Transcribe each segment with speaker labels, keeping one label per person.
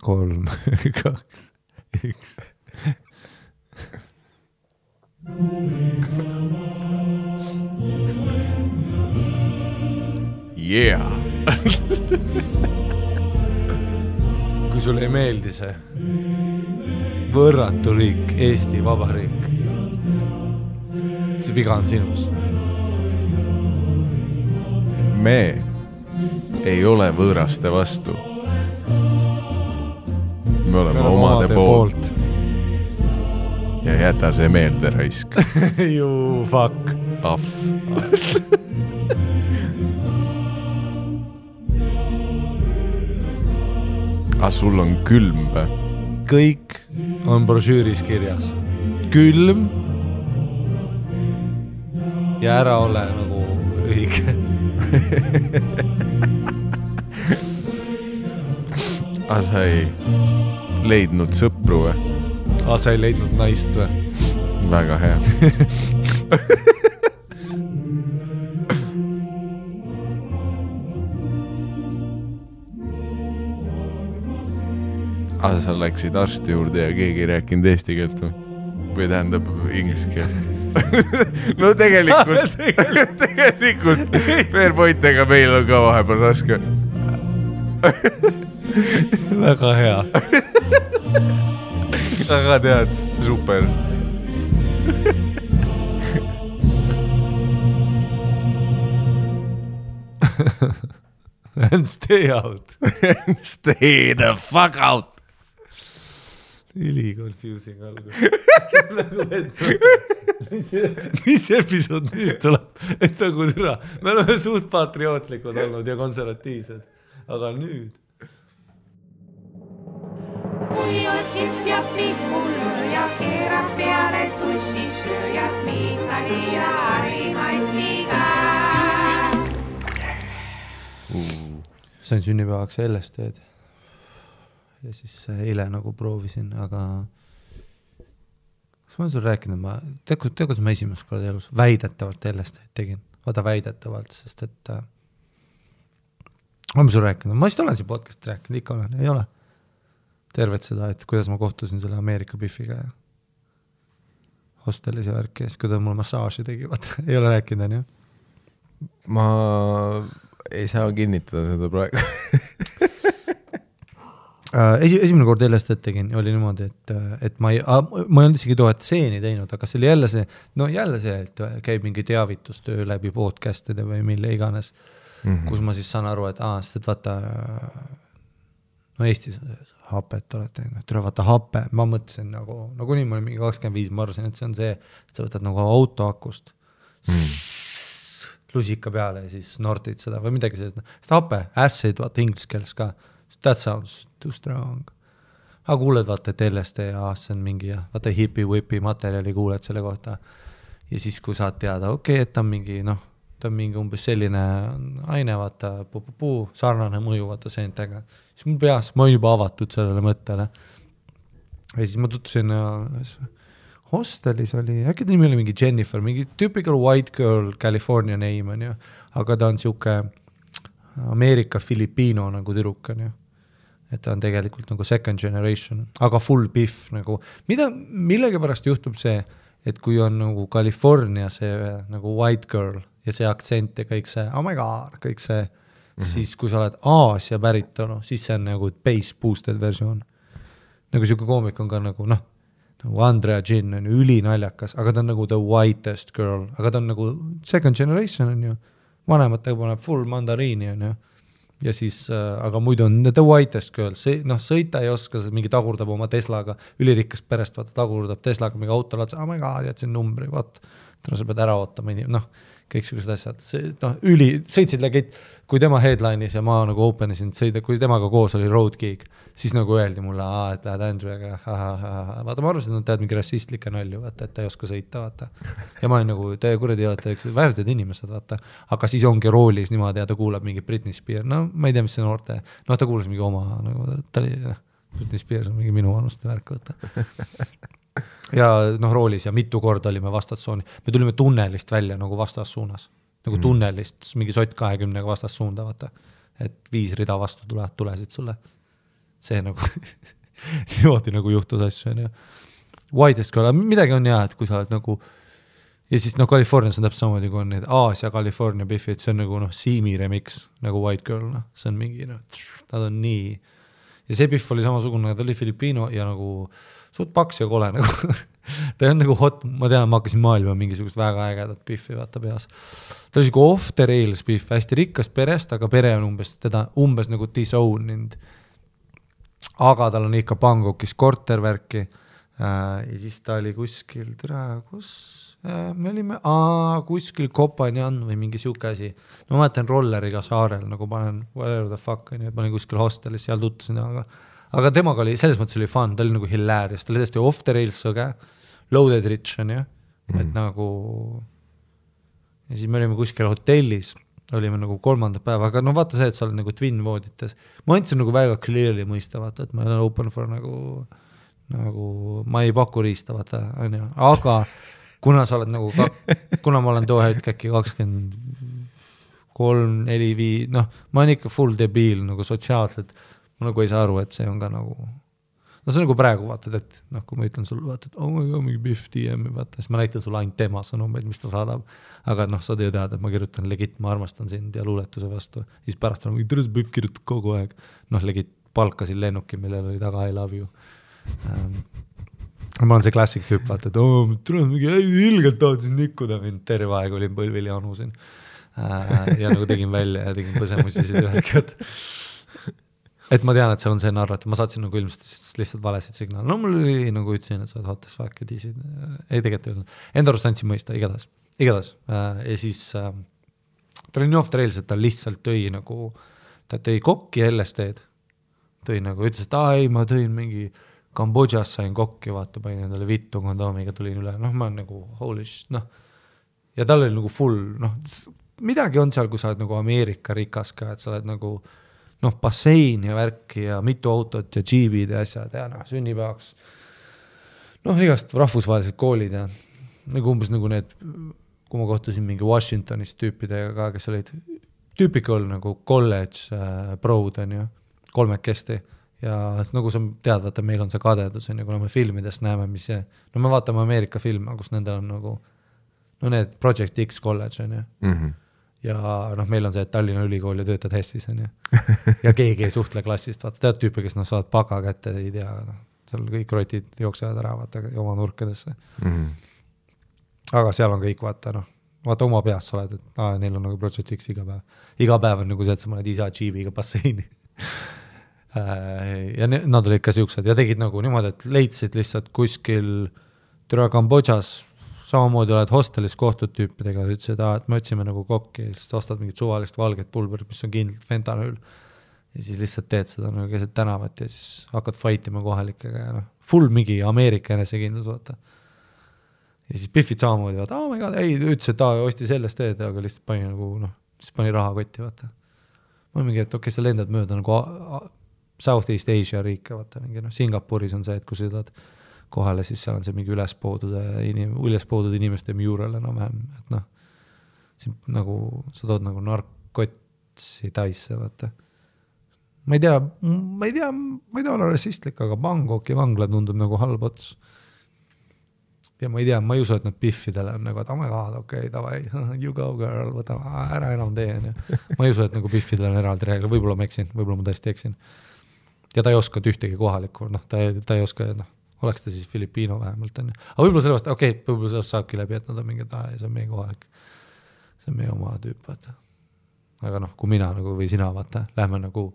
Speaker 1: 3, 2, 1.
Speaker 2: Yeah!
Speaker 1: Kui sulle ei meeldi see võrratu riik, Eesti Vabariik, see viga on sinus.
Speaker 2: Me ei ole võõraste vastu. Me oleme omade poolt. Ja jäta see meelde raisk.
Speaker 1: You fuck.
Speaker 2: Ahv. Sul on külm või?
Speaker 1: Kõik on brošüüris kirjas. Külm ja ära ole nagu õige.
Speaker 2: Sa ei leidnud sõpru või?
Speaker 1: Sa ei leidnud naist või?
Speaker 2: Väga hea. Sa läksid arsti juurde ja keegi ei rääkinud eesti keelt või tähendab inglise keelt? No tegelikult veel pointega meil on ka vahepeal raske.
Speaker 1: Väga hea.
Speaker 2: Aga tead, super.
Speaker 1: And stay out.
Speaker 2: Stay the fuck out.
Speaker 1: Üli confusing algus. Mis episood nüüd tuleb? Et nagu türa. Me oleme suht patriootlikud olnud ja konservatiivsed. Aga nüüd.
Speaker 3: Kui oled sipp ja pihkulööja, keerab peale tussi sööjad, Miitali ja Harimantiga.
Speaker 1: Sain sünnipäevaks LSD-d. Ja siis eile nagu proovisin, aga kas ma olen sulle rääkinud, tead, kuidas ma esimest korda elus väidetavalt LSD-d tegin. Vaata väidetavalt, sest et olen sulle rääkinud, ma vist olen siin podcastit rääkinud, ikka olen, ei ole. Tervet seda, et kuidas ma kohtusin selle Ameerika Biffiga ja hostelis ja värkis, kui ta mulle massaaži tegi, vaata, ei ole rääkinud, on ju?
Speaker 2: Ma ei saa kinnitada seda praegu.
Speaker 1: Esimene kord LSD tegin, oli niimoodi, et ma ei olnud isegi tohet seeni teinud, aga see oli jälle see, et käib mingi teavitustöö läbi podcastide või mille iganes, kus ma siis saan aru, et sest vaata, no Eestis hapet olete, vaata hape, ma mõtlesin nagu nii ma olin mingi 25, ma arvasin, et see on see, et sa võtad nagu autoakust lusika peale ja siis snortid seda või midagi sellist, sest hape, acid, vaata inglise keeles ka, that sounds too strong. Aga kuuled vaata, et LSD ja see on mingi, vaata hipi-whipi materjali kuuled selle kohta. Ja siis, kui saad teada, et ta on mingi, ta on mingi umbes selline aine, vaata, sarnane mõju, vaata seentega. Siis mul peas, ma olen juba avatud sellele mõttele. Ja siis ma tutvusin hostelis oli, äkki ta nimi oli mingi Jennifer, mingi typical white girl California name on ju, aga ta on siuke Ameerika Filipino nagu tüdruk on ju. Et ta on tegelikult nagu second generation, aga full biff nagu. Millegi pärast juhtub see, et kui on nagu California see nagu white girl ja see aktsent ja kõik see, oh my god, kõik see, siis kui sa oled Aasia päritolu, siis see on nagu bass boosted versioon. Nagu siuke koomik on ka nagu, nagu Andrea Gin on ju ülinaljakas, aga ta on nagu the whitest girl, aga ta on nagu second generation on ju, vanematega paneb full mandariini on ju. Ja siis, aga muidu on the whitest girl, sõita ei oska, mingi tagurdab oma Teslaga, ülirikkast perest, vaata tagurdab Teslaga mingi auto laad, oh my god, jätsin numbri, vaat, sa pead ära ootama, kõiksugused asjad, sõitsid lägid, kui tema headline'is ja ma nagu openisin sõida, kui temaga koos oli road gig, siis nagu öeldi mulle, et lähed Andrew'ga, vaata, ma arvasin, et tead mingi rassistlike nalju, vaata, et ta ei oska sõita, vaata. Ja ma olin nagu, te kuradi olete väärtid inimesed, vaata, aga siis ongi roolis niimoodi ja ta kuulab mingi Britney Spears, ma ei tea, mis see noorte, ta kuulas mingi oma, nagu ta oli, Britney Spears on mingi minu vanuste värk, vaata. Ja roolis ja mitu korda olime vastassuuni. Me tulime tunnelist välja nagu vastassuunas. Nagu tunnelist, mingi sott 20 vastassuunda, vaata. Et 5 rida vastu tulesid sulle. see nagu niimoodi nagu juhtus asju, on ju. Widest Girl, midagi on jah, et kui sa oled nagu ja siis noh, Californias on täpselt samamoodi, kui on need Aasia California Biffid, see on nagu noh, Siimi remix, nagu White Girl, noh, see on mingi, noh, nad on nii ja see Biff oli samasugune, ta oli Filipiino ja nagu suht paks ja kole nagu ta on nagu hot, ma tean, ma hakkasin maailma mingisugust väga ägedat Biffi vaata peas. Ta oli siuke off the rails Biff, hästi rikkast perest, aga pere on umbes nagu disowned. Aga tal on ikka Bangkokis kortervärki ja siis ta oli kuskil, me olime kuskil Kopanjan või mingi siuke asi. No ma mäletan rolleriga saarel, nagu panen whatever the fuck, et ma olin kuskil hostelis, seal tuttusin, aga temaga oli, selles mõttes oli fun, ta oli nagu hilarious, ta oli täiesti off the rails sõge, loaded rich on ju, et nagu ja siis me olime kuskil hotellis, olime nagu 3. päeva, aga no vaata see, et sa oled nagu twin voodites. Ma andsin nagu väga clearly mõista, vaata, et ma olen open for nagu ma ei paku riista, vaata, on ju, aga kuna sa oled nagu, kuna ma olen too hetk äkki 23, 4, 5, noh, ma olen ikka full debiil nagu sotsiaalselt, ma nagu ei saa aru, et see on ka nagu, no see on nagu praegu vaatad, et noh, kui ma ütlen sulle, vaata, et oh my god, mingi Biff DM, vaata, siis ma näitan sulle ainult tema sõnumeid, mis ta saadab, aga noh, sa tead, et ma kirjutan legit, ma armastan sind ja luuletuse vastu, siis pärast on, tõres Biff kirjutab kogu aeg, noh, legit palkasin lennuki, millel oli taga I love you. Ma olen see klassik tüüp, vaata, et tuleb mingi ilgelt tahtsin nikkuda mind, terve aeg olin põlvil ja anusin ja nagu tegin välja ja tegin põsemusisid ja värkid. Et ma tean, et seal on see narrat, ma saatsin nagu ilmselt lihtsalt valesid signaal. No mul oli nagu ütlesin, et sa oled hottes fuck ja disid. Ei tegelikult ei olnud. Enda arust andsin mõista, igatahes. Ja siis ta oli nii off the rails, et ta lihtsalt tõi nagu, ta tõi kokki LSD-d. Tõi nagu, ütles, et ei, ma tõin mingi Kambodžas sain kokki, vaata, panin endale vittu kondoomiga tulin üle, noh, ma olen nagu holy shit, noh, ja tal oli nagu full, noh, midagi on seal, kui sa oled nagu Ameerika rikas ka, et sa oled nagu, noh, bassein ja värki ja mitu autot ja džiibid ja asjad ja noh, sünnipäevaks, noh, igast rahvusvahelised koolid ja nagu umbes nagu need, kui ma kohtusin mingi Washingtonis tüüpidega ka, kes olid typical nagu college proud on ju, 3 ja nagu sa tead, vaata, meil on see kadedus, on ju, kuna me filmidest näeme, mis see, no me vaatame Ameerika filme, kus nendel on nagu, no need Project X College, on ju, ja noh, meil on see, et Tallinna ülikool ja töötad Hessis, on ju, ja keegi ei suhtle klassist, vaata, tead tüüpi, kes saavad paka kätte, ei tea, noh, seal kõik rotid jooksevad ära, vaata, oma nurkadesse. Aga seal on kõik, vaata, noh, vaata oma peas sa oled, et neil on nagu Project X iga päev on nagu see, et sa mõned isa džiibiga basseini. Ja nad olid ka siuksed ja tegid nagu niimoodi, et leidsid lihtsalt kuskil türa Kambodžas, samamoodi oled hostelis kohtud tüüpidega, ütlesid, et me otsime nagu kokki, siis ostad mingit suvalist valget pulberit, mis on kindlalt fentanüül ja siis lihtsalt teed seda nagu keset tänavat ja siis hakkad fightima kohalikega ja noh, full mingi Ameerika enesekindlus, vaata. Ja siis Biffid samamoodi, vaata, oh my god, ei, ütles, et osti sellest teed, aga lihtsalt pani nagu, noh, siis pani raha kotti, vaata. Ma olen mingi, et okei, sa lendad mööda nagu Southeast Asia riike, vaata, mingi, noh, Singapuris on see, et kui sa sõidad kohale, siis seal on see mingi ülespoodud inimeste mural enam vähem, et noh, nagu, sa tood nagu narkotsi taisse, vaata. Ma ei tea olla rassistlik, aga Bangkoki vangla tundub nagu halb ots. Ja ma ei tea, ma ei usu, et nad Biffidele on nagu, et oh my god, okei, davai, you go girl, võta ära enam tee. Ma ei usu, et nagu Biffidele on eraldi reegel, võib-olla ma eksin, võib-olla ma tõesti eksin. Ja ta ei oska ühtegi kohalikku, noh, ta ei oska, noh, oleks ta siis Filipiino vähemalt, on ju. Aga võib-olla sellest, võib-olla sellest saabki läbi, et nad on mingi, see on meie kohalik, see on meie oma tüüp, vaata. Aga noh, kui mina nagu või sina, vaata, lähme nagu,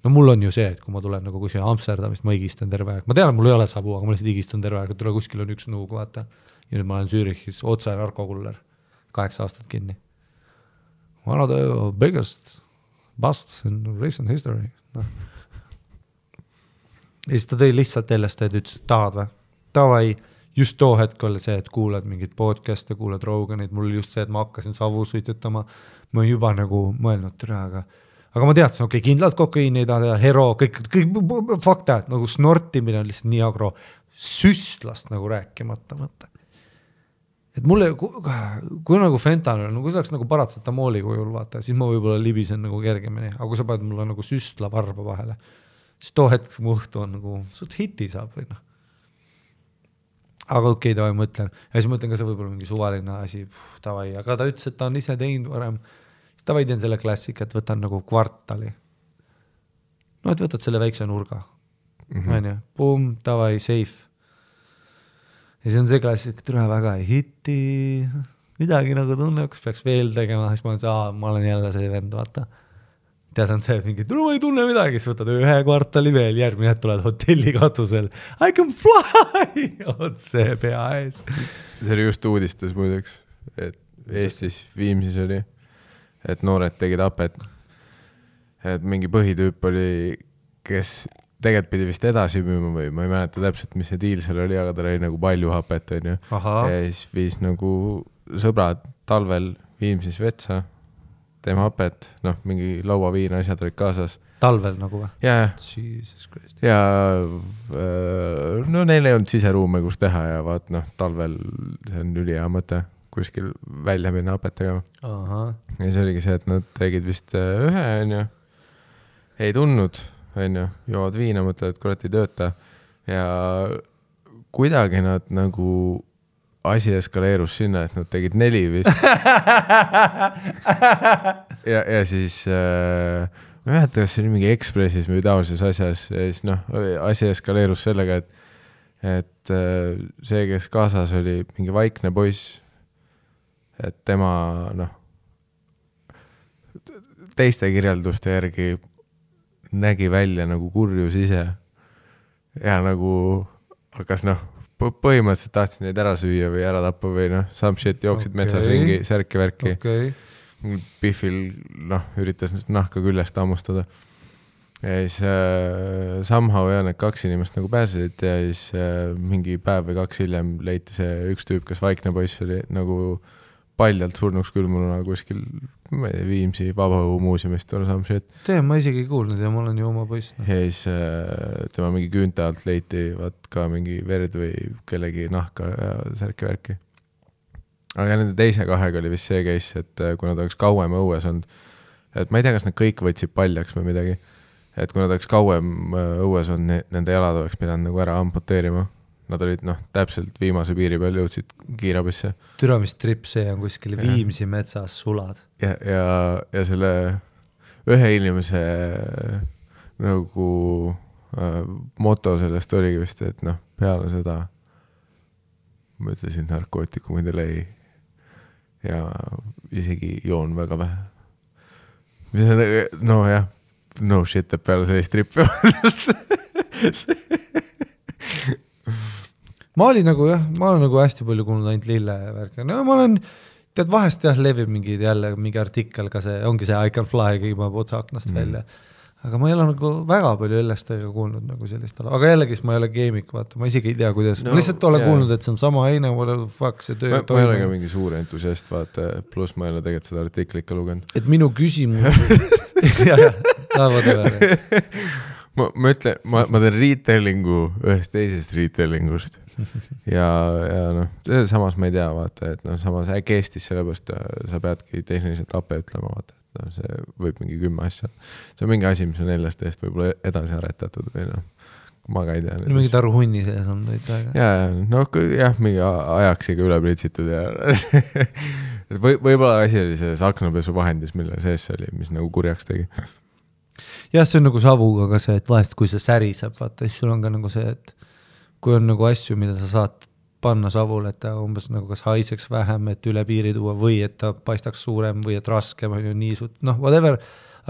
Speaker 1: no mul on ju see, et kui ma tulen nagu kuskil Amsterdamist, ma higistan terve aeg. Ma tean, et mul ei ole sabu, aga ma lihtsalt higistan terve aeg, et tule kuskil on üks nuug, vaata. Ja nüüd ma olen Zürichis otse narkokuller, 8 aastat kinni. One of the biggest busts in recent history. No. Ja siis ta tõi lihtsalt LSD, et ütles, et tahad või? Tavai, just too hetk oli see, et kuulad mingit podcast'e, kuulad Roganit, mul oli just see, et ma hakkasin savu suitsetama, ma juba nagu mõelnud türa, aga ma teadsin, okei, kindlalt kokaiini ei taha, hero, kõik fakta, et nagu snortimine on lihtsalt nii agro, süstlast nagu rääkimata mõtta. Et mulle, kui nagu fentanül, kui see oleks nagu paratsetamooli kujul, vaata, siis ma võib-olla libisen nagu kergemini, aga kui sa paned mulle nagu süstla varba vahele, siis too hetk muhtu on nagu, suht hiti saab või noh. Aga okei, tavai mõtlen. Ja siis mõtlen ka see võib-olla mingi suvaline asi, tavai, aga ta ütles, et ta on ise teinud varem. Siis tavai teen selle klassika, et võtan nagu kvartali. No, et võtad selle väikse nurga. On ju, boom, tavai, safe. Ja siis on see klassik, et üle väga ei hiti, midagi nagu tunne, kas peaks veel tegema, siis ma olen ma olen jälle see vend, vaata. Tead on see, et mingi, ma ei tunne midagi, siis võtad 1 kvartali veel, järgmine hetk tuled hotelli katusel. I can fly! Otse pea ees.
Speaker 2: See oli just uudistes muideks, et Eestis Viimsis oli, et noored tegid apet. Et mingi põhitüüp oli, kes tegelikult pidi vist edasi müüma või ma ei mäleta täpselt, mis see diil seal oli, aga ta oli nagu palju hapet, on ju. Ja siis viis nagu sõbrad talvel Viimsis vetsa, teeme hapet, noh, mingi lauaviina asjad olid kaasas.
Speaker 1: Talvel nagu või?
Speaker 2: Jaa.
Speaker 1: Jesus Christ.
Speaker 2: Ja no neil ei olnud siseruume, kus teha ja vaat, noh, talvel see on ülihea mõte kuskil välja minna hapet tegema. Ja see oligi see, et nad tegid vist 1, on ju, ei tundnud, on ju, joovad viina, mõtlevad, et kurat ei tööta ja kuidagi nad nagu asi eskaleerus sinna, et nad tegid 4 vist. ja siis ma ei mäleta, kas see oli mingi Ekspressis või taolises asjas ja siis noh, asi eskaleerus sellega, et see, kes kaasas oli mingi vaikne poiss, et tema noh teiste kirjelduste järgi nägi välja nagu kurjus ise ja nagu hakkas noh põhimõtteliselt tahtsin neid ära süüa või ära tappa või noh, some shit jooksid metsas ringi, särki-värki. Biffil noh, üritas nahka küljest ammustada. Ja siis somehow ja need 2 inimest nagu pääsesid ja siis mingi päev või 2 hiljem leiti see üks tüüp, kes vaikne poiss oli nagu paljalt surnuks külmununa kuskil Viimsi Vabaõhumuuseumist või some shit.
Speaker 1: Ma isegi ei kuulnud ja ma olen ju oma poiss.
Speaker 2: Ja siis tema mingi küünte alt leiti vaat ka mingi verd või kellegi nahka ja särki-värki. Aga nende teise 2 oli vist see case, et kui nad oleks kauem õues olnud, et ma ei tea, kas nad kõik võtsid paljaks või midagi, et kui nad oleks kauem õues olnud, nende jalad oleks pidanud nagu ära amputeerima. Nad olid noh, täpselt viimase piiri peal jõudsid kiirabisse.
Speaker 1: Türamistrip, see on kuskil Viimsi metsas sulad.
Speaker 2: Ja selle ühe inimese nagu moto sellest oligi vist, et noh, peale seda ma ütlesin narkootikumidele ei ja isegi joon väga vähe. No jah, no shit, et peale sellist trippi
Speaker 1: ma olen nagu hästi palju kuulnud ainult lille värki. No ma olen, tead vahest levib mingi artikkel ka see, ongi see I can fly, kõigima otsa aknast välja. Aga ma ei ole nagu väga palju LSD-ga kuulnud nagu sellist ala. Aga jällegi, ma ei ole keemik, vaata, ma isegi ei tea, kuidas. Ma lihtsalt olen kuulnud, et see on sama aine, see töö.
Speaker 2: Ma ei ole ka mingi suur entusiast, vaata, pluss ma ei ole tegelikult seda artiklit ka lugenud.
Speaker 1: Et minu küsimus
Speaker 2: ma ütlen, ma teen retellingu ühest teisest retellingust ja noh, samas ma ei tea, vaata, et noh, samas äkki Eestis sellepärast sa peadki tehniliselt ape ütlema, vaata, et noh, see võib mingi 10 asja. See on mingi asi, mis on LSD-st võib-olla edasi aretatud või noh, ma ka ei tea.
Speaker 1: Mingi taru hunni sees on täitsa aega.
Speaker 2: Ja, noh, jah, mingi ajaksiga üle pritsitud ja võib-olla asi oli selles aknapesu vahendis, mille sees oli, mis nagu kurjaks tegi.
Speaker 1: Jah, see on nagu savuga ka see, et vahest kui see säriseb, vaata, siis sul on ka nagu see, et kui on nagu asju, mida sa saad panna savule, et ta umbes nagu kas haiseks vähem, et üle piiri tuua või et ta paistaks suurem või et raskem on ju niisut, noh, whatever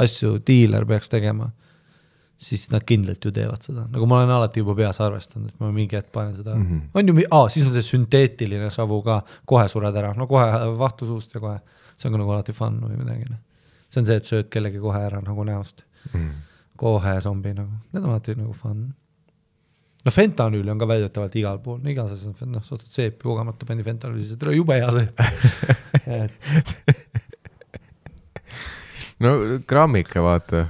Speaker 1: asju dealer peaks tegema, siis nad kindlalt ju teevad seda. Nagu ma olen alati juba peas arvestanud, et ma mingi hetk panen seda. On ju, siis on see sünteetiline savu ka, kohe sured ära, no kohe vahtu suust ja kohe, see on ka nagu alati fun või midagi. See on see, et sööd kellegi kohe ära nagu näost. Kohe zombi nagu, need on alati nagu fun. No fentanüüli on ka väidetavalt igal pool, igas asjas on, noh, suhtad seepi kogemata pani fentanüüli, see tule jube hea seep.
Speaker 2: No grammika, vaata.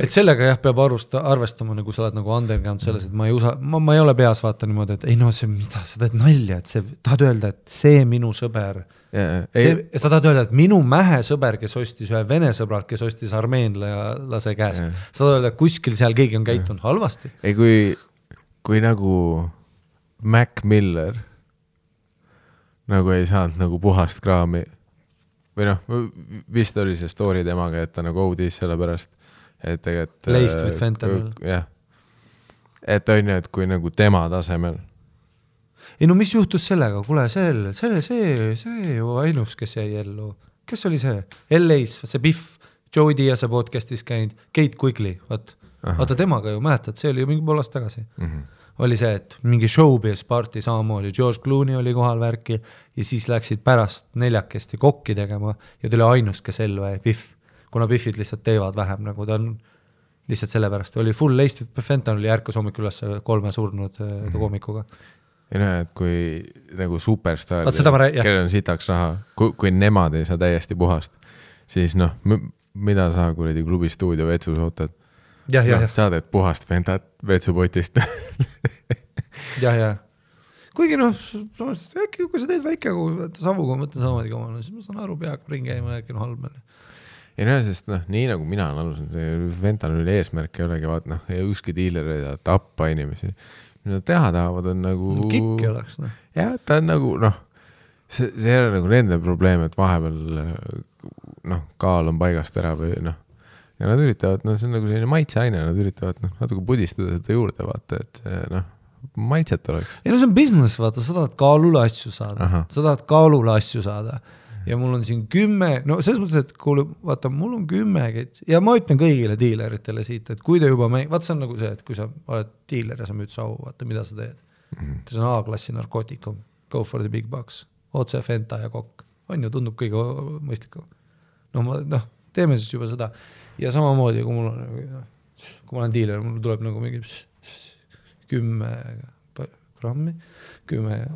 Speaker 1: et sellega jah, peab arvestama, nagu sa oled nagu underground selles, et ma ei ole peas vaata niimoodi, et ei no see, mida sa teed nalja, et see, tahad öelda, et see minu sõber, sa tahad öelda, et minu mähe sõber, kes ostis ühe vene sõbralt, kes ostis armeenlase käest, sa tahad öelda, et kuskil seal keegi on käitunud halvasti.
Speaker 2: ei, kui nagu Mac Miller nagu ei saanud nagu puhast kraami või noh, vist oli see story temaga, et ta nagu OD-s selle pärast, et tegelikult
Speaker 1: Laced with fentanyl.
Speaker 2: jah, et on ju, et kui nagu tema tasemel.
Speaker 1: Ei no mis juhtus sellega, kuule, see ju ainus, kes jäi ellu, kes oli see? LA-s, see Biff, Joey Diaz'e podcastis käinud, Kate Quigley, vaata temaga ju mäletad, see oli ju mingi pool aasta tagasi. Oli see, et mingi showbiz party samamoodi, George Clooney oli kohal värki ja siis läksid pärast neljakesti kokki tegema ja ta oli ainus, kes ellu jäi, Biff, kuna Biffid lihtsalt teevad vähem, nagu ta on lihtsalt sellepärast, oli full laced fentanyl oli ärkas hommik üles 3 surnud koomikuga.
Speaker 2: Ja näe, et kui nagu superstar, kellel on sitaks raha, kui nemad ei saa täiesti puhast, siis noh, mida sa kuradi klubi stuudio vetsus ootad? Sa teed puhast ventat vetsupotist.
Speaker 1: jah. Kuigi noh, äkki kui sa teed väike savuga, mõtlen samamoodi kamana, siis ma saan aru, peab ringi käima, äkki on halb.
Speaker 2: Ja näe, sest noh, nii nagu mina olen alusin, see ventanüli eesmärk ei olegi vaat, noh, ei ükski diiler ei taha tappa inimesi. Mida teha tahavad on nagu...
Speaker 1: Kikki oleks, noh.
Speaker 2: Jah, ta on nagu, noh, see ei ole nagu nende probleem, et vahepeal noh, kaal on paigast ära või noh, ja nad üritavad, see on nagu selline maitseaine, nad üritavad natuke pudistada seda juurde, vaata, et see maitset oleks.
Speaker 1: Ja no see on business, vaata, sa tahad kaalule asju saada. Ja mul on siin 10, no selles mõttes, et kuule, vaata, mul on 10, ja ma ütlen kõigile diileritele siit, et kui te juba vaata, see on nagu see, et kui sa oled diiler ja sa müüd sau, vaata, mida sa teed. See on A-klassi narkootikum, go for the big bucks, otse fenta ja kokk. On ju, tundub kõige mõistlikum. Teeme siis juba seda. Ja samamoodi, kui ma olen diiler, mul tuleb nagu mingi 10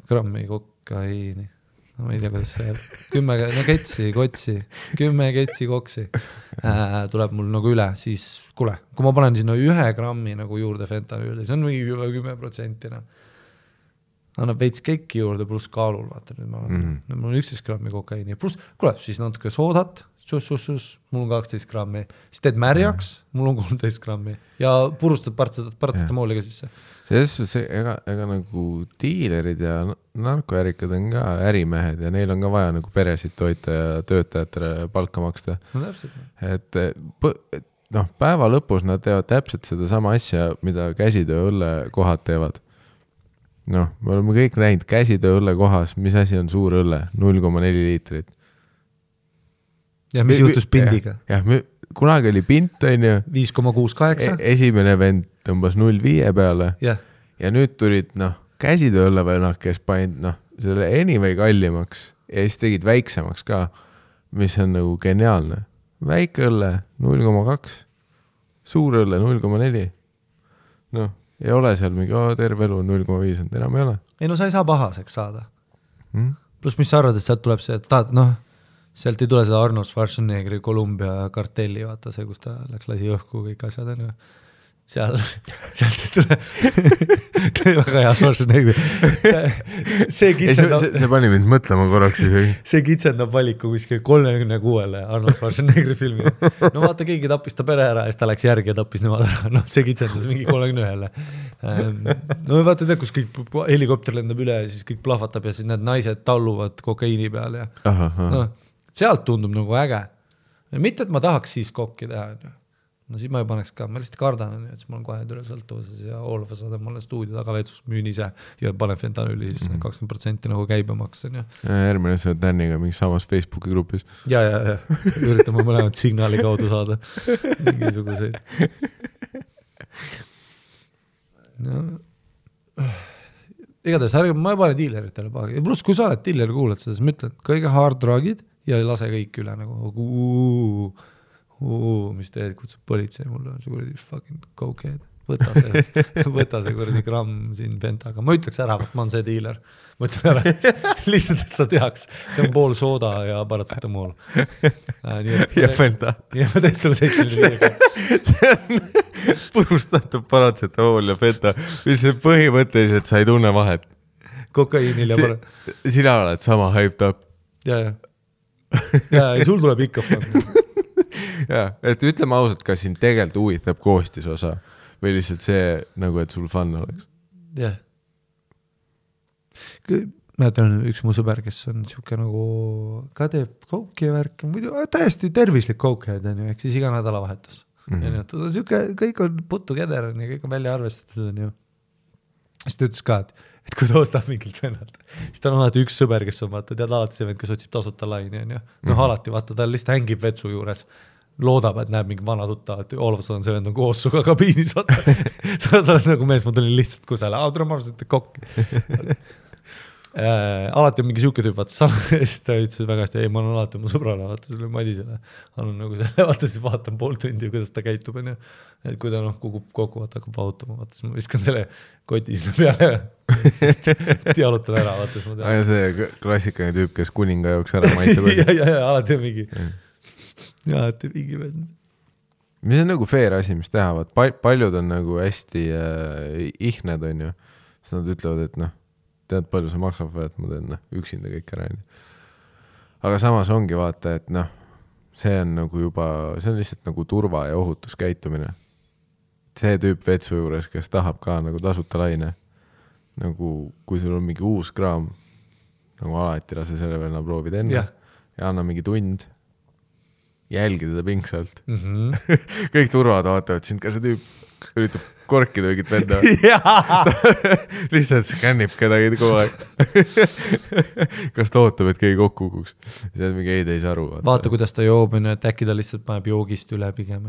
Speaker 1: grammi kokaiini. No ma ei tea, kuidas see 10 kotsi, 10 ketsi koksi tuleb mul nagu üle, siis kuule, kui ma panen sinna 1 grammi nagu juurde fentanüüli, see on mingi 10%. Annab veits keiki juurde pluss kaalul, vaata, nüüd mul on 11 grammi kokaiini, pluss, kuule, siis natuke soodat, mul on 12 grammi, siis teed märjaks, mul on 13 grammi ja purustad paratsetamooliga sisse.
Speaker 2: Ega nagu diilerid ja narkoärikad on ka ärimehed ja neil on ka vaja nagu peresid toita ja töötajatele palka maksta.
Speaker 1: No täpselt.
Speaker 2: Et päeva lõpus nad teevad täpselt seda sama asja, mida käsitöö õlle kohad teevad. Me oleme kõik näinud käsitöö õlle kohas, mis asi on suur õlle, 0,4 liitrit.
Speaker 1: Ja mis juhtus pindiga?
Speaker 2: Jah, kunagi oli pint, on ju.
Speaker 1: 5,68.
Speaker 2: Esimene vend tõmbas 0,5 peale. Ja nüüd tulid, käsitöö õlle veel, kes paid, selle anyway kallimaks ja siis tegid väiksemaks ka, mis on nagu geniaalne. Väike õlle 0,2, suur õlle 0,4. Ei ole seal mingi, terve elu 0,5, enam ei ole.
Speaker 1: Ei no sa ei saa pahaseks saada. Plus mis sa arvad, et sealt tuleb see, et tahad, sealt ei tule seda Arnold Schwarzeneggeri Columbia kartelli, vaata see, kus ta läks lasi õhku kõik asjad, on ju. Sealt ei tule väga hea Schwarzenegger.
Speaker 2: See pani mind mõtlema korraks.
Speaker 1: See kitsendab valiku kuskil 36-le Arnold Schwarzeneggeri filmi. No vaata, keegi tappis ta pere ära ja siis ta läks järgi ja tappis nemad ära. See kitsendas mingi 31-le. No vaata, tead, kus kõik helikopter lendab üle ja siis kõik plahvatab ja siis need naised talluvad kokaiini peal. Sealt tundub nagu äge. Mitte, et ma tahaks siis kokki teha. No siis ma ei paneks ka, ma lihtsalt kardan, et siis ma olen kohe üle sõltuvuses ja all of a sudden ma olen stuudio tagavetsus, müün ise ja panen fentanüüli siis 20% nagu käibemaks.
Speaker 2: Järgmine see Danniga mingi samas Facebooki grupis.
Speaker 1: Ja. Üritame mõlemad signaali kaudu saada mingisuguseid. Igatahes, ma ei pane diileritele paha. Ja pluss, kui sa oled diileri kuulad seda, siis ma ütlen, kõige hard drugid ja ei lase kõik üle nagu mis teed, kutsub politsei, mul on see kuradi fucking cokehead. võta see kuradi gramm siin pentaga. Ma ütleks ära, et ma on see diiler. Ma ütlen ära, lihtsalt, et sa teaks. See on pool sooda ja paratsetamool.
Speaker 2: Ja penta.
Speaker 1: Ja ma teed sulle 75.
Speaker 2: See on purustatud paratsetamool ja penta, mis põhimõtteliselt sa ei tunne vahet.
Speaker 1: Kokaiinil ja
Speaker 2: Sina oled sama hyped up.
Speaker 1: Ja, sul tuleb ikka fun.
Speaker 2: Ja, et ütleme ausalt, kas siin tegelikult huvitab koostisosa või lihtsalt see, nagu et sul fun oleks?
Speaker 1: Jah. Mäletan üks mu sõber, kes on siuke nagu ka teeb kouki ja värk, muidu täiesti tervislik koukhead on ju, ehk siis iga nädalavahetus. Siuke, kõik on putu keder ja kõik on välja arvestatud on ju. Siis ta ütles ka, et kui ta ostab mingilt vennalt, siis ta on alati üks sõber, kes on vaata, tead alati see vend, kes otsib tasuta laini on ju. Alati vaata, ta lihtsalt hängib vetsu juures. Loodab, et näeb mingi vana tutta, et olevas on see vend on koos suga kabiinis. Sa oled nagu mees, ma tulin lihtsalt kusele, tule ma arvasin, et kokki. Alati on mingi siuke tüüp, vaata, siis ta ütles väga hästi, ei, ma olen alati mu sõbrale, vaata selle Madisele. Annan nagu selle, vaata siis vaatan pool tundi, kuidas ta käitub, on ju. Et kui ta kukub kokku, vaata, hakkab vautama, vaata, siis ma viskan selle koti sinna peale. Dialutan ära, vaata, siis ma tean.
Speaker 2: Ja see klassikaline tüüp, kes kuninga jooks ära maitse või?
Speaker 1: Ja, alati on mingi. Ja, et mingi vend.
Speaker 2: Mis on nagu fair asi, mis teha, paljud on nagu hästi ihned, on ju. Siis nad ütlevad, et tead palju see maksab või, et ma teen üksinda kõik ära. Aga samas ongi vaata, et see on nagu juba, see on lihtsalt nagu turva ja ohutuskäitumine. See tüüp vetsu juures, kes tahab ka nagu tasuta laine, nagu kui sul on mingi uus kraam, nagu alati lase selle venna proovid enne ja anna mingi tund, jälgi teda pingsalt. Kõik turvad vaatavad sind, ka see tüüp üritab korkida mingit venda. Lihtsalt skännib kedagi kogu aeg. Kas ta ootab, et keegi kokku kukuks? See on mingi ei saa aru.
Speaker 1: Vaata, kuidas ta joob, et äkki ta lihtsalt paneb joogist üle pigem.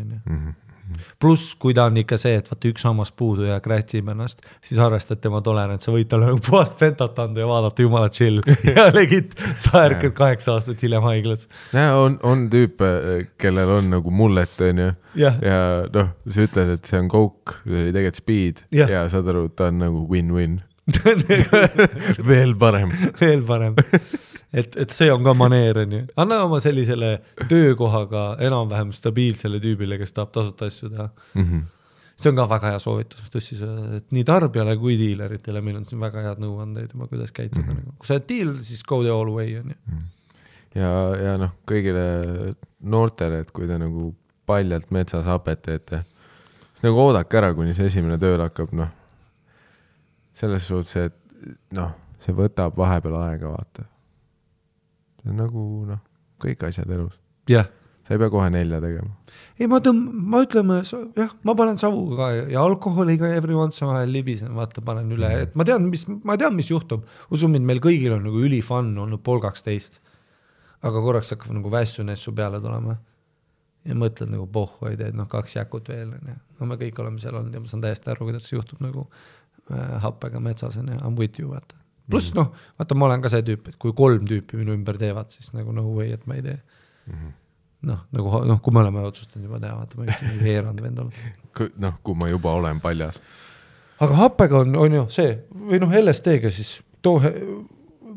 Speaker 1: Pluss, kui ta on ikka see, et vaata üks hammas puudu ja krätsib ennast, siis arvestad tema tolerants, sa võid talle puhast fentat anda ja vaadata jumala chill ja legit sa ärkad 8 aastat hiljem haiglas.
Speaker 2: On tüüpe, kellel on nagu mullet on ju ja sa ütled, et see on coke, see oli tegelikult speed ja saad aru, ta on nagu win-win. Veel parem. Et see on ka maneer, on ju. Anna oma sellisele töökohaga enam-vähem stabiilsele tüübile, kes tahab tasuta asju teha. See on ka väga hea soovitus, et nii tarbijale kui diileritele meil on siin väga head nõuandeid, kuidas käituda. Kui sa oled diil, siis go the all way, on ju. Ja kõigile noortele, et kui te nagu paljalt metsas hapet teete, siis nagu oodake ära, kuni see esimene tööl hakkab, selles suhtes, et see võtab vahepeal aega, vaata. See on nagu, kõik asjad elus.
Speaker 1: Jah.
Speaker 2: Sa ei pea kohe 4 tegema.
Speaker 1: Ei, ma ütleme, ma panen savu ka ja alkoholiga every once vahel libisen, vaata, panen üle. Et ma tean, mis juhtub. Usumid, meil kõigil on nagu ülifun olnud 12. Aga korraks hakkab nagu vässunessu peale tulema. Ja mõtled nagu pohhu, ei teed, 2 jäkut veel. Me kõik oleme seal olnud ja ma saan täiesti aru, kuidas see juhtub nagu happega metsas. I'm with you, vaata. Plus, vaata, ma olen ka see tüüp, et kui 3 tüüpi minu ümber teevad, siis nagu no way, et ma ei tee. Kui me oleme otsustanud juba teha, vaata, ma ütlen, et heerand vend olla.
Speaker 2: Kui ma juba olen paljas.
Speaker 1: Aga happega on ju see, või LSD-ga siis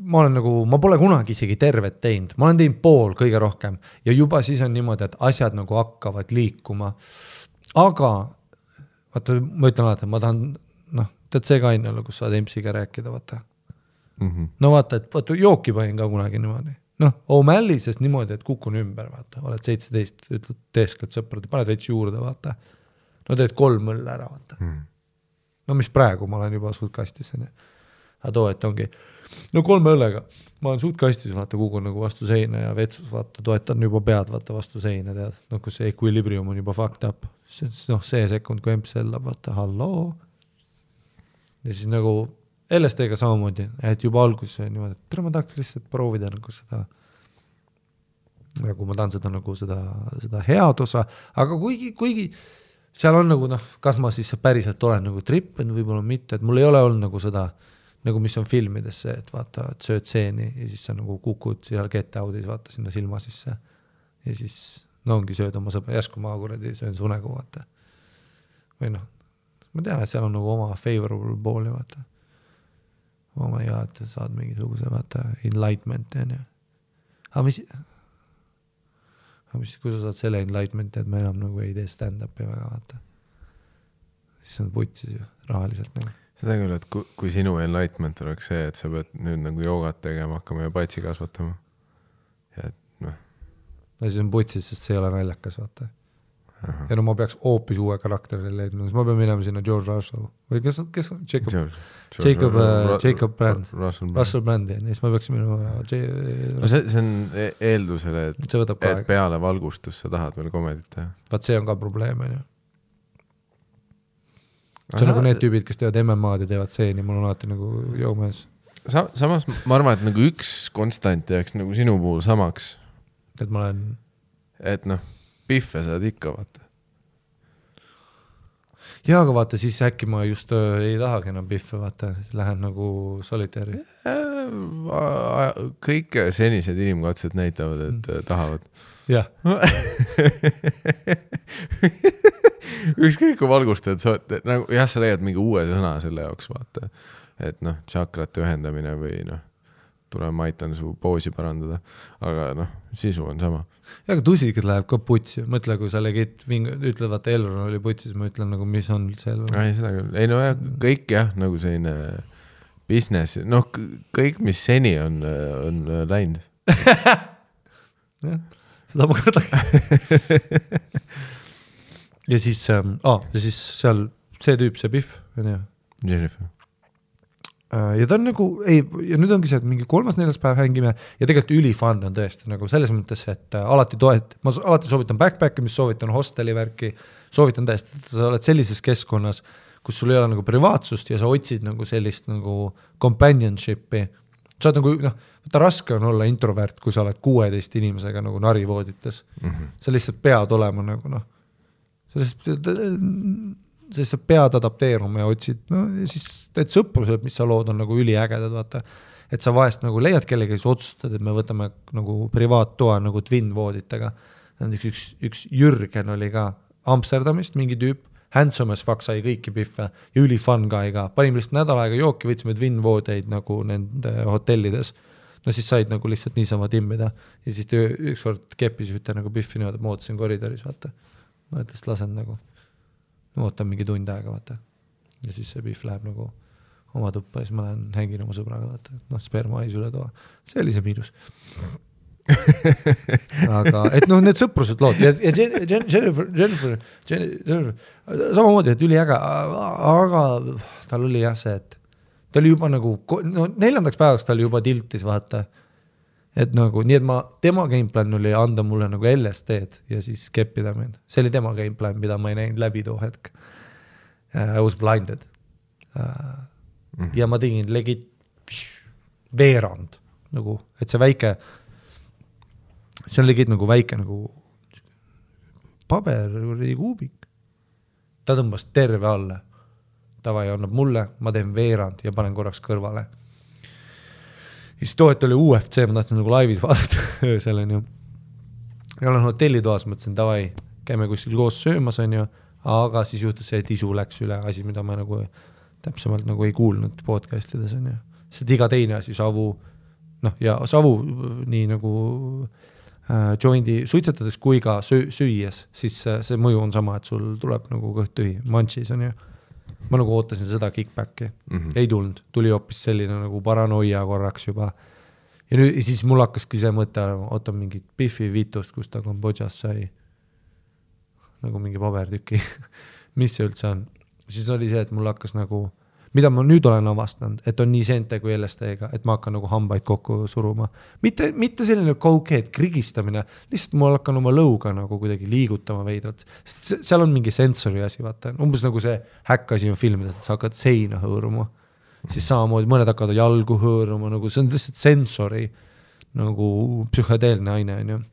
Speaker 1: ma pole kunagi isegi tervet teinud. Ma olen teinud pool kõige rohkem ja juba siis on niimoodi, et asjad nagu hakkavad liikuma. Aga, vaata, ma ütlen alati, ma tahan, tead see ka ainult, kus saad MC-ga rääkida, vaata. Vaata, et jooki panin ka kunagi niimoodi. O'Malley, sest niimoodi, et kukun ümber, vaata. Oled 17, ütled teeskled sõprad, paned veits juurde, vaata. Teed 3 mõlle ära, vaata. Mis praegu ma olen juba suutkastis. Aga too, et ongi 3 õllega. Ma olen suutkastis, vaata, kukun nagu vastu seina ja vetsus, vaata, toetan juba pead, vaata, vastu seina, tead. Kus see equilibrium on juba fucked up. See sekund, kui emps sellab, vaata, halloo. Ja siis nagu LSD-ga samamoodi, et juba alguses on niimoodi, et ma tahaks lihtsalt proovida nagu seda, nagu ma tahan seda nagu seda head osa, aga kuigi seal on nagu, kas ma siis päriselt olen nagu trippen, võib-olla mitte, et mul ei ole olnud nagu seda, nagu mis on filmides see, et vaata, et sööd seeni ja siis sa nagu kukud seal get out'is, vaata sinna silma sisse ja siis ongi sööd oma sõbra, järsku ma kuradi söön su nägu, vaata. Või ma tean, et seal on nagu oma favorable pooli, vaata. Oh my god, saad mingisuguse, vaata, enlightenment, on ju. Aga kui sa saad selle enlightenmenti, et ma enam nagu ei tee stand-upi väga, vaata. Siis on putsis ju, rahaliselt nagu.
Speaker 2: Seda küll, et kui sinu enlightenment oleks see, et sa pead nüüd nagu joogat tegema, hakkama ja patsi kasvatama. Ja et noh.
Speaker 1: No siis on putsis, sest see ei ole naljakas, vaata. Aha. Ja no ma peaks hoopis uue karakteri leidma, siis ma pean minema sinna George Russell või kes on Jacob Brand Russell Brandi ja siis ma peaks minema
Speaker 2: no see on eeldusele, et peale valgustus sa tahad veel komedit teha.
Speaker 1: Vaat see on ka probleem, on ju. See on nagu need tüübid, kes teevad MMA-d ja teevad seeni, mul on alati nagu jõumees.
Speaker 2: Samas ma arvan, et nagu üks konstant jääks nagu sinu puhul samaks.
Speaker 1: Et ma olen...
Speaker 2: Et noh, pihve saad ikka, vaata.
Speaker 1: Jaa, aga vaata, siis äkki ma just ei tahagi enam pihve, vaata. Lähen nagu solitaari.
Speaker 2: Kõik senised inimkatsed näitavad, et tahavad.
Speaker 1: Jah.
Speaker 2: Ükskõik kui valgustajad, nagu, jah, sa leiad mingi uue sõna selle jaoks, vaata. Et noh, tšakrate ühendamine või noh, tule ma aitan su poosi parandada, aga noh, sisu on sama.
Speaker 1: Ja, aga tusikud läheb ka putsi. Mõtle, kui sa ütled, vaata Elron oli putsi, siis ma ütlen nagu, mis on see Elron.
Speaker 2: Ei, seda küll. Ei, no jah, kõik jah, nagu selline business, noh, kõik, mis seni on läinud.
Speaker 1: Jah, seda ma kõrdagi. Ja siis seal see tüüp, see Biff, on ju?
Speaker 2: Jennifer.
Speaker 1: Ja ta on nagu, ja nüüd ongi see, et mingi 3.4. päev hängime ja tegelikult ülifun on tõesti nagu selles mõttes, et alati ma alati soovitan backpacki, mis soovitan hosteli värki, soovitan tõesti, et sa oled sellises keskkonnas, kus sul ei ole nagu privaatsust ja sa otsid nagu sellist nagu companionship'i. Sa oled nagu, võtta raske on olla introvert, kui sa oled 16 inimesega nagu narivoodites. Sa lihtsalt pead olema nagu siis sa pead adapteeruma ja otsid, ja siis need sõprused, mis sa lood, on nagu üliägedad, vaata. Et sa vahest nagu leiad kellegi, kes otsustad, et me võtame nagu privaattoa nagu twin-vooditega. Üks Jürgen oli ka Amsterdamist, mingi tüüp, handsome as fuck sai kõiki pihve ja ülifun guy ka. Panime lihtsalt nädal aega jooki, võtsime twin-voodeid nagu nende hotellides. No siis said nagu lihtsalt niisama timmida. Ja siis ükskord keppis ühte nagu pihvi niimoodi, et ma ootasin koridoris, vaata. Ma ütles, lasen nagu ootan mingi tund aega, vaata. Ja siis see pihv läheb nagu oma tuppa ja siis ma lähen hängin oma sõbraga, vaata. Noh, sperma ais üle toa. See oli see miinus. Aga, et noh, need sõprused lood. Ja Jennifer, samamoodi, et üliäga, aga tal oli jah see, et ta oli juba nagu, 4. päevaks ta oli juba tiltis, vaata. Et nagu, nii et tema gameplan oli anda mulle nagu LSD-d ja siis keppida mind. See oli tema gameplan, mida ma ei näinud läbi too hetk. I was blinded. Ja ma tegin legit veerand. Nagu, et see väike, see on legit nagu väike nagu paber kuubik. Ta tõmbas terve alla. Tavai annab mulle, ma teen veerand ja panen korraks kõrvale. Siis too, et oli UFC, ma tahtsin nagu laivis vaadata öösel, on ju. Ja olen hotellitoas, mõtlesin, tavai, käime kuskil koos söömas, on ju, aga siis juhtus see, et isu läks üle asi, mida ma nagu täpsemalt nagu ei kuulnud podcastides, on ju. Sest iga teine asi, savu, noh, ja savu nii nagu joindi suitsetades kui ka süües, siis see mõju on sama, et sul tuleb nagu kõht tühi, manchis, on ju. Ma nagu ootasin seda kickbacki. Ei tulnud. Tuli hoopis selline nagu paranoia korraks juba. Ja nüüd siis mul hakkaski see mõte, oota mingit Biffi vitust, kus ta Kambodžas sai nagu mingi pabertüki. Mis see üldse on? Siis oli see, et mul hakkas nagu, mida ma nüüd olen avastanud, et on nii sente kui LSD-ga, et ma hakkan nagu hambaid kokku suruma. Mitte selline kaukeed krigistamine, lihtsalt ma hakkan oma lõuga nagu kuidagi liigutama veidrat. Seal on mingi sensori asi, vaata. Umbes nagu see häkkasi on filmides, et sa hakkad seina hõõruma. Siis samamoodi mõned hakkavad jalgu hõõruma, nagu see on lihtsalt sensori nagu psühhedeelne aine, on ju.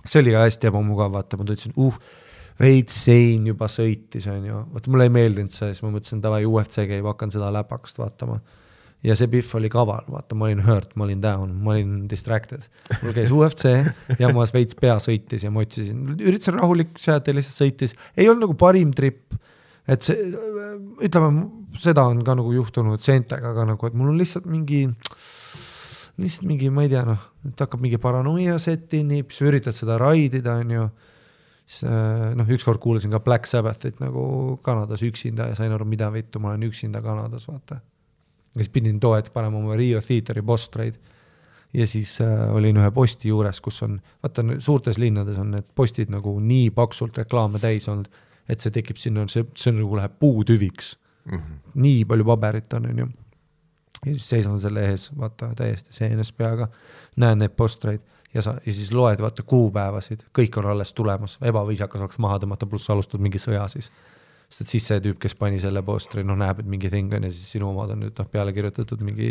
Speaker 1: See oli ka hästi ebamugav, vaata, ma tundsin, veid sein juba sõitis, on ju. Vaata, mulle ei meeldinud see, siis ma mõtlesin, tavai UFC käib, hakkan seda läpakast vaatama. Ja see Biff oli kaval, vaata, ma olin hurt, ma olin down, ma olin distracted. Mul käis UFC ja ma veits pea sõitis ja ma otsisin. Üritasin rahulik sealt ja lihtsalt sõitis. Ei olnud nagu parim trip. et see, ütleme, seda on ka nagu juhtunud seentega, aga nagu, et mul on lihtsalt mingi, ma ei tea, et hakkab mingi paranoia setinib, siis üritad seda raidida, on ju, siis ükskord kuulasin ka Black Sabbathit nagu Kanadas üksinda ja sain aru, mida vittu, ma olen üksinda Kanadas, vaata. Ja siis pidin toet panema oma Rio Theateri postreid ja siis olin ühe posti juures, kus on, vaata, suurtes linnades on need postid nagu nii paksult reklaame täis olnud, et see tekib sinna, see nagu läheb puutüviks. Nii palju paberit on ju. Ja siis seisan selle ees, vaata, täiesti seenes peaga, näen need postreid ja siis loed, vaata, kuupäevasid, kõik on alles tulemas, ebaviisakas oleks maha tõmmata, pluss alustad mingi sõja siis. Sest et siis see tüüp, kes pani selle postri, näeb, et mingi thing on ja siis sinu omad on nüüd peale kirjutatud mingi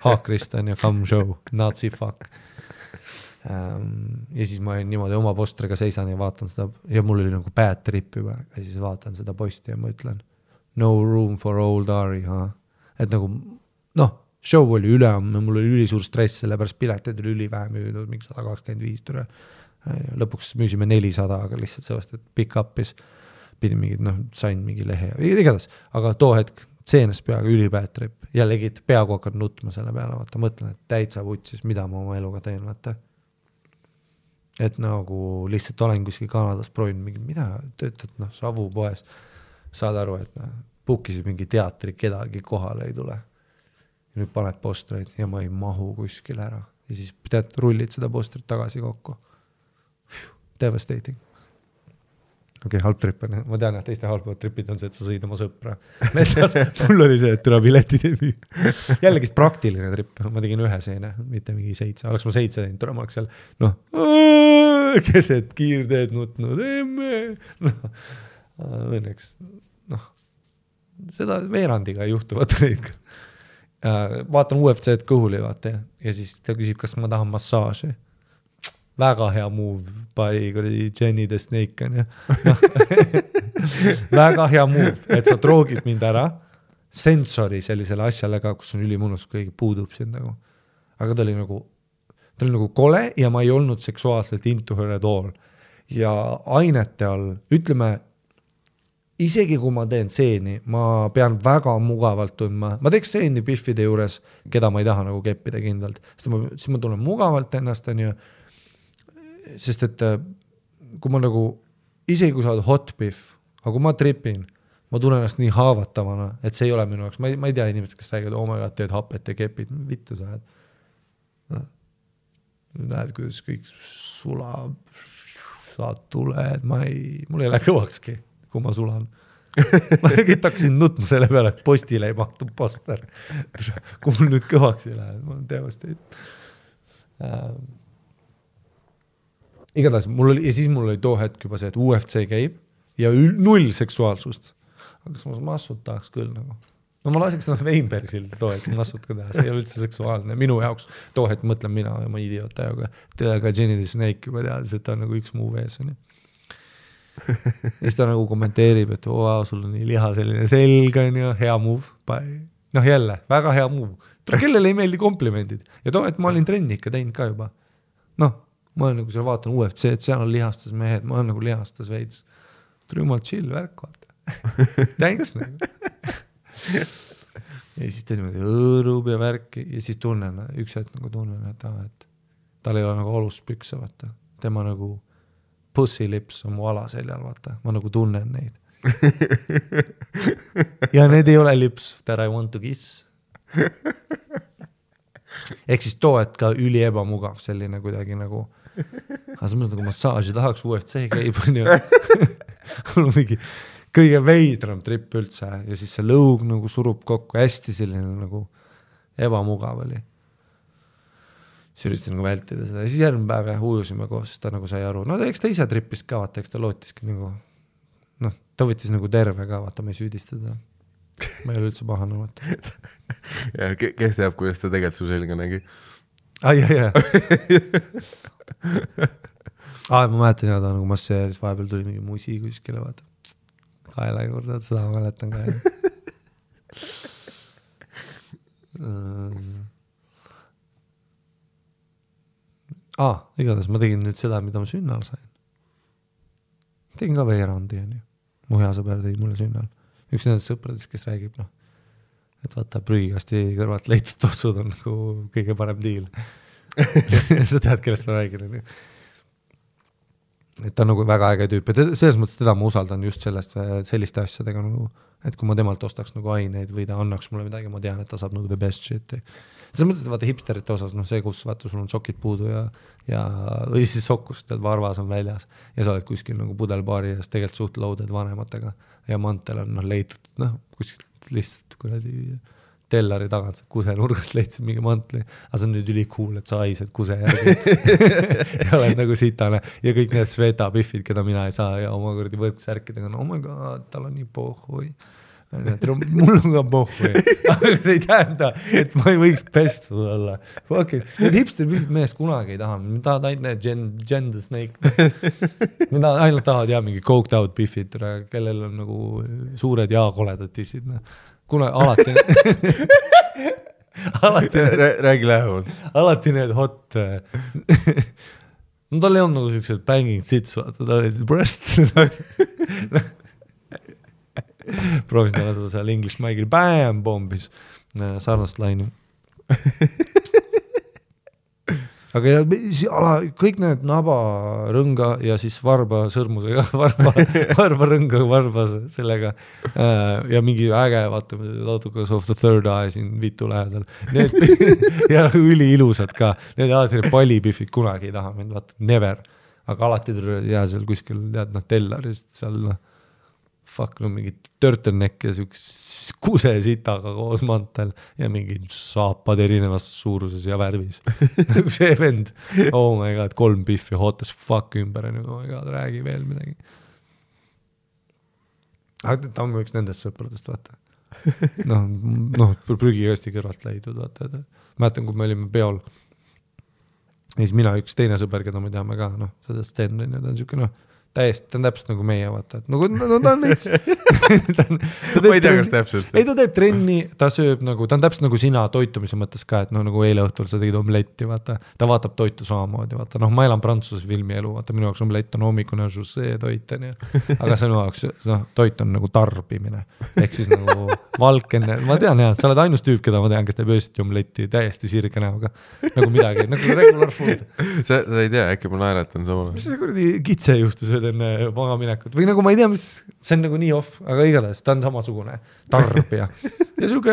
Speaker 1: haakrist on ja come show, Nazi fuck. Ja siis ma niimoodi oma postriga seisan ja vaatan seda ja mul oli nagu bad trip juba ja siis vaatan seda posti ja ma ütlen no room for old Ari, et nagu show oli üleamme, mul oli ülisuur stress, sellepärast piletid oli ülivähe müüdud, mingi 125 türe. Lõpuks müüsime 400, aga lihtsalt sellest, et pick up'is pidin mingid, sain mingi lehe ja igatahes, aga too hetk seenes peaga ülibad trip ja legid peaaegu hakkad nutma selle peale, vaata, mõtlen, et täitsa vutsis, mida ma oma eluga teen, vaata. Et nagu lihtsalt olen kuskil Kanadas proovinud mingi, mida töötad, Savu poes, saad aru, et puukisid mingi teatri, kedagi kohale ei tule. Ja nüüd paned postreid ja ma ei mahu kuskil ära. Ja siis rullid seda postrit tagasi kokku. Devastating. Okei, halb trip on. Ma tean, et teiste halbavad tripid on see, et sa sõid oma sõpra. Mul oli see, et türa piletid ei müü. Jällegi praktiline trip. Ma tegin ühe seene, mitte mingi 7. Oleks ma 7 teinud, türa ma oleks seal, keset kiirteed nutnud. Õnneks, seda veerandiga ei juhtu, vaata neid. Vaatan UFC-d kõhuli, vaata, ja siis ta küsib, kas ma tahan massaaži. Väga hea move by Jenny the Snake on, ja. Väga hea move, et sa droogid mind ära sensori sellisele asjale ka, kus on ülimunus, kui puudub sind nagu. Aga ta oli nagu kole ja ma ei olnud seksuaalselt into her at all. Ja ainete all, ütleme, isegi kui ma teen seeni, ma pean väga mugavalt tundma. Ma teeks seeni Biffide juures, keda ma ei taha nagu keppida kindlalt. Siis ma tunnen mugavalt ennast, on ju. Sest et kui ma nagu, isegi kui sa oled hot Biff, aga kui ma tripin, ma tunnen ennast nii haavatavana, et see ei ole minu jaoks. Ma ei tea inimesed, kes räägivad, oh my god, teed hapet ja kepid. Vittu sa oled. Näed, kuidas kõik sulab, saad tuled. Mul ei lähe kõvakski, kui ma sulan. Ma hakkasin nutma selle peale, et postile ei mahtu poster. Kui mul nüüd kõvaks ei lähe, ma olen teevasteid. Igatahes, ja siis mul oli too hetk juba see, et UFC käib ja null seksuaalsust. Aga kas ma massut tahaks küll nagu. Ma laseks Weinbergsil too hetk massut ka teha, see ei ole üldse seksuaalne. Minu jaoks too hetk mõtlen mina ja ma idiot ajaga. Teda ka Jenny the Snake juba teadis, et ta on nagu üks muu vees. Ja siis ta nagu kommenteerib, et sul on nii liha selline selg on ja hea move. Jälle, väga hea move. Kellele ei meeldi komplimendid. Ja too hetk ma olin trenni ikka teinud ka juba. Ma olen nagu seal vaatan UFC, et seal on lihastas mehed, ma olen nagu lihastas veits. Tuli jumal chill värk, vaata. Thanks nagu. Ja siis ta niimoodi õõrub ja värki ja siis tunnen, üks hetk nagu tunnen, et tal ei ole nagu olust pükse, vaata. Tema nagu pussy lips on mu alaseljal, vaata. Ma nagu tunnen neid. Ja need ei ole lips that I want to kiss. Ehk siis too, et ka üli ebamugav selline kuidagi nagu aga sa mõtled nagu massaaži tahaks UFC käib on ju. Mul on mingi kõige veidram trip üldse ja siis see lõug nagu surub kokku hästi selline nagu ebamugav oli. Siis üritasin nagu vältida seda ja siis järgmine päev ja ujusime koos, ta nagu sai aru. Eks ta ise trippis ka, vaata, eks ta lootiski nagu ta võttis nagu terve ka, vaata, ma ei süüdistada. Ma ei ole üldse pahane, vaata.
Speaker 2: Ja kes teab, kuidas ta tegelikult su selga nägi?
Speaker 1: Jah. Ma mäletan ja ta nagu masseeris, vahepeal tuli mingi musi kuskile, vaata. Kaela juurde, seda ma mäletan ka. Igatahes ma tegin nüüd seda, mida ma sünnal sain. Tegin ka veerandi, on ju. mu hea sõber tõi mulle sünnal. Üks nendest sõpradest, kes räägib, noh, et vaata prügikasti kõrvalt leitud tossud on nagu kõige parem diil. Sa tead, kellest ma räägin. Et ta on nagu väga äge tüüp. Ja selles mõttes teda ma usaldan just selliste asjadega, nagu, et kui ma temalt ostaks nagu aineid või ta annaks mulle midagi, ma tean, et ta saab nagu the best shit. Selles mõttes, et vaata hipsterite osas, noh see, kus vaata sul on sokid puudu või siis sokkus, tead, varvas on väljas ja sa oled kuskil nagu pudelbaari ja tegelikult suht loaded vanematega ja mantel on leitud, noh, kuskilt lihtsalt kuradi tellari tagant kuse nurgast leidsid mingi mantli, aga see on nüüd üli cool, et sa haised kuse järgi ja oled nagu sitane ja kõik need Sveta piffid, keda mina ei saa ja oma kuradi võrksärkidega, no oh my god, tal on nii pohhui. Mul on ka pohhui, aga see ei tähenda, et ma ei võiks pestud olla. Need hipster piffid meest kunagi ei taha, me tahad ainult Gender Snake. Mida ainult tahad mingi coked out piffid, kellel on nagu suured ja koledad tissid. Kuna alati
Speaker 2: räägi lähemalt.
Speaker 1: Alati need hot no tal ei olnud nagu sellised banging tits, vaata, tal olid breasts proovisin talle seda seal English Mike'il bam bombis sarnast laini aga kõik need naba rõnga ja siis varba sõrmusega varba rõnga varba sellega ja mingi äge vaata Lautukas of the Third Eye siin vitu lähedal need ja üli ilusad ka need alati need pallipifid kunagi ei taha mind vaata never aga alati jää seal kuskil tead tellarist seal fuck no mingi turtleneck ja kuse sitaga koos mantel ja mingi saapad erinevas suuruses ja värvis see vend oh my god 3 piffi hot as fuck ümber oh my god räägi veel midagi aga ta on üks nendest sõpradest vaata noh prügikasti kõrvalt leidud vaata mäletan kui me olime peol ja siis mina üks teine sõber keda me teame ka seda Sten ta on siuke täiesti, ta on täpselt nagu meie, vaata, et nagu ta on näits.
Speaker 2: Ma ei tea, kas täpselt.
Speaker 1: Ei, ta teeb trenni, ta sööb nagu, ta on täpselt nagu sina toitumise mõttes ka, et nagu eile õhtul sa tegid omletti, vaata, ta vaatab toitu samamoodi, vaata, ma elan Prantsuse filmi elu, vaata, minu jaoks omlett on hommikune žussee toit, aga sinu jaoks, toit on nagu tarbimine, ehk siis nagu valkenne, ma tean jah, sa oled ainus tüüp, keda ma tean, kes teeb öösiti omletti täiesti sirge näoga, nagu midagi, nagu regular food.
Speaker 2: Sa ei tea, äkki ma naeratan samal.
Speaker 1: Mis see kuradi kitse juhtus enne magaminekut või nagu ma ei tea, mis see on nagu nii off, aga igatahes ta on samasugune tarbija ja siuke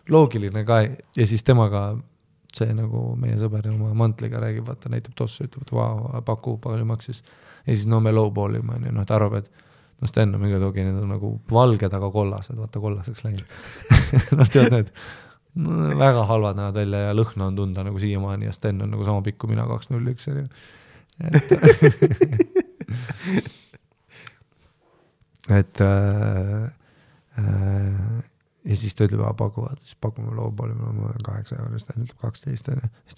Speaker 1: loogiline ka ja siis temaga see nagu meie sõber oma mantliga räägib, vaata näitab tossu, ütleb, et vau, paku palju maksis ja siis me lowballime, et arvab, et Sten on mingi togi, need on nagu valged, aga kollased, vaata kollaseks läinud tead need väga halvad näevad välja ja lõhna on tunda nagu siiamaani ja Sten on nagu sama pikku mina 201 et ja siis ta ütleb, pakuvad, siis pakume lowballi, me 8 eurist, ta ütleb 12, siis ta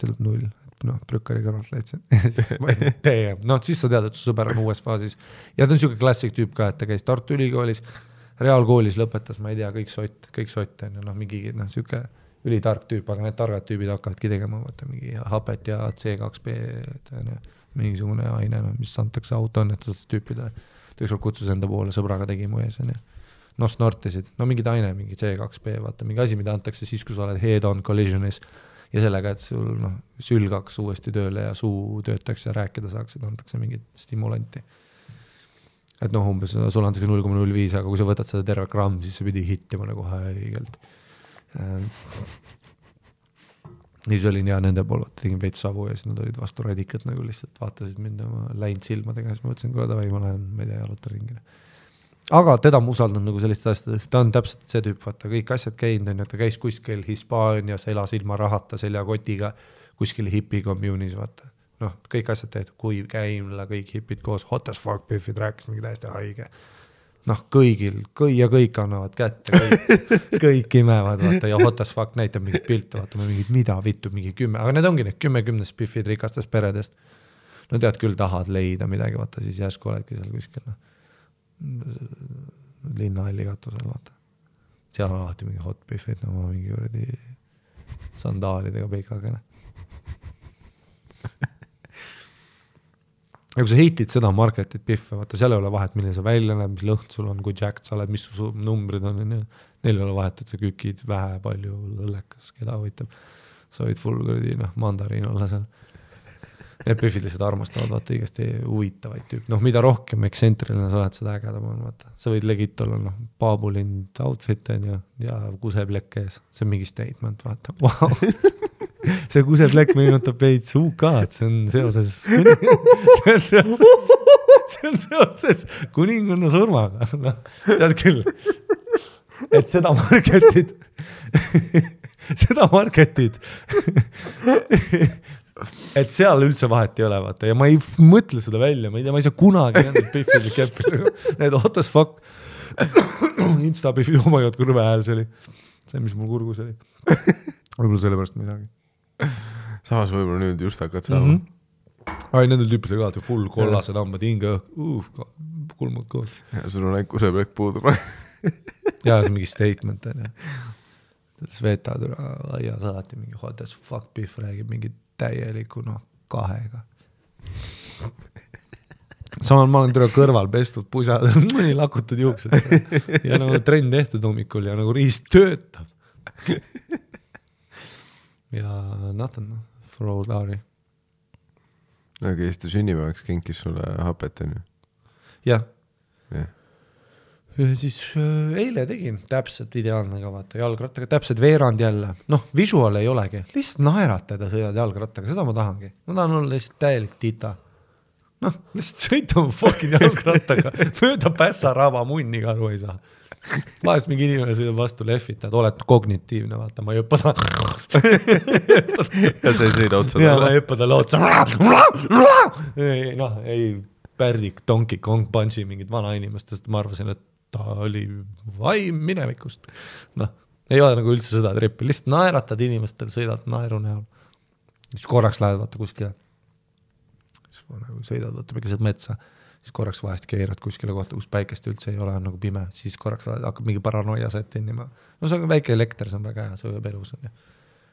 Speaker 1: ütleb 0, prükkari kõrvalt leidsin. Siis sa tead, et su sõber on uues faasis. Ja ta on siuke klassik tüüp ka, et ta käis Tartu Ülikoolis, reaalkoolis lõpetas, ma ei tea, kõik sott, mingi siuke ülitark tüüp, aga need targad tüübid hakkavadki tegema, vaata mingi hapet ja C2B, mingisugune aine, mis antakse autoõnnetusest tüüpidele. Ta ükskord kutsus enda poole, sõbraga tegi mu ees. Snortisid, mingid aine, mingi C2B, vaata, mingi asi, mida antakse siis, kui sa oled head-on collisionis ja sellega, et sul sülg hakkas uuesti tööle ja suu töötaks ja rääkida saaks, et antakse mingit stimulanti. Et umbes sul antakse 0,05, aga kui sa võtad seda terve gramm, siis sa pidi hittima nagu haigelt. Ja siis olin nende pool, tegin veits savu ja siis nad olid vastu radikat nagu lihtsalt vaatasid mind oma läinud silmadega, siis ma mõtlesin, kuule davai, ma lähen meile jaluta ringile. Aga teda ma usaldan nagu sellist asjadest, ta on täpselt see tüüp, vaata, kõik asjad käinud, ta käis kuskil Hispaanias, elas ilma rahata seljakotiga, kuskil hipi communis, vaata. Kõik asjad tehtud, kui käimla, kõik hipid koos, hot as fuck piffid, rääkis mingi täiesti haige. Kõik annavad kätte, kõik imevad, vaata, ja hot as fuck näitab mingit pilte, vaata, mingid mida vittu, mingi 10, aga need ongi need 10 spiffid rikastest peredest. Tead küll tahad leida midagi, vaata, siis järsku oledki seal kuskil, linnahalli katusel, vaata. Seal on alati mingi hot piffid, mingi võrdi sandaalidega peikagene. ja kui sa hitid seda marketit pihve, vaata seal ei ole vahet, milline sa välja näeb, mis lõhn sul on, kui jacked sa oled, mis su numbrid on, neil ei ole vahet, et sa kükid vähe, palju, õllekas, keda võitab. Sa võid full kuradi, mandariin olla seal. Need pühvid lihtsalt armastavad, vaata, igasti huvitavaid tüüp. Mida rohkem eksentriline sa oled, seda ägedam on, vaata. Sa võid legit olla, paabulind outfit ja kuseplekk ees. See on mingi statement, vaata. Wow. See kuseplekk meenutab veits UK-d, see on seoses kuninganna surmaga. Tead küll, et seda marketid, et seal üldse vahet ei ole, vaata, ja ma ei mõtle seda välja, ma ei saa kunagi nendel pihvil keppida, need what the fuck, Insta-pihvid, oh my god, kõrve hääl see oli, see, mis mul kurgus oli, võib-olla sellepärast midagi.
Speaker 2: Samas võib-olla nüüd just hakkad saama.
Speaker 1: Ai, nendel tüüpidel ka, full kollased hambad hinga, kulmud koos.
Speaker 2: Ja sul on ainult kuseplekk puudub.
Speaker 1: Ja see on mingi statement, Svetad aia saati mingi what the fuck beef räägib mingi täieliku kahega. Samal ma olen kõrval pestud pusad, mõni lakutud juuksed ja trenn tehtud hommikul ja riist töötab. Ja nothing for old Lauri.
Speaker 2: Aga Eesti sünnipäevaks kinkis sulle hapet, on ju?
Speaker 1: Jah. Siis eile tegin täpselt ideaalne ka, vaata, jalgrattaga, täpselt veerand jälle. Visual ei olegi, lihtsalt naeratada sõidad jalgrattaga, seda ma tahangi. Ma tahan olla lihtsalt täielik tita. Lihtsalt sõita mu fucking jalgrattaga, mööda pässaraba munniga aru ei saa. Vahest mingi inimene sõidab vastu lehvitad, oled kognitiivne, vaata, ma ei õppa ta.
Speaker 2: Ja sa ei sõida otsa.
Speaker 1: Ja ma ei õppa talle otsa. Ei pärdik, Donkey Kong punchi mingid vana inimestest, ma arvasin, et ta oli vaim minevikust. Ei ole üldse seda trippi, lihtsalt naeratad inimestel, sõidad naeru näol. Siis korraks lähed vaata kuskile. Siis sõidad vaata mingised metsa. Siis korraks vahest keerad kuskile kohta, kus päikest üldse ei ole, on pime, siis korraks hakkab mingi paranoia settinima. See on väike elekter, see on väga hea, see ööb elus on.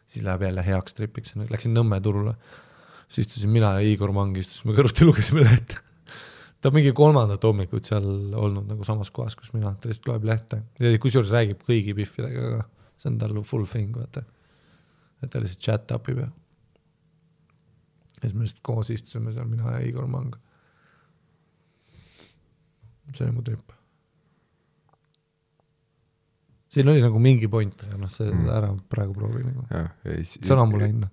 Speaker 1: Siis läheb jälle heaks tripiks, läksin Nõmme turule, siis istusin mina ja Igor Mang istusime kõrvuti, lugesime lehte. Ta mingi 3. hommikut seal olnud samas kohas, kus mina, ta lihtsalt loeb lehte. Ja kusjuures räägib kõigi piffidega, see on tal full thing, vaata. Et ta lihtsalt chat upib ja siis me lihtsalt koos istusime seal, mina ja Igor Mang. See oli mu trip. Siin oli mingi point, ja see ära praegu proovi. Sõna mulle hinna.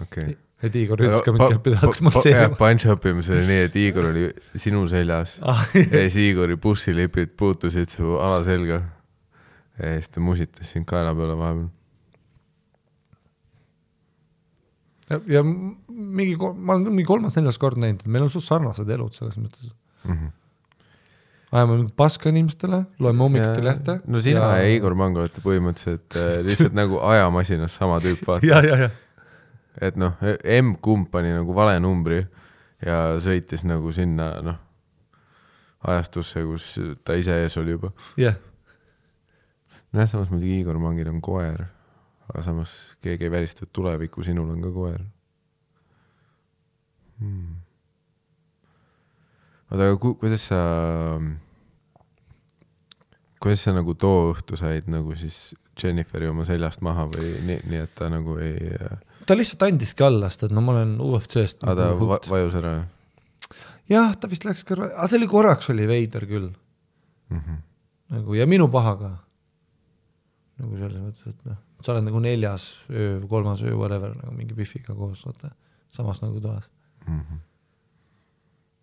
Speaker 2: Okay.
Speaker 1: Et Igor ütles ka mind käppida, hakkas masseerima.
Speaker 2: Punch-upimis oli nii, et Igor oli sinu seljas ja siis Igori bussilipid puutusid su alaselga ja siis ta musitas sind kaela peale vahepeal.
Speaker 1: Ja ma olen mingi 3.-4. kord näinud, et meil on suht sarnased elud selles mõttes. Ajame paska inimestele, loeme hommikuti lehte.
Speaker 2: No sina ja Igor Mang olete põhimõtteliselt lihtsalt ajamasinas sama tüüp vaata.
Speaker 1: Ja.
Speaker 2: Et M-kump pani vale numbri ja sõitis sinna ajastusse, kus ta ise ees oli juba.
Speaker 1: Jah.
Speaker 2: Samas muidugi Igor Mangil on koer, aga samas keegi ei välista, et tuleviku sinul on ka koer. Aga kuidas sa too õhtu said siis Jenniferi oma seljast maha või nii, et ta ei...
Speaker 1: Ta lihtsalt andiski allast, et ma olen UFC-st.
Speaker 2: Aga ta vajus ära?
Speaker 1: Jah, ta vist läks kõrva. Aga see oli korraks oli veider küll. Ja minu paha ka. Selles mõttes, et sa oled 4. öö, 3. öö, whatever, mingi biffiga koos, samas toas.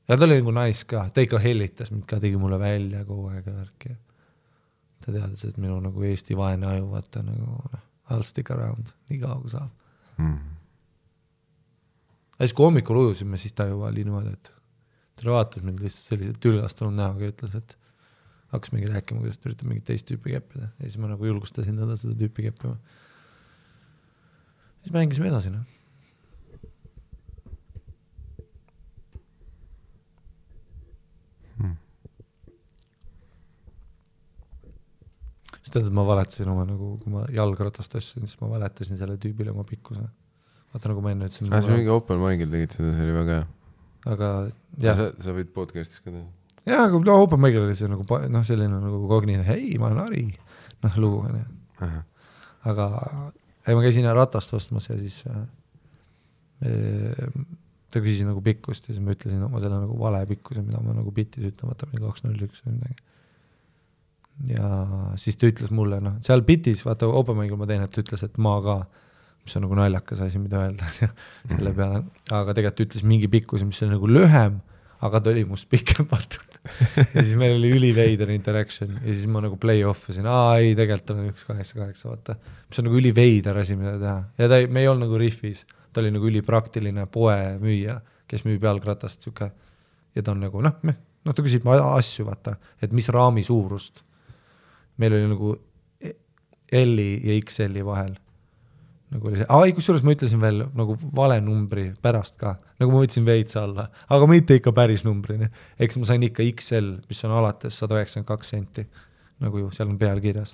Speaker 1: Ja ta oli nice ka, ta ikka hellitas mind ka, tegi mulle välja kogu aeg värki. Ta teadis, et minu Eesti vaene aju, vaata I'll stick around, nii kaua kui saab. Ja siis kui hommikul ujusime, siis ta juba oli niimoodi, et ta vaatas mind lihtsalt sellised tülgastunud näoga ja ütles, et hakkas mingi rääkima, kuidas ta üritab mingit teist tüüpi keppida. Ja siis ma julgustasin teda seda tüüpi keppima. Siis mängisime edasi. Siis tead, et ma valetasin oma, kui ma jalgratast asjasin, siis ma valetasin selle tüübile oma pikkuse. Vaata, ma enne ütlesin.
Speaker 2: See mingi Open Mic'il tegid seda, see oli väga hea.
Speaker 1: aga jah.
Speaker 2: Sa võid podcastis ka teha.
Speaker 1: Jah, aga no, open mic'il oli see nagu, noh, selline nagu kognine, hei, ma olen Ari, noh, lugu on ju. Aga ma käisin ratast ostmas ja siis ta küsis nagu pikkust ja siis ma ütlesin oma selle nagu vale pikkuse, mida ma nagu bitis ütlen, vaata 201 või midagi. Ja siis ta ütles mulle, noh, seal bitis, vaata open mic'il ma teen, et ta ütles, et ma ka, mis on nagu naljakas asi, mida öelda selle peale, aga tegelikult ütles mingi pikkuse, mis oli nagu lühem, aga ta oli must pikem, vaata. Ja siis meil oli üliveider interaction ja siis ma nagu play off asin, ei, tegelikult on 188, vaata. Mis on nagu üliveider asi, mida teha. Ja me ei olnud nagu riffis, ta oli nagu ülipraktiline poe müüja, kes müüb jalgratast siuke. Ja ta on nagu, noh, ta küsib asju, vaata, et mis raami suurust. Meil oli nagu L-i ja XL-i vahel. Nagu oli see, kusjuures ma ütlesin veel nagu vale numbri pärast ka, nagu ma võtsin veits alla, aga mitte ikka päris numbrini. Eks ma sain ikka XL, mis on alates 192 senti, nagu ju seal on peal kirjas.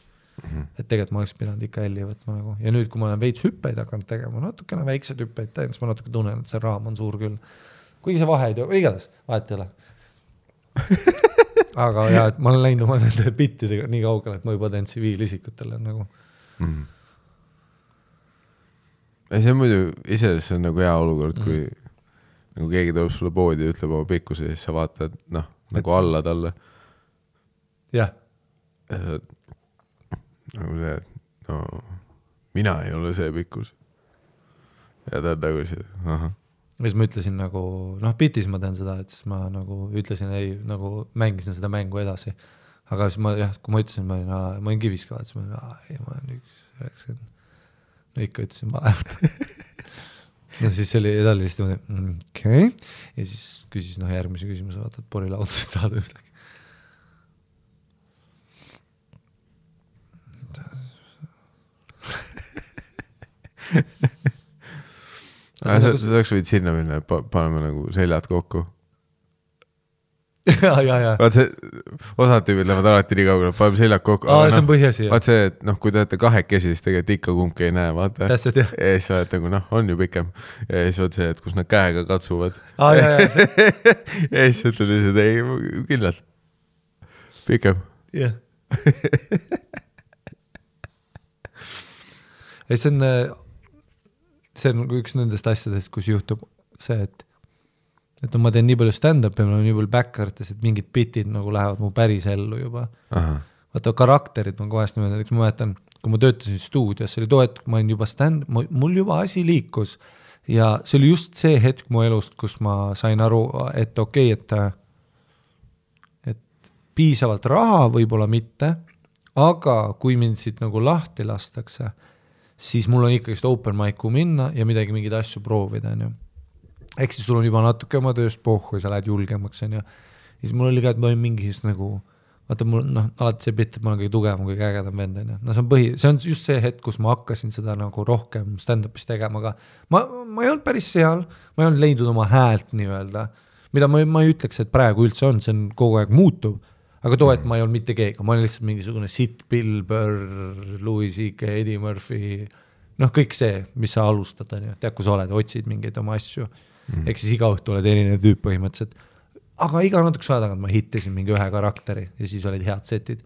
Speaker 1: Et tegelikult ma oleks pidanud ikka L-i võtma nagu. Ja nüüd, kui ma olen veits hüppeid hakanud tegema, natukene väiksed hüppeid teen, siis ma natuke tunnen, et see raam on suur küll. Kuigi see vahe ei too, igatahes, vahet ei ole. Aga jah, et ma olen läinud oma nende bittidega nii kaugele, et ma juba teen tsiviilisikutele nagu.
Speaker 2: See on muidu, iseasi on nagu hea olukord, kui nagu keegi tuleb sulle poodi ja ütleb oma pikkuse ja siis sa vaatad, noh, nagu alla talle.
Speaker 1: Jah.
Speaker 2: Nagu see, et no, mina ei ole see pikkus. Ja ta on nagu see, aha.
Speaker 1: Ja siis ma ütlesin nagu, noh, bitis ma teen seda, et siis ma nagu ütlesin, ei, nagu mängisin seda mängu edasi. Aga siis ma, jah, kui ma ütlesin, ma olin kivis ka, siis ma olen 1,90. No ikka ütlesin valevat. Ja siis oli edalist okei. Ja siis küsis järgmise küsimuse, vaata, et porilaudus tahad ühtegi.
Speaker 2: Sa oleks võid sinna minna, et paneme nagu seljad kokku.
Speaker 1: Ja.
Speaker 2: Vaat see, osad tüübid lähevad alati nii kaugele, paneme seljad kokku.
Speaker 1: See on põhjasi.
Speaker 2: Vaat see, et noh, kui te olete kahekesi, siis tegelikult ikka kumbki ei näe, vaata.
Speaker 1: Täpselt, jah.
Speaker 2: Ja siis oled nagu, noh, on ju pikem. Ja siis vaat see, et kus nad käega katsuvad.
Speaker 1: Ja
Speaker 2: siis ütled lihtsalt, ei, kindlalt. Pikem.
Speaker 1: Jah. See on üks nendest asjadest, kus juhtub see, et ma teen nii palju stand-up ja ma olen nii palju back-artes, et mingid bitid nagu lähevad mu päris ellu juba. Vaata, karakterid ma kohest niimoodi, eks ma mäletan, kui ma töötasin stuudios, see oli too, et ma olin juba mul juba asi liikus ja see oli just see hetk mu elust, kus ma sain aru, et okei, et piisavalt raha võib-olla mitte, aga kui mind siit nagu lahti lastakse, siis mul on ikkagi open mic'u minna ja midagi mingeid asju proovida, on ju. Ehk siis sul on juba natuke oma tööst pohhu ja sa lähed julgemaks, on ju. Ja siis mul oli ka, et ma olin mingis nagu, vaata mul, noh, alati see bitt, et ma olen kõige tugevam, kõige ägedam vend, on ju. No see on just see hetk, kus ma hakkasin seda nagu rohkem stand-upis tegema, aga ma ei olnud päris seal, ma ei olnud leidnud oma häält nii-öelda, mida ma ei ütleks, et praegu üldse on, see on kogu aeg muutub, aga too, et ma ei olnud mitte keegi, ma olin lihtsalt mingisugune Sid, Bill Burr, Louis C.K., Eddie Murphy, noh, kõik see, mis sa alustad, on ju, tead, kui sa oled, otsid mingeid oma asju. Ehk siis iga õhtu oled erinev tüüp põhimõtteliselt. Aga iga natuke saada tagant ma hittisin mingi ühe karakteri ja siis olid head setid.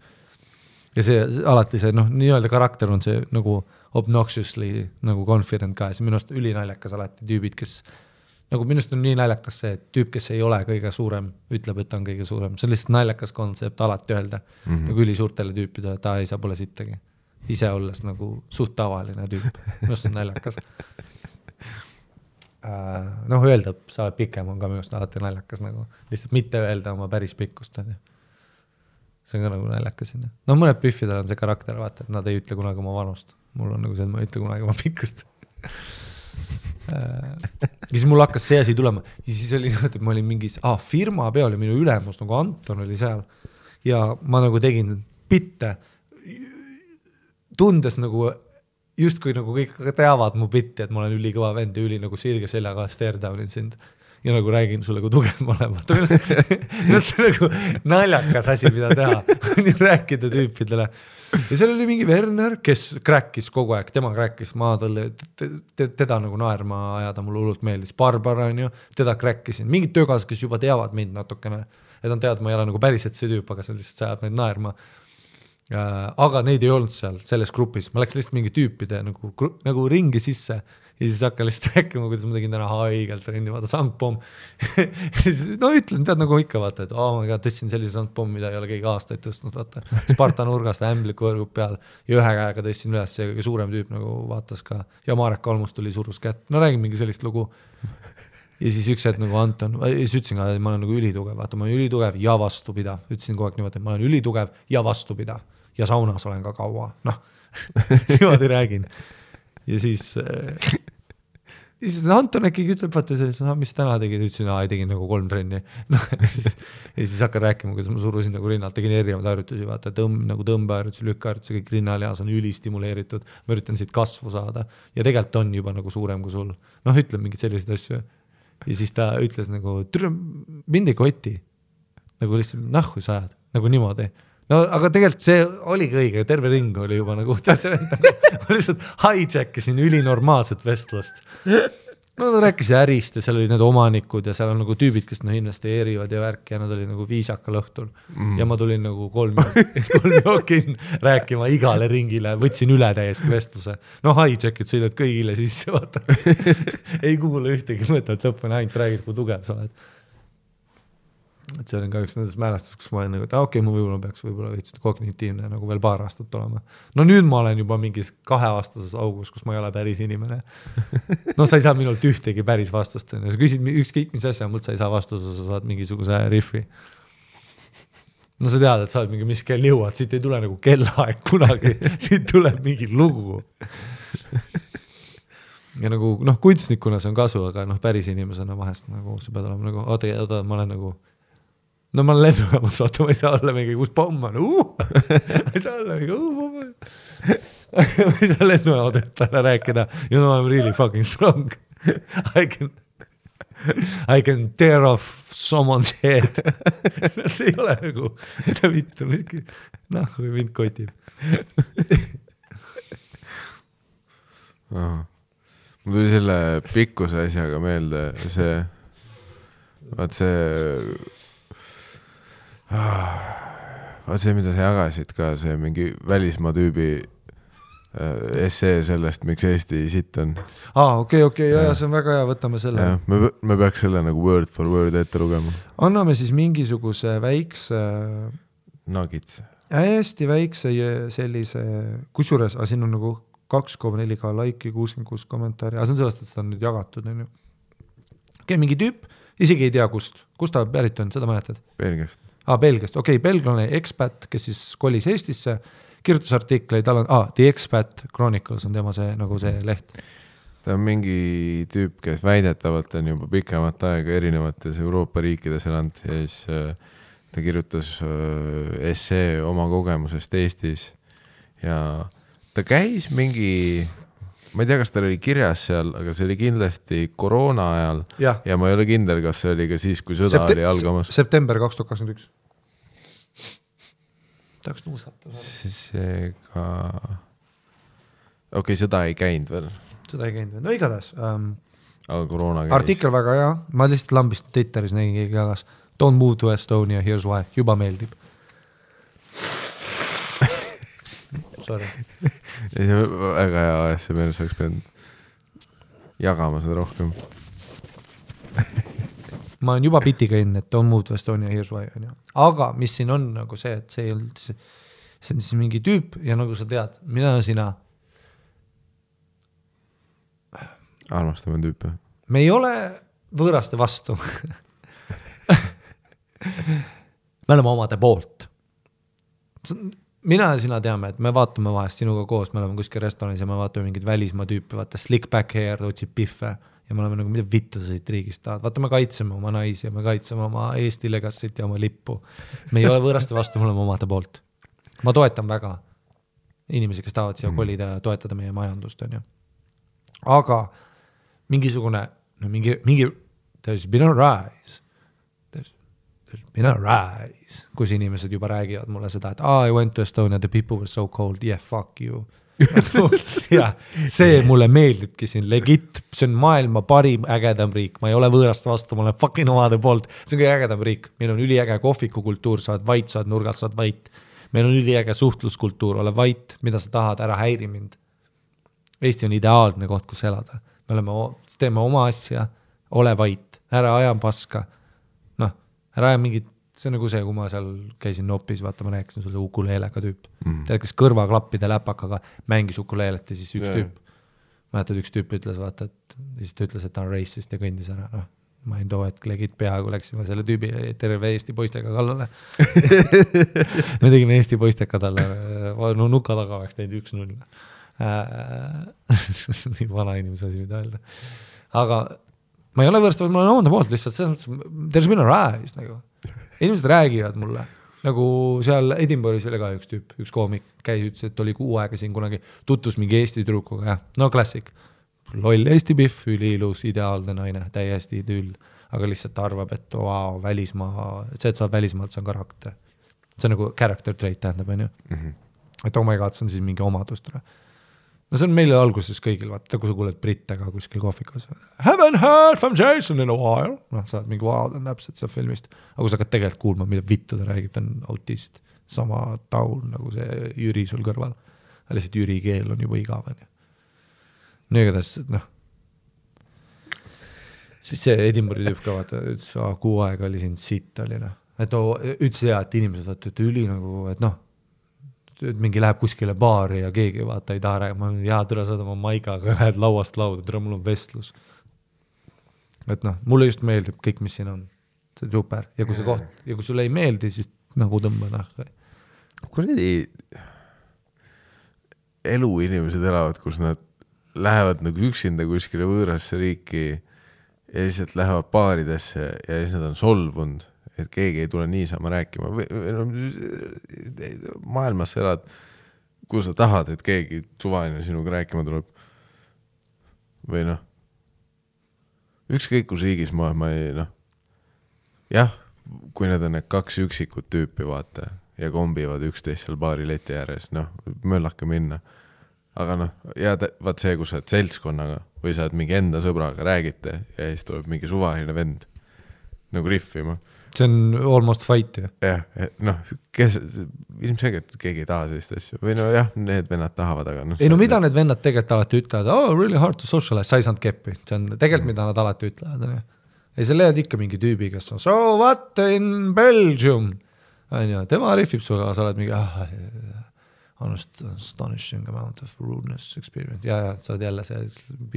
Speaker 1: Ja see alati see, noh, nii-öelda karakter on see nagu obnoxiously nagu confident ka. See minust ülinaljakas alati tüübid, kes nagu minust on nii naljakas see tüüp, kes ei ole kõige suurem, ütleb, et on kõige suurem. See on lihtsalt naljakas kontsept alati öelda. Nagu üli suurtele tüüpidele, ta ei saa pole sittagi. Ise olles nagu suht tavaline tüüp. Minust on naljakas. Noh, öelda, sa oled pikem, on ka minust alati naljakas nagu. Lihtsalt mitte öelda oma päris pikkust. On ju. See on ka nagu naljakas. No mõned piffidel on see karakter, vaata, et nad ei ütle kunagi oma vanust. Mul on nagu see, et ma ei ütle kunagi oma pikkust. Ja siis mul hakkas see asi tulema. Ja siis oli nii, et ma olin mingis firma peal ja minu ülemus, nagu Anton oli seal. Ja ma nagu tegin bitte, tundes nagu just kui nagu kõik teavad mu bitti, et ma olen ülikõva vend ja üli nagu sirge seljaga stare down'in sind. ja nagu räägin sulle, kui tugev ma olen. Minu see nagu naljakas asi, mida teha, rääkida tüüpidele. Ja seal oli mingi Werner, kes kräkkis kogu aeg, tema kräkkis, ma teda nagu naerma ajada, mulle hullult meeldis. Barbara on ju, teda kräkkisin. Mingid töökaasad, kes juba teavad mind natukene, et on tead, ma ei ole nagu päriselt see tüüp, aga see lihtsalt sajab neid naerma. Aga neid ei olnud seal, selles grupis. Ma läks lihtsalt mingi tüüpide nagu ringi sisse ja siis hakka lihtsalt rääkima, kuidas ma tegin täna haigelt trenni, vaata sangpomm. No ütlen, tead nagu ikka vaata, et tõstsin sellise sangpomm, mida ei ole keegi aastaid tõstnud, vaata. Sparta nurgast ämbliku võrgub peal ja ühe käega tõstsin üles ja kõige suurem tüüp nagu vaatas ka ja Marek Kalmus tuli surus kätt. No räägin mingi sellist lugu. Ja siis üks hetk nagu Anton, ja siis ütlesin ka, et ma olen nagu ülitugev, vaata ma olen ülitugev ja vastupidav. Ütlesin kogu aeg niimoodi, et ma olen ülitugev ja vastupidav ja saunas olen ka kaua. Noh, niimoodi räägin. Ja siis Anton äkki ütleb, vaata selles, mis täna tegin, ütlesin, ei tegin nagu 3 trenni. No, ja siis hakkan rääkima, kuidas ma surusin nagu rinnalt, tegin erinevad harjutusi, vaata nagu tõmbeharjutusi, lükkaharjutusi, kõik rinnalihas on ülistimuleeritud, ma üritan siit kasvu saada ja tegelikult on juba nagu suurem kui sul. Noh, ütleb mingid sellised asju. Ja siis ta ütles nagu, mind ei koti, nagu lihtsalt nahku sa ajad, nagu niimoodi. No aga tegelikult see oligi õige, terve ring oli juba nagu, ma lihtsalt hijackisin ülinormaalset vestlust. No ta rääkis ärist ja seal olid need omanikud ja seal on nagu tüübid, kes investeerivad ja värk ja nad olid nagu viisakal õhtul. Ja ma tulin nagu 3 jokin rääkima igale ringile, võtsin üle täiesti vestluse. No hijackid sõidad kõigile sisse, vaata. Ei kuule ühtegi mõtet, lõpuni ainult räägid, kui tugev sa oled. Et see on ka üks nendest mälestus, kus ma olen nagu, et okei, ma peaks veits kognitiivne nagu veel 2 aastat olema. No nüüd ma olen juba mingis 2-aastases augus, kus ma ei ole päris inimene. No sa ei saa minult ühtegi päris vastust. Sa küsid ükskõik mis asja, mult sa ei saa vastust, sa saad mingisuguse riffi. No sa tead, et sa oled mingi mis kell jõuad, siit ei tule nagu kellaaeg kunagi, siit tuleb mingi lugu. Ja nagu, kunstnikuna see on kasu, aga päris inimesena vahest nagu sa pead olema nagu, oota, ma olen nagu no ma olen lennujaamas, vaata, ma ei saa olla mingi, kus pomm on, ma ei saa olla mingi, pomm on. Ma ei saa lennujaamadetele rääkida, you know, I'm really fucking strong. I can tear off someone's head. See ei ole nagu, mida vittu, kui mind kotib.
Speaker 2: Mul tuli selle pikkuse asjaga meelde, vaat see, mida sa jagasid ka, see mingi välismaa tüübi essee sellest, miks Eesti sitt on.
Speaker 1: Okei, ja see on väga hea, võtame selle.
Speaker 2: Ja, me peaks selle nagu word for word ette lugema.
Speaker 1: Anname siis mingisuguse väikse
Speaker 2: Nugits.
Speaker 1: Hästi väikse sellise, kusjuures, siin on nagu 2,4K laiki, 66 kommentaari, see on sellest, et seda on nüüd jagatud. Okei, mingi tüüp, isegi ei tea kust ta pärit on, seda mäletad?
Speaker 2: Belgiast.
Speaker 1: Belgiast, belglane expat, kes siis kolis Eestisse, kirjutas artikleid, The Expat Chronicles on tema see, nagu see leht.
Speaker 2: Ta on mingi tüüp, kes väidetavalt on juba pikemat aega erinevates Euroopa riikides elanud ja siis ta kirjutas essee oma kogemusest Eestis ja ta käis mingi, ma ei tea, kas ta oli kirjas seal, aga see oli kindlasti koroona ajal ja ma ei ole kindel, kas see oli ka siis, kui sõda oli algamas.
Speaker 1: September 2021. Tahaks nuusata.
Speaker 2: Seega sõda ei käinud veel.
Speaker 1: Seda ei käinud veel, no igatahes.
Speaker 2: Aga koroona käis.
Speaker 1: Artikkel väga hea, ma lihtsalt lambist Twitteris nägin keegi jagas. Don't move to Estonia, here's why. Juba meeldib. Sorry.
Speaker 2: Väga hea ASMR, sa oleks pidanud jagama seda rohkem.
Speaker 1: Ma olen juba piti käinud, et don't move to Estonia, here's why. Aga mis siin on nagu see, et see on siis mingi tüüp ja nagu sa tead, mina ja sina
Speaker 2: armastame tüüpe.
Speaker 1: Me ei ole võõraste vastu. Me oleme omade poolt. Mina ja sina teame, et me vaatame vahest sinuga koos, me oleme kuskil restoranis ja me vaatame mingid välismaa tüüpi, vaata slick back hair, otsib piffe ja me oleme nagu, mida vittu sa siit riigist tahad. Vaata, me kaitseme oma naisi ja me kaitseme oma Eesti legassit ja oma lippu. Me ei ole võõraste vastu, me oleme omade poolt. Ma toetan väga inimesi, kes tahavad siia kolida ja toetada meie majandust. On ju. Aga mingisugune, mingi there's been a rise. There's been a rise. Kus inimesed juba räägivad mulle seda, et I went to Estonia, the people were so cold, yeah, fuck you. Ja, see mulle meeldibki siin legit, see on maailma parim ägedam riik, ma ei ole võõrast vastu, ma olen fucking omade poolt, see on kõige ägedam riik, meil on üliäge kohvikukultuur, saad vait, saad nurgast, saad vait, meil on üliäge suhtluskultuur, ole vait, mida sa tahad, ära häiri mind. Eesti on ideaalne koht, kus elada, teeme oma asja, ole vait, ära aja paska, noh, ära aja mingit, see on nagu see, kui ma seal käisin Nopis, vaata, ma rääkisin sulle ukuleelega tüüp. Tead, kes kõrvaklappide läpakaga mängis ukuleelet ja siis üks tüüp, mäletad, üks tüüp ütles, vaata, et siis ta ütles, et ta on racist ja kõndis ära, noh, ma ei too, et legit peaaegu läksime selle tüübi terve Eesti poistega kallale. Me tegime Eesti poisteka talle, no nuka taga oleks teinud 1-0. Nii vana inimese asi, mida öelda. Aga ma ei ole võrst, ma olen oonda poolt lihtsalt, there's been a rise, nagu. Inimesed räägivad mulle, nagu seal Edinburghis oli ka üks tüüp, üks koomik käis, ütles, et oli 6 aega siin kunagi, tutvus mingi Eesti tüdrukuga, jah, no klassik, loll Eesti pihv, üliilus, ideaalne naine, täiesti idüll, aga lihtsalt arvab, et wow, välismaa, et see, et sa oled välismaalt, see on karakter. See on nagu character trait tähendab, on ju? Et oh my god, see on siis mingi omadust. No see on meile alguses kõigil, vaata, kui sa kuuled brittega kuskil kohvikas. Haven't heard from Jason in a while. Noh, sa oled mingi wow, ta on täpselt seal filmist. Aga kui sa hakkad tegelikult kuulma, mida vittu ta räägib, ta on autist. Sama taun nagu see Jüri sul kõrval. Lihtsalt Jüri keel on juba igav. Nii igatahes, noh. Siis see Edinburghi tüüp ka vaata, ütles, 6 aega oli siin sitt oli. Et ütles hea, et inimesed vaata, et üli nagu, et noh, mingi läheb kuskile baari ja keegi vaata ei taha räägima, jaa, türa saad oma maigaga, lähed lauast lauda, türa mul on vestlus. Et noh, mulle just meeldib kõik, mis siin on. See on super. Ja kui see koht, ja kui sulle ei meeldi, siis nagu tõmba nahka.
Speaker 2: Kuradi elu inimesed elavad, kus nad lähevad nagu üksinda kuskile võõrasse riiki ja lihtsalt lähevad baaridesse ja siis nad on solvunud, et keegi ei tule niisama rääkima. Maailmas elad, kui sa tahad, et keegi suvaline sinuga rääkima tuleb. Või noh, ükskõik kus riigis ma ei, noh, jah, kui need on need 2 üksikut tüüpi, vaata, ja kombivad üksteist seal baari leti ääres, noh, möllake minna. Aga noh, ja vaat see, kus sa oled seltskonnaga või sa oled mingi enda sõbraga, räägite ja siis tuleb mingi suvaline vend nagu riffima.
Speaker 1: See on almost fight, ju.
Speaker 2: Jah, noh, ilmselgelt keegi ei taha sellist asju. Või no jah, need vennad tahavad, aga noh.
Speaker 1: Ei no mida need vennad tegelikult alati ütlevad? Oh, really hard to socialize, sa ei saanud keppi. See on tegelikult, mida nad alati ütlevad. Ei, sa leiad ikka mingi tüübi, kes on so what in Belgium? Tema riffib suga, sa oled mingi astonishing amount of rudeness experience. Ja, sa oled jälle see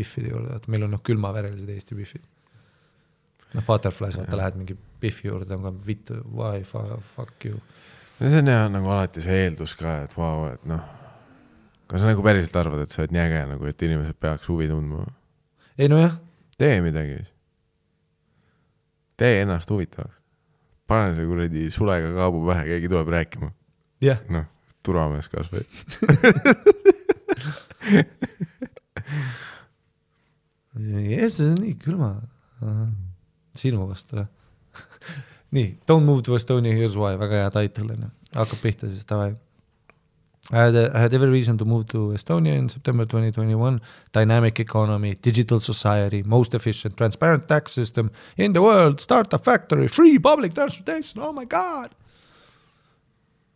Speaker 1: biffide juurde, et meil on külmaverelised Eesti biffid. Noh, Butterflies, vaata, lähed mingi biffi juurde, on ka vittu, why, fuck you.
Speaker 2: See on jah nagu alati see eeldus ka, et wow, et noh, kas sa nagu päriselt arvad, et sa oled jäge, nagu, et inimesed peaks huvi tundma?
Speaker 1: Ei no jah.
Speaker 2: Tee midagi. Tee ennast huvitavaks. Pane see kuradi sulega kaabu pähe, keegi tuleb rääkima.
Speaker 1: Jah.
Speaker 2: Noh, turvamees kas või.
Speaker 1: See on nii külma. Sinu vastu. Nii, Don't Move to Estonia, Here's Why, väga hea title. Hakkab pihta siis tavai. I had every reason to move to Estonia in September 2021. Dynamic economy, digital society, most efficient, transparent tax system in the world, start a factory, free public transportation, oh my god.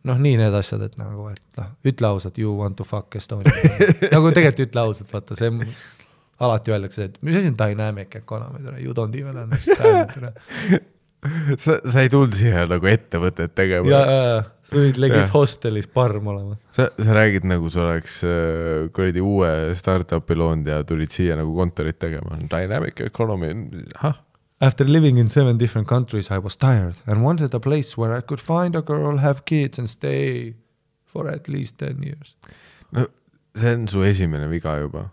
Speaker 1: Noh, nii need asjad, et nagu, et noh, ütle ausalt, you want to fuck Estonia. Nagu tegelikult ütle ausalt, vaata, see alati öeldakse, et mis asi on dynamic economy, you don't even understand.
Speaker 2: Sa ei tulnud siia nagu ettevõtet tegema.
Speaker 1: Ja, sa võid legit hostelis parm olema.
Speaker 2: Sa räägid nagu sa oleks kuradi uue startupi loonud ja tulid siia nagu kontorit tegema. Dynamic economy,
Speaker 1: After living in 7 different countries, I was tired and wanted a place where I could find a girl, have kids and stay for at least 10 years.
Speaker 2: No, see on su esimene viga juba.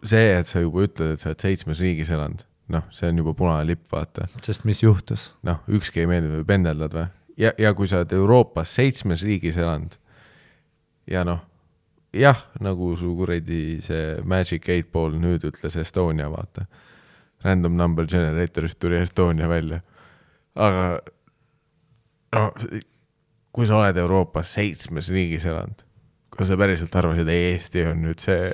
Speaker 2: See, et sa juba ütled, et sa oled 7 riigis elanud, noh, see on juba punane lipp, vaata.
Speaker 1: Sest mis juhtus?
Speaker 2: Noh, ükski ei meeldi või pendeldad või? Ja kui sa oled Euroopas 7 riigis elanud ja noh, jah, nagu su kuradi see Magic 8 Ball nüüd ütles Estonia, vaata. random number generatorist tuli Estonia välja. Aga no, kui sa oled Euroopas 7 riigis elanud, kui sa päriselt arvasid, et Eesti on nüüd see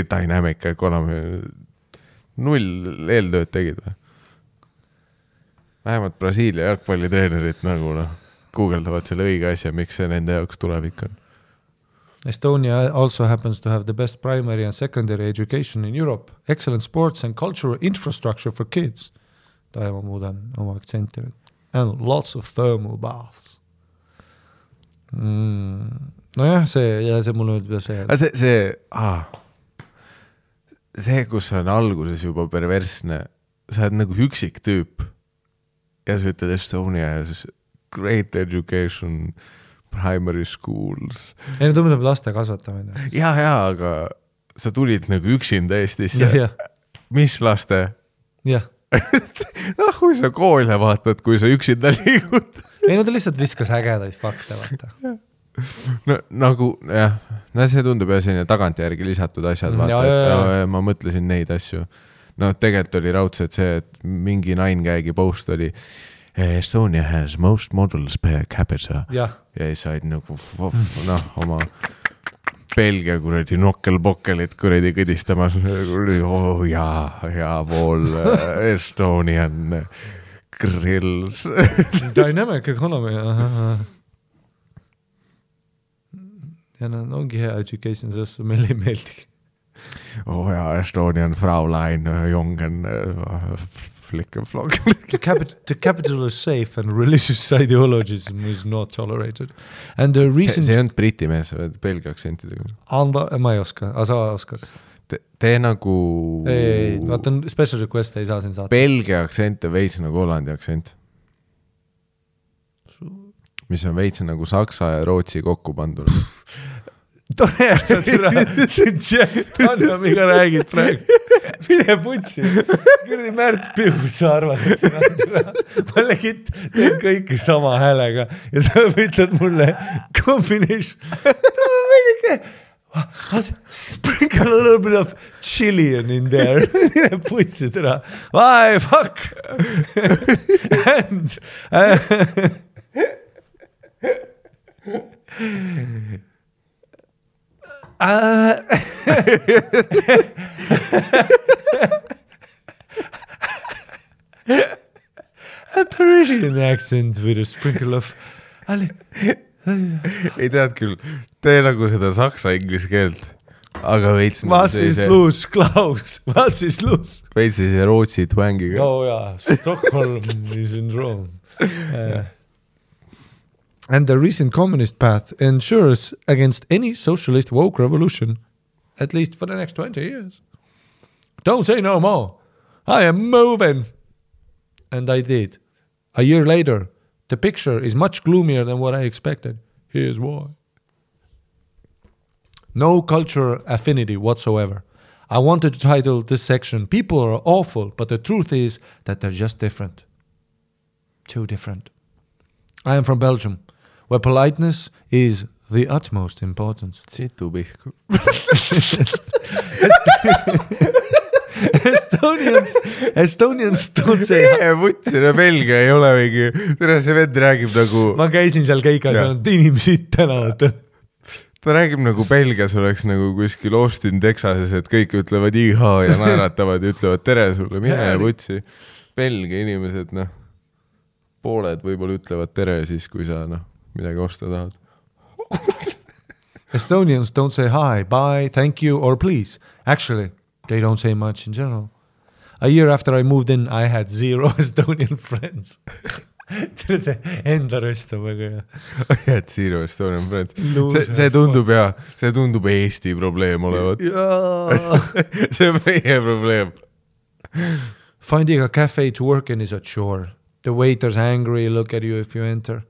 Speaker 2: dynamic economy, 0 eeltööd tegid või? Vähemalt Brasiilia jalgpallitreenerid nagu guugeldavad selle õige asja, miks see nende jaoks tulevik on.
Speaker 1: Estonia also happens to have the best primary and secondary education in Europe, excellent sports and cultural infrastructure for kids. Ma muudan oma aktsenti nüüd. And lots of thermal baths. Nojah, see mulle ütleb see.
Speaker 2: See, kus on alguses juba perversne, sa oled nagu üksik tüüp ja sa ütled Estonia ja siis great education, primary schools.
Speaker 1: Ei, tundub laste kasvatamine.
Speaker 2: Ja, aga sa tulid nagu üksinda Eestisse. Ja. Mis laste?
Speaker 1: Jah.
Speaker 2: Kui sa koole vaatad, kui sa üksinda liigud.
Speaker 1: Ei, ta lihtsalt viskas ägedaid fakte, vaata.
Speaker 2: No nagu, jah, see tundub ja selline tagantjärgi lisatud asjad, vaata, et ma mõtlesin neid asju. No tegelikult oli raudselt see, et mingi 9gagi post oli Estonia has most models per capita. Ja said nagu, oma Belgia kuradi nokkel-bokkelit kuradi kõdistamas. Ja pool Estonian grills.
Speaker 1: Dynamic economy. Ja ongi hea education, sest meile ei meeldigi.
Speaker 2: Estonian Fraulein, Jongen, flick-and-flock.
Speaker 1: The capital is safe and religious ideologism is not tolerated. And the recent...
Speaker 2: See on briti mees, belgia aktsentidega.
Speaker 1: Ma ei oska, aga sa oskaks.
Speaker 2: Tee nagu...
Speaker 1: Ei, vaata on special request, ei saa siin saata.
Speaker 2: Belgia aktsent on veits nagu Hollandi aktsent. Mis on veits nagu Saksa ja Rootsi kokku pandud.
Speaker 1: Tore, et sa türa Jeff Tanjamiga räägid praegu. Mine putsi. Kurdi Märt Piu, sa arvad, et sina türa. Ma legit teen kõike sama häälega ja sa ütled mulle combination. Sprinkle a little bit of Chilean in there. Mine putsi türa. Why, fuck. And... a Parisian accent with a sprinkle of
Speaker 2: ei tead küll, tee nagu seda saksa-inglis keelt, aga veits
Speaker 1: was is loose, Klaus, was is loose
Speaker 2: veits see Rootsi twängiga.
Speaker 1: Stockholm is in Rome. And the recent communist path ensures against any socialist woke revolution, at least for the next 20 years. Don't say no more. I am moving. And I did. A year later, the picture is much gloomier than what I expected. Here's why. No cultural affinity whatsoever. I wanted to title this section, People are awful, but the truth is that they're just different. Too different. I am from Belgium, where politeness is the utmost importance.
Speaker 2: Situ pihku.
Speaker 1: Estonians don't say...
Speaker 2: Võtsina Belgia ei ole mingi... Tere, see vend räägib nagu...
Speaker 1: Ma käisin seal keikas ja on inimesed tänavad.
Speaker 2: Ta räägib nagu Belgias oleks nagu kuskil Austin, Texases, et kõik ütlevad iha ja naeratavad ja ütlevad tere sulle, mine ja võtsi. Belgia inimesed, pooled võib-olla ütlevad tere siis, kui sa midagi osta tahad.
Speaker 1: Estonians don't say hi, bye, thank you or please. Actually, they don't say much in general. A year after I moved in, I had 0 Estonian friends. See enda röstab väga hea.
Speaker 2: I had 0 Estonian friends. See tundub hea, see tundub Eesti probleem olevat. See on meie probleem.
Speaker 1: Finding a cafe to work in is a chore. The waiter's angry, look at you if you enter.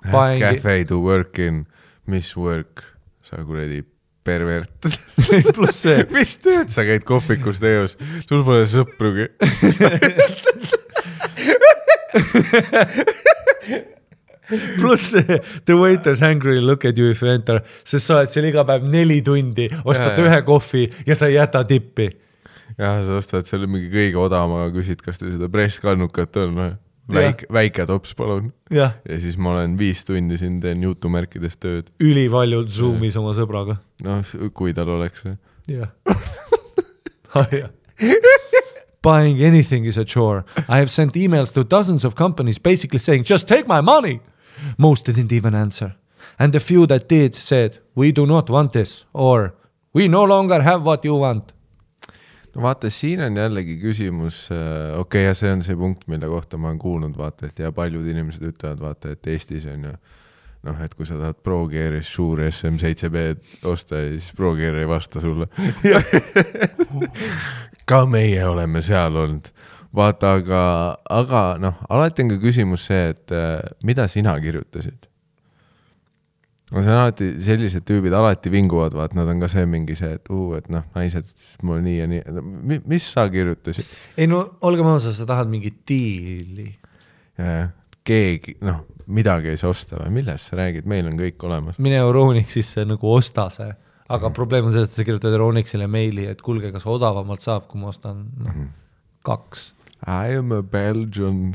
Speaker 2: Cafe to work in, mis work, sa kuradi pervert.
Speaker 1: Plus see.
Speaker 2: Mis tööd sa käid kohvikus teos? Sul pole sõprugi.
Speaker 1: Plus see, the waiter's angry, look at you if you enter. Sest sa oled seal iga päev 4 tundi, ostad 1 kohvi ja sa ei jäta tippi.
Speaker 2: jah, sa ostad selle mingi kõige odavama, küsid, kas teil seda presskannukat on, väike tops palun. Ja siis ma olen 5 tundi siin teen jutumärkides tööd.
Speaker 1: Ülivaljult Zoomis oma sõbraga.
Speaker 2: No, kui tal oleks.
Speaker 1: Jah. Buying anything is a chore. I have sent emails to dozens of companies basically saying, just take my money. Most didn't even answer. And the few that did said, we do not want this, or we no longer have what you want.
Speaker 2: No vaata, siin on jällegi küsimus, okei, ja see on see punkt, mille kohta ma olen kuulnud, vaata, et ja paljud inimesed ütlevad, vaata, et Eestis on ju, noh, et kui sa tahad ProGear'is suur SM7B osta, siis ProGear ei vasta sulle. Ka meie oleme seal olnud. Vaata, aga noh, alati on ka küsimus see, et mida sina kirjutasid? No see on alati, sellised tüübid alati vinguvad, vaat nad on ka see mingi see, et noh, naised mul nii ja nii. Mis sa kirjutasid?
Speaker 1: Ei no, olge maasa, sa tahad mingi diili.
Speaker 2: Keegi, noh, midagi ei saa osta või millest sa räägid, meil on kõik olemas.
Speaker 1: Mine Euronixisse nagu osta see, aga probleem on see, et sa kirjutad Euronixile meili, et kuulge, kas odavamalt saab, kui ma ostan 2.
Speaker 2: I am a Belgian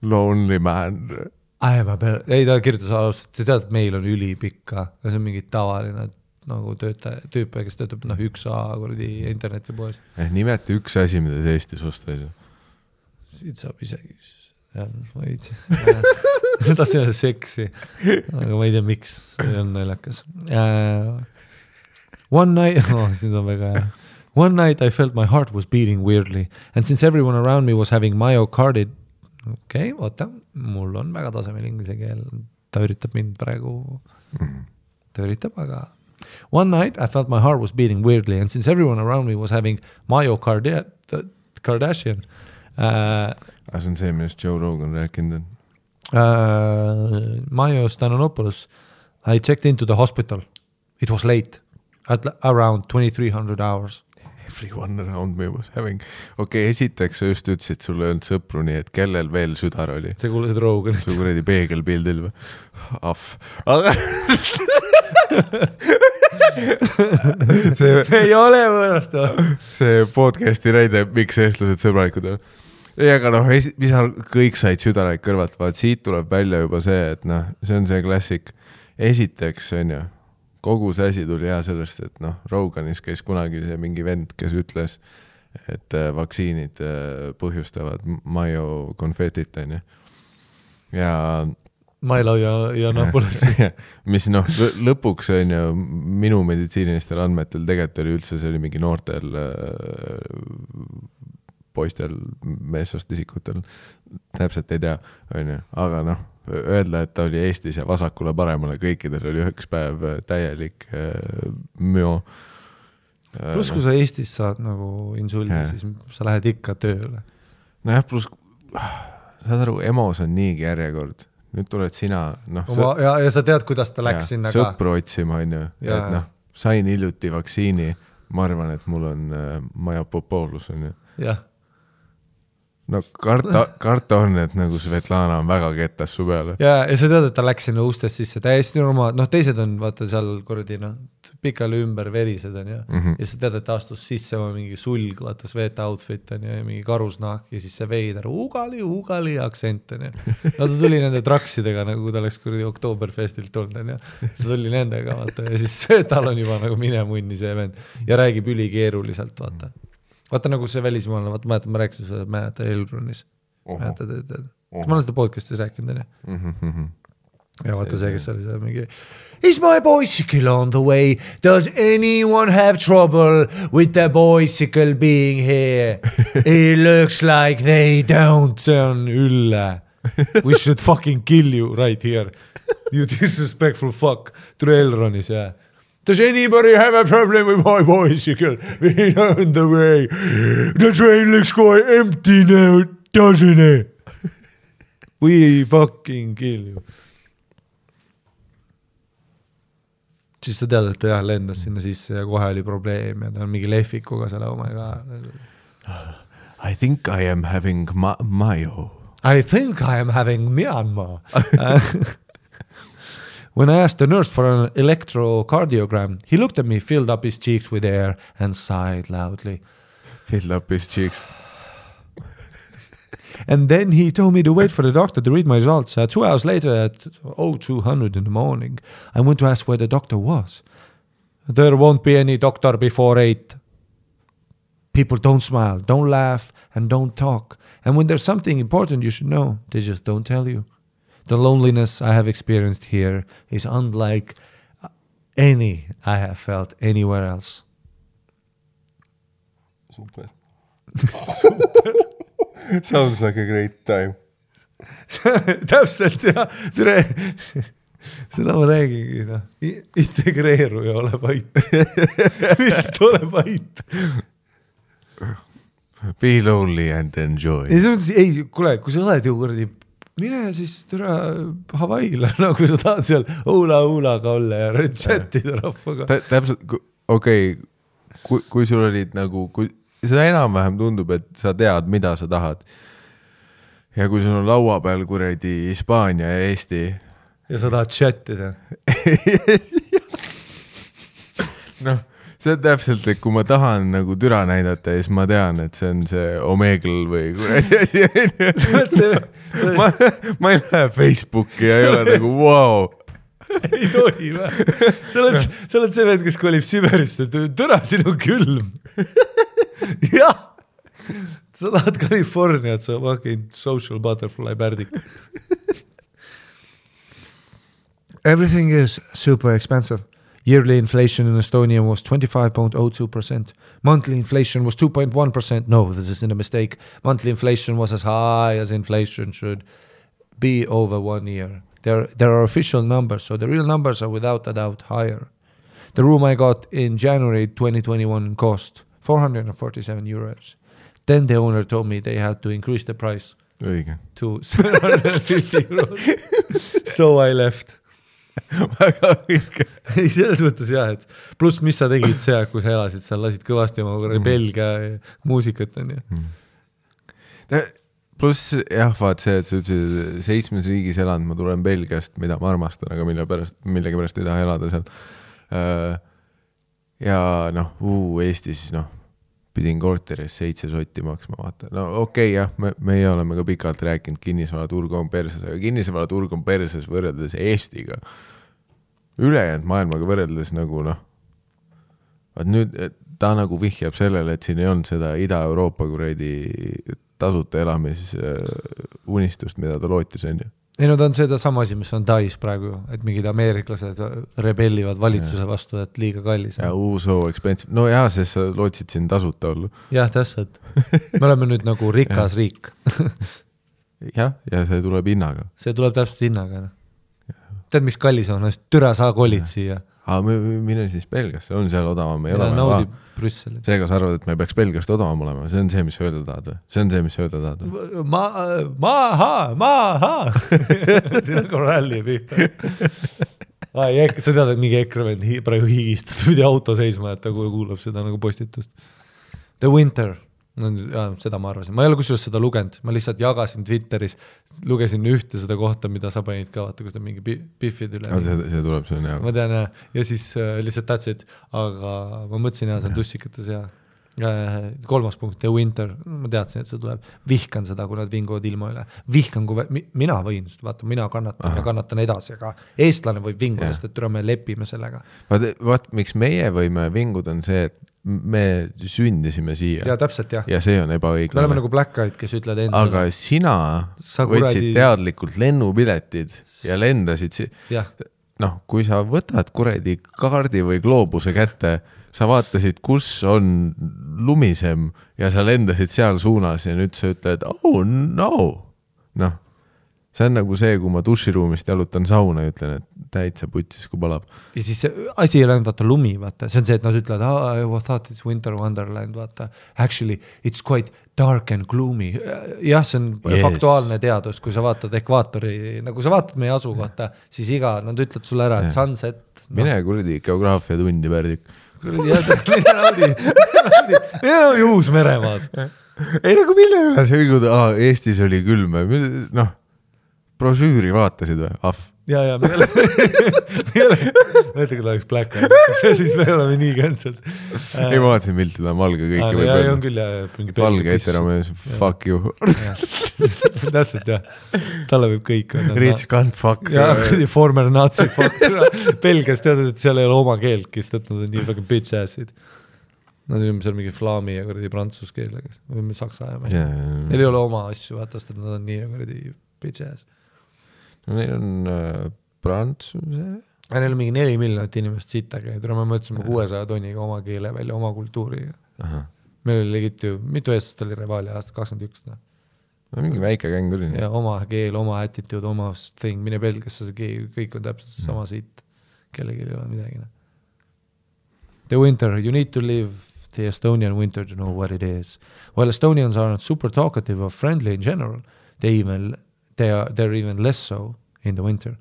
Speaker 2: lonely man.
Speaker 1: Ei, ta kirjutas alustada, te tead, et meil on ülipikka ja see on mingi tavaline nagu tüüpe, kes töötab 1A internetipoes.
Speaker 2: Nimeta üks asi, mida see Eestis osta ei saa.
Speaker 1: Siit saab isegi ma ei tea. Ta see on seksi, aga ma ei tea, miks see on naljakas. One night I felt my heart was beating weirdly and since everyone around me was having myocarditis okei, oota, mul on väga tasemel inglise keel, ta üritab mind praegu, ta üritab, aga one night I felt my heart was beating weirdly and since everyone around me was having myocarditis, Kardashian.
Speaker 2: See on see, millest Joe Rogan rääkinud on.
Speaker 1: Mayo Stanonopoulos, I checked into the hospital. It was late, at around 2300 hours.
Speaker 2: Everyone around me was having... Okei, esiteks sa just ütlesid, sulle öelnud sõpru nii, et kellel veel südar oli?
Speaker 1: Sa kuulasid Roganit.
Speaker 2: Su kuredi peegelpildil või? Aga...
Speaker 1: see ei ole võõrast.
Speaker 2: See podcasti näide, miks eestlased sõbralikud on. Ei, aga noh, kõik said südaraid kõrvalt, vaat siit tuleb välja juba see, et noh, see on see klassik. Esiteks on ju, kogu see asi tuli hea sellest, et noh, Roganis käis kunagi see mingi vend, kes ütles, et vaktsiinid põhjustavad myokonfetit, on ju. Ja...
Speaker 1: Mailo ja Napolis.
Speaker 2: Mis noh, lõpuks on ju minu meditsiinilistel andmetel tegelikult oli üldse, see oli mingi noortel poistel, meessoost isikutel, täpselt ei tea, on ju, aga noh, öelda, et ta oli Eestis ja vasakule paremale, kõikidel oli 1 päev täielik müo.
Speaker 1: Plus, kui sa Eestis saad nagu insuldi, siis sa lähed ikka tööle.
Speaker 2: Nojah, plus, saad aru, EMO-s on niigi järjekord. Nüüd tuled sina... No,
Speaker 1: ja sa tead, kuidas ta läks sinna ka.
Speaker 2: Sõpru otsima, on ju. Et noh, sain hiljuti vaktsiini, ma arvan, et mul on majapopoolus, on ju.
Speaker 1: Jah.
Speaker 2: No karta on, et nagu Svetlana on väga kettas su peale.
Speaker 1: Ja sa tead, et ta läks sinna ustest sisse, täiesti normaal, noh teised on vaata seal kordi, noh, pikali ümber verised on ja ja sa tead, et ta astus sisse mingi sulg, vaata Sveta outfit on ja mingi karusnahk ja siis see veider ugali aktsent on ja no ta tuli nende traksidega, nagu ta läks kordi Oktoberfestilt tulnud on ja ta tuli nendega, vaata ja siis Svetal on juba nagu mine munni see vend ja räägib ülikeeruliselt, vaata. Vaata nagu see välismaalane, vaata, ma rääkisin seda, mäletad Elronis. Ma olen seda podcastis rääkinud, ja vaata see, kes oli see mingi Is my bicycle on the way? Does anyone have trouble with the bicycle being here? It looks like they don't. See on ülle. We should fucking kill you right here. You disrespectful fuck. Tule Elronis, jah. Does anybody have a problem with my bicycle? We're on the way. The train looks quite empty now, doesn't it? We fucking kill you. Siis sa tead, et ta lendas sinna sisse ja kohe oli probleem ja ta on mingi lehvikuga selle omega.
Speaker 2: I think I am having Mayo.
Speaker 1: I think I am having Myanmar. When I asked the nurse for an electrocardiogram, he looked at me, filled up his cheeks with air and sighed loudly.
Speaker 2: Fill up his cheeks.
Speaker 1: And then he told me to wait for the doctor to read my results. 2 hours later at 0200 in the morning, I went to ask where the doctor was. There won't be any doctor before 8. People don't smile, don't laugh, and don't talk. And when there's something important you should know, they just don't tell you. The loneliness I have experienced here is unlike any I have felt anywhere else.
Speaker 2: Super. Sounds like a great time.
Speaker 1: Täpselt jah, tere. Seda ma räägingi, no. Integreeru ja ole vait. Lihtsalt ole vait.
Speaker 2: Be lonely and enjoy.
Speaker 1: Ei, kuule, kui sa oled ju kuradi, mine siis türa Hawaii'le, nagu sa tahad seal hula-hulaga olla ja chatida rahvaga.
Speaker 2: Täpselt, okei, kui sul olid nagu, kui seda enam-vähem tundub, et sa tead, mida sa tahad. Ja kui sul on laua peal kuradi Hispaania ja Eesti.
Speaker 1: Ja sa tahad chatida.
Speaker 2: Noh, see on täpselt, et kui ma tahan nagu türa näidata, siis ma tean, et see on see Omegle või kuradi asi. Ma ei lähe Facebooki ja ei ole nagu wow.
Speaker 1: Ei tohi või? Sa oled see vend, kes kolib Siberisse, türa sinu külm. Jah, sa tahad Californiat, sa fucking social butterfly pärdik. Everything is super expensive. Yearly inflation in Estonia was 25.02%. Monthly inflation was 2.1%. No, this isn't a mistake. Monthly inflation was as high as inflation should be over 1 year. There are official numbers, so the real numbers are without a doubt higher. The room I got in January 2021 cost 447 euros. Then the owner told me they had to increase the price to 750 euros. So I left.
Speaker 2: Väga õige.
Speaker 1: Ei, selles mõttes jah, et pluss mis sa tegid see, kui sa elasid seal, lasid kõvasti oma Belgia muusikat on ju.
Speaker 2: Pluss jah, vaat see, et sa ütlesid 7 riigis elanud, ma tulen Belgiast, mida ma armastan, aga millegi pärast ei taha elada seal. Ja noh, Eestis pidin korteris 7 sotti maksma, vaata. No okei, jah, meie oleme ka pikalt rääkinud, kinnisvaraturg on perses, aga kinnisvaraturg on perses võrreldes Eestiga. Ülejäänud maailmaga võrreldes nagu vaat nüüd ta nagu vihjab sellele, et siin ei olnud seda Ida-Euroopa kuradi tasuta elamis unistust, mida ta lootis on ju.
Speaker 1: Ei, no ta on seda sama asi, mis on Tais praegu, et mingid ameeriklased rebellivad valitsuse vastu, et liiga kallis.
Speaker 2: Ja so expensive. No jah, sest sa lootsid siin tasuta olla.
Speaker 1: Jah, täpselt. Me oleme nüüd nagu rikas riik.
Speaker 2: Jah, ja see tuleb hinnaga.
Speaker 1: See tuleb täpselt hinnaga. Tead, mis kallis on? Türa saa kolid siia.
Speaker 2: Mine siis Belgiasse, on seal odavam.
Speaker 1: Ja naudi Brüsseli.
Speaker 2: Seega sa arvad, et me peaks Belgiast odavam olema. See on see, mis öelda tahad või? See on see, mis öelda tahad või? Maha!
Speaker 1: Siin on korralli pihta. Sa tead, et mingi EKRE vend praegu higistad, pidi auto seisma, et ta kuulab seda nagu postitust. The Winter. No, seda ma arvasin. Ma ei ole kusjuures seda lugenud. Ma lihtsalt jagasin Twitteris, lugesin ühte seda kohta, mida sa panid ka, vaata, kus ta mingi biffid üle.
Speaker 2: See tuleb, see on hea.
Speaker 1: Ma tean, ja siis lihtsalt tahtsid, aga ma mõtlesin, see on tussikates ja 3. punkt, The Winter. Ma teadsin, et see tuleb. Vihkan seda, kui nad vinguvad ilma üle. Vihkan, kui mina võin, vaata, mina kannatan ja kannatan edasi, aga eestlane võib vinguda, sest et me lepime sellega.
Speaker 2: Vaat, miks meie võime vinguda on see, et me sündisime siia.
Speaker 1: Ja täpselt, jah.
Speaker 2: Ja see on ebaõiglane.
Speaker 1: Me oleme nagu Black Eyed, kes ütled enda.
Speaker 2: Aga sina võtsid teadlikult lennupiletid ja lendasid kui sa võtad kuredi kaardi või gloobuse kätte, sa vaatasid, kus on lumisem ja sa lendasid seal suunas ja nüüd sa ütled, oh no. See on nagu see, kui ma duširuumist jalutan sauna ja ütlen, et täitsa putsis, kui palab.
Speaker 1: Ja siis asi ei läinud, vaata, lumi, vaata. See on see, et nad ütlevad, I thought it's winter wonderland, vaata. Actually, it's quite dark and gloomy. Jah, see on faktuaalne teadus, kui sa vaatad ekvaatori, nagu sa vaatad meie asu, vaata, siis nad ütlevad sulle ära, et sunset.
Speaker 2: Mine kuradi geograafia tundi, Pärdik.
Speaker 1: Mine naudi Uus-Meremaad.
Speaker 2: Ei nagu mille üle see vinguda, Eestis oli külm, brošüüri vaatasid või?
Speaker 1: ja me ei ole mõtle, kui ta oleks Black Eyed, siis me oleme nii cancelled.
Speaker 2: Ei, ma vaatasin pilti, ta on valge kõiki võib
Speaker 1: öelda.
Speaker 2: öelda.
Speaker 1: On küll, mingi
Speaker 2: valge eteramees, fuck you.
Speaker 1: Täpselt, jah. Talle võib kõik.
Speaker 2: Rich can't fuck.
Speaker 1: Ja, former nazi fuck. Belgias teadad, et seal ei ole oma keelt, kes nad on nii fucking bitch assid. Nad on seal mingi flaami ja kuradi prantsus keel, või saksa ajame. Neil ei ole oma asju, vaatast, et nad on nii kuradi bitch ass.
Speaker 2: No neil on prantsuse.
Speaker 1: Neil on mingi 4 miljonit inimest sitta käid, me mõtlesime 600 tonniga oma keele välja, oma kultuuri. Meil oli legit ju, mitu eestest oli Revalia aasta 21.
Speaker 2: No mingi väike käng oli.
Speaker 1: Ja oma keel, oma attitude, oma thing, mine Belgiasse, kõik on täpselt sama siit. Kellegi ei ole midagi. The winter, you need to live the Estonian winter to know what it is. While Estonians are not super talkative or friendly in general, they're even less so in the winter.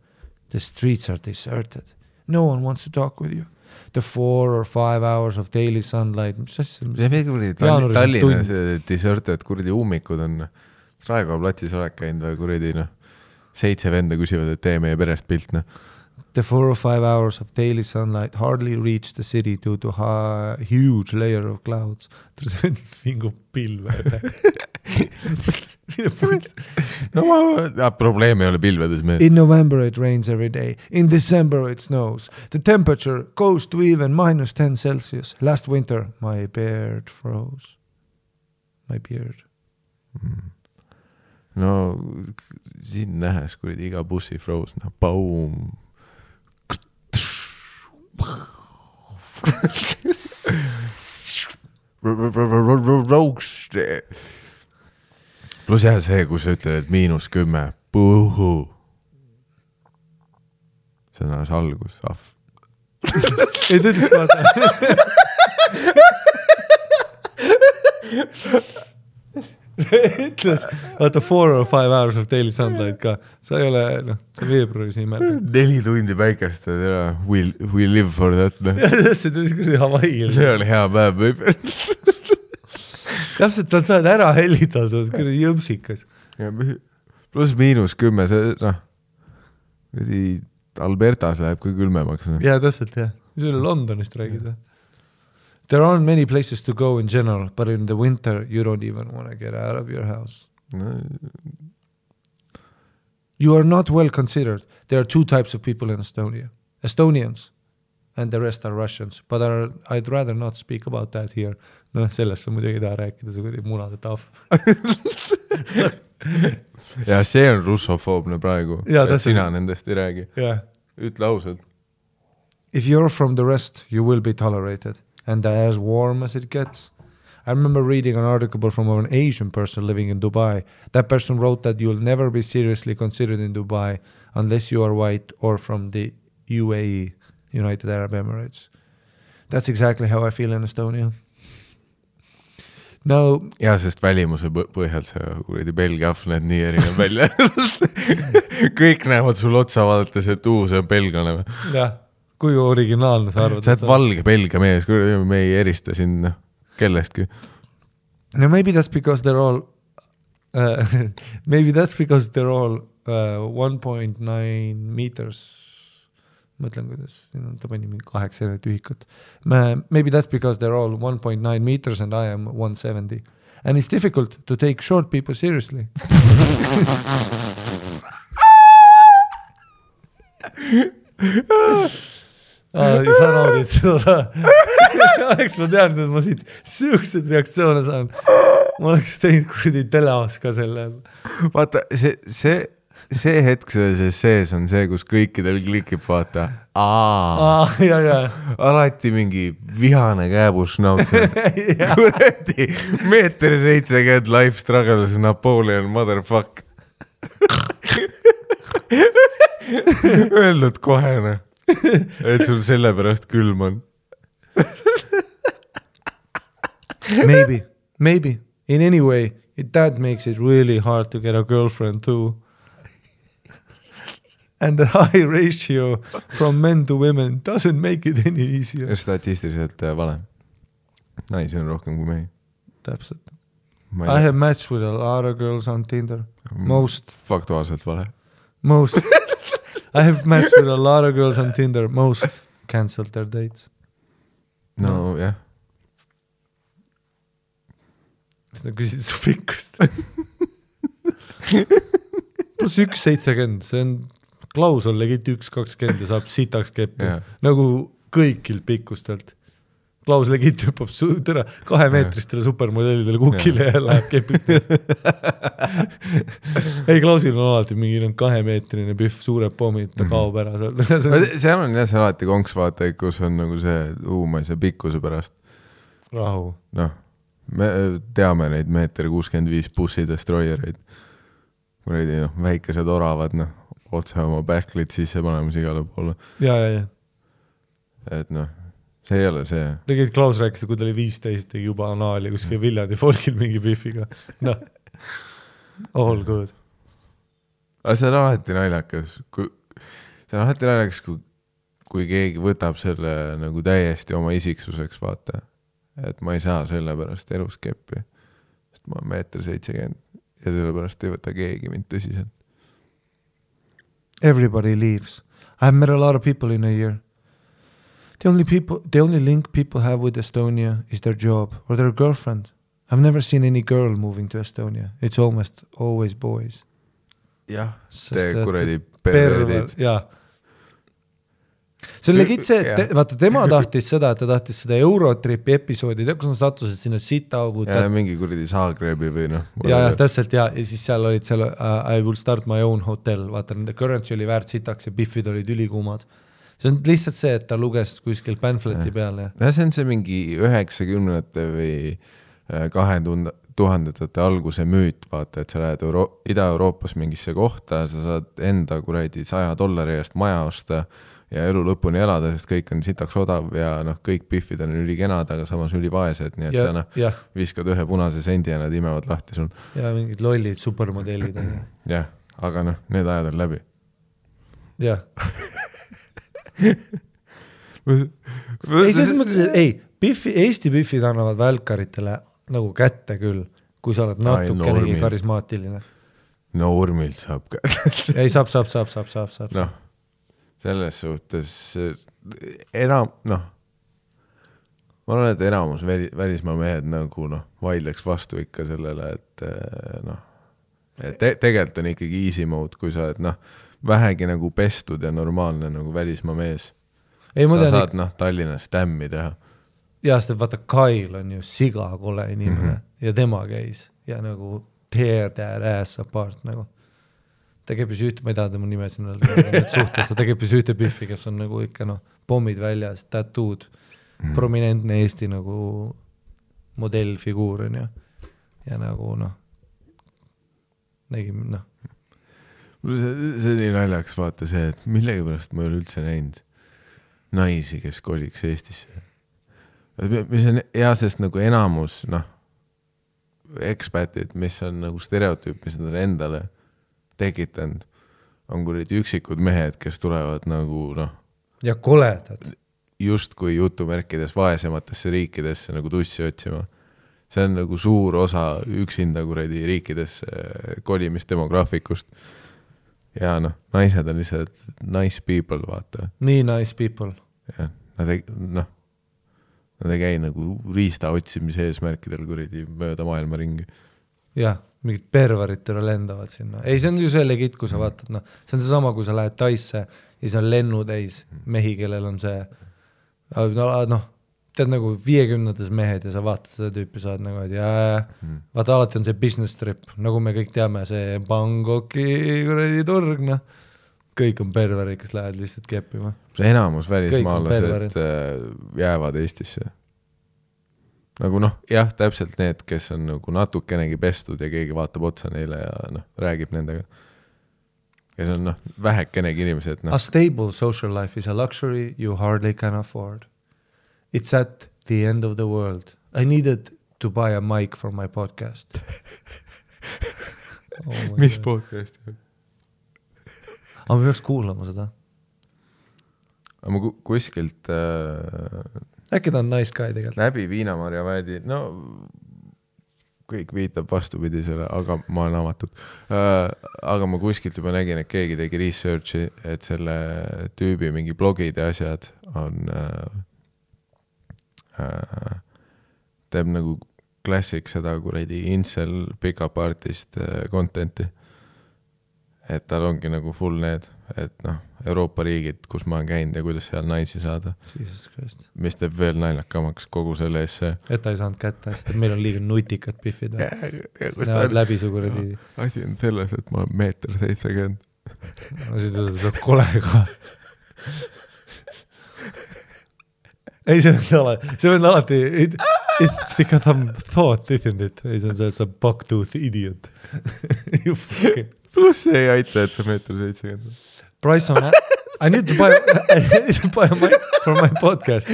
Speaker 1: The streets are deserted. No one wants to talk with you. The 4 or 5 hours of daily sunlight.
Speaker 2: Tallinnas deserted, kuradi ummikud on Raekoja platsis olek käinud või kuradi 7 venda küsivad, et tee meie perest pilt.
Speaker 1: The 4 or 5 hours of daily sunlight hardly reach the city due to a huge layer of clouds. See on mingu pilve.
Speaker 2: Probleem ei ole pilvedes.
Speaker 1: In November it rains every day. In December it snows. The temperature goes to even -10 Celsius. Last winter my beard froze. My beard.
Speaker 2: No siin nähes, kui iga bussi froze. Boom. Plus jah see, kui sa ütled, et -10 puhu. See on alles algus,
Speaker 1: Ei tõdis vaata. Ütles, vaata 4 or 5 hours of daily sunlight ka. Sa ei ole, sa veebruaris nii märgad.
Speaker 2: 4 tundi päikest, we live for that.
Speaker 1: See tõis kuradi Hawaii.
Speaker 2: See oli hea päev, võib.
Speaker 1: Täpselt, ta saad ära hellitatud, kuradi jõmsikas.
Speaker 2: Plus -10, see Albertas läheb kui külmemaks.
Speaker 1: Ja täpselt, jah. See oli Londonist räägid või? There aren't many places to go in general, but in the winter you don't even want to get out of your house. You are not well considered. There are 2 types of people in Estonia. Estonians and the rest are Russians, but I'd rather not speak about that here. Sellest sa muidugi ei taha rääkida, see oli munade tahv.
Speaker 2: Ja see on russofoobne praegu, et sina nendest ei räägi. Ütle ausalt.
Speaker 1: If you're from the rest, you will be tolerated. And as warm as it gets. I remember reading an article from an Asian person living in Dubai. That person wrote that you'll never be seriously considered in Dubai unless you are white or from the UAE, United Arab Emirates. That's exactly how I feel in Estonia. No,
Speaker 2: ja, sest välimuse põhjalt see Belgia ahv näed nii erinev välja. Kõik näevad sul otsa vaadates, et see on belgane.
Speaker 1: Jah. Kui originaalne sa arvad?
Speaker 2: Sa oled valge Belgia mees, kui me ei erista siin kellestki.
Speaker 1: No maybe that's because they're all 1.9 meters. Mõtlen, kuidas ta pani mingi 8 tühikut. Maybe that's because they're all 1.9 meters and I am 170. And it's difficult to take short people seriously. Sa naudid seda. Oleks ma teadnud, et ma siit siuksed reaktsioone saan. Ma oleks teinud kuradi teleos ka selle.
Speaker 2: Vaata, see hetk sees on see, kus kõikidel klikib, vaata. Alati mingi vihane kääbus nautse. Kuradi 1.70 m life struggles Napoleon motherfuck. Öelnud kohene. Et sul selle pärast külm on.
Speaker 1: Maybe. In any way, that makes it really hard to get a girlfriend too. And the high ratio from men to women doesn't make it any easier.
Speaker 2: Statistiliselt vale. Naisi on rohkem kui mehi.
Speaker 1: Täpselt. I have matched with a lot of girls on Tinder.
Speaker 2: Faktuaalselt vale.
Speaker 1: I have matched with a lot of girls on Tinder. Most cancelled their dates.
Speaker 2: no jah.
Speaker 1: Siis nad küsisid su pikkust. +1,70, see on Klaus on legit 1,20 ja saab sitaks keppi. Nagu kõikilt pikkustelt. Klaus legit hüppab 2-meetristele supermodellidele kukile ja läheb kepib. Ei, Klausil on alati mingi 2-meetrine pühv, suured pommid, ta kaob ära.
Speaker 2: Seal on jah see alati konks vaata, kus on nagu see ma ei saa pikkuse pärast.
Speaker 1: Rahu.
Speaker 2: Noh, me teame neid 1,65 m bussi destroyereid. Kuredi, väikesed oravad, otse oma backlit sisse panemas igale poole.
Speaker 1: Ja.
Speaker 2: Et see ei ole see.
Speaker 1: Tegid Klaus rääkis, kui ta oli 15, tegi juba anaali kuskil Viljandi folgil mingi pühviga. All good.
Speaker 2: Aga see on alati naljakas. Kui keegi võtab selle nagu täiesti oma isiksuseks, vaata. Et ma ei saa selle pärast elus keppi. Sest ma olen 1,70 m ja selle pärast ei võta keegi mind tõsiselt.
Speaker 1: Everybody leaves. I've met a lot of people in a year. The only link people have with Estonia is their job or their girlfriend. I've never seen any girl moving to Estonia. It's almost always boys.
Speaker 2: Jah, te kuradi perveerdid.
Speaker 1: Jaa. See on legit see, et vaata, tema tahtis seda, et ta tahtis seda Eurotripi episoodi, kus nad sattusid sinna sitaaugud.
Speaker 2: Ja mingi kuradi Saagrebi või
Speaker 1: Ja, täpselt, ja siis seal olid seal I will start my own hotel, vaata, nende currency oli väärt sitaks ja biffid olid ülikuumad. See on lihtsalt see, et ta luges kuskil pamfleti peale.
Speaker 2: Ja see on see mingi 90-ndate või 2000-ndate alguse müüt, vaata, et sa lähed Ida-Euroopas mingisse kohta, sa saad enda kuradi $100 eest maja osta ja elu lõpuni elada, sest kõik on sitaks odav ja kõik biffid on ülikenad, aga samas ülivaesed, nii et sa viskad ühe punase sendi ja nad imevad lahti sul.
Speaker 1: Ja mingid lollid supermodellid.
Speaker 2: Jah, aga need ajad on läbi.
Speaker 1: Jah. Ei, selles mõttes, et Eesti biffid annavad välkaritele nagu kätte küll, kui sa oled natukenegi karismaatiline.
Speaker 2: Normilt saab kätte.
Speaker 1: Ei, saab.
Speaker 2: Noh, selles suhtes ma arvan, et enamus välismaa mehed nagu vaidleks vastu ikka sellele, et tegelikult on ikkagi easy mode, kui sa oled vähegi nagu pestud ja normaalne nagu välismaa mees. Sa saad Tallinnas tämmi teha.
Speaker 1: Ja sest vaata, Kail on ju siga kole inimene ja tema käis ja nagu tear that ass apart nagu. Ta käibis ühte, ma ei taha tema nime sinna suhtes, ta käibis ühte biffi, kes on nagu ikka pommid väljas, tattooed, prominentne Eesti nagu modellfiguur on ju. Ja nagu nägime,
Speaker 2: See oli naljaks vaata see, et millegi pärast ma ei ole üldse näinud naisi, kes koliks Eestisse. Mis on hea, sest nagu enamus ekspatid, mis on nagu stereotüüp, mis nad on endale tekitanud, on kuradi üksikud mehed, kes tulevad nagu
Speaker 1: ja koledad.
Speaker 2: Just kui jutumärkides vaesematesse riikidesse nagu tussi otsima. See on nagu suur osa üksinda kuradi riikidesse kolimistdemograafikust. Ja naised on lihtsalt nice people, vaata.
Speaker 1: Nii nice people.
Speaker 2: Ja, nad ei käi nagu riista otsimise eesmärkidel kuradi mööda maailma ringi.
Speaker 1: Jah, mingid pervarid tõra lendavad sinna. Ei, see on ju see legit, kui sa vaatad, see on see sama, kui sa lähed Taisse ja see on lennutäis mehi, kellel on see, tead nagu 50-ndas mehed ja sa vaatad seda tüüpi, saad nagu, et vaata alati on see business trip, nagu me kõik teame, see Bangkoki kuradi turg, kõik on perverid, kes lähevad lihtsalt keppima.
Speaker 2: See enamus välismaalased jäävad Eestisse. Nagu jah, täpselt need, kes on nagu natukenegi pestud ja keegi vaatab otsa neile ja räägib nendega. Kes on vähekenegi inimesed.
Speaker 1: A stable social life is a luxury you hardly can afford. It's at the end of the world. I needed to buy a mic for my podcast.
Speaker 2: Mis podcast?
Speaker 1: Aga me peaks kuulama seda.
Speaker 2: Aga ma kuskilt
Speaker 1: äkki ta on nice guy tegelikult.
Speaker 2: Läbi Viinamarja väedi, kõik viitab vastupidisele, aga ma olen avatud. Aga ma kuskilt juba nägin, et keegi tegi researchi, et selle tüübi mingi blogid ja asjad on teeb nagu klassik seda kuradi incel pick-up artist contenti. Et tal ongi nagu full need, et noh, Euroopa riigid, kus ma olen käinud ja kuidas seal naisi saada.
Speaker 1: Jesus Christ.
Speaker 2: Mis teeb veel naljakamaks kogu selle ees see.
Speaker 1: Et ta ei saanud kätte, sest meil on liiga nutikad piffid. Näevad läbi su kuradi.
Speaker 2: Asi on selles, et ma olen 1.70
Speaker 1: No siis ta kolega. Ei, see on alati it's because I'm thought, isn't it? Ei, see on see bucktooth idiot. You fucking
Speaker 2: Plus ei aita, et sa 1.70
Speaker 1: Price on I need to buy a mic for my podcast.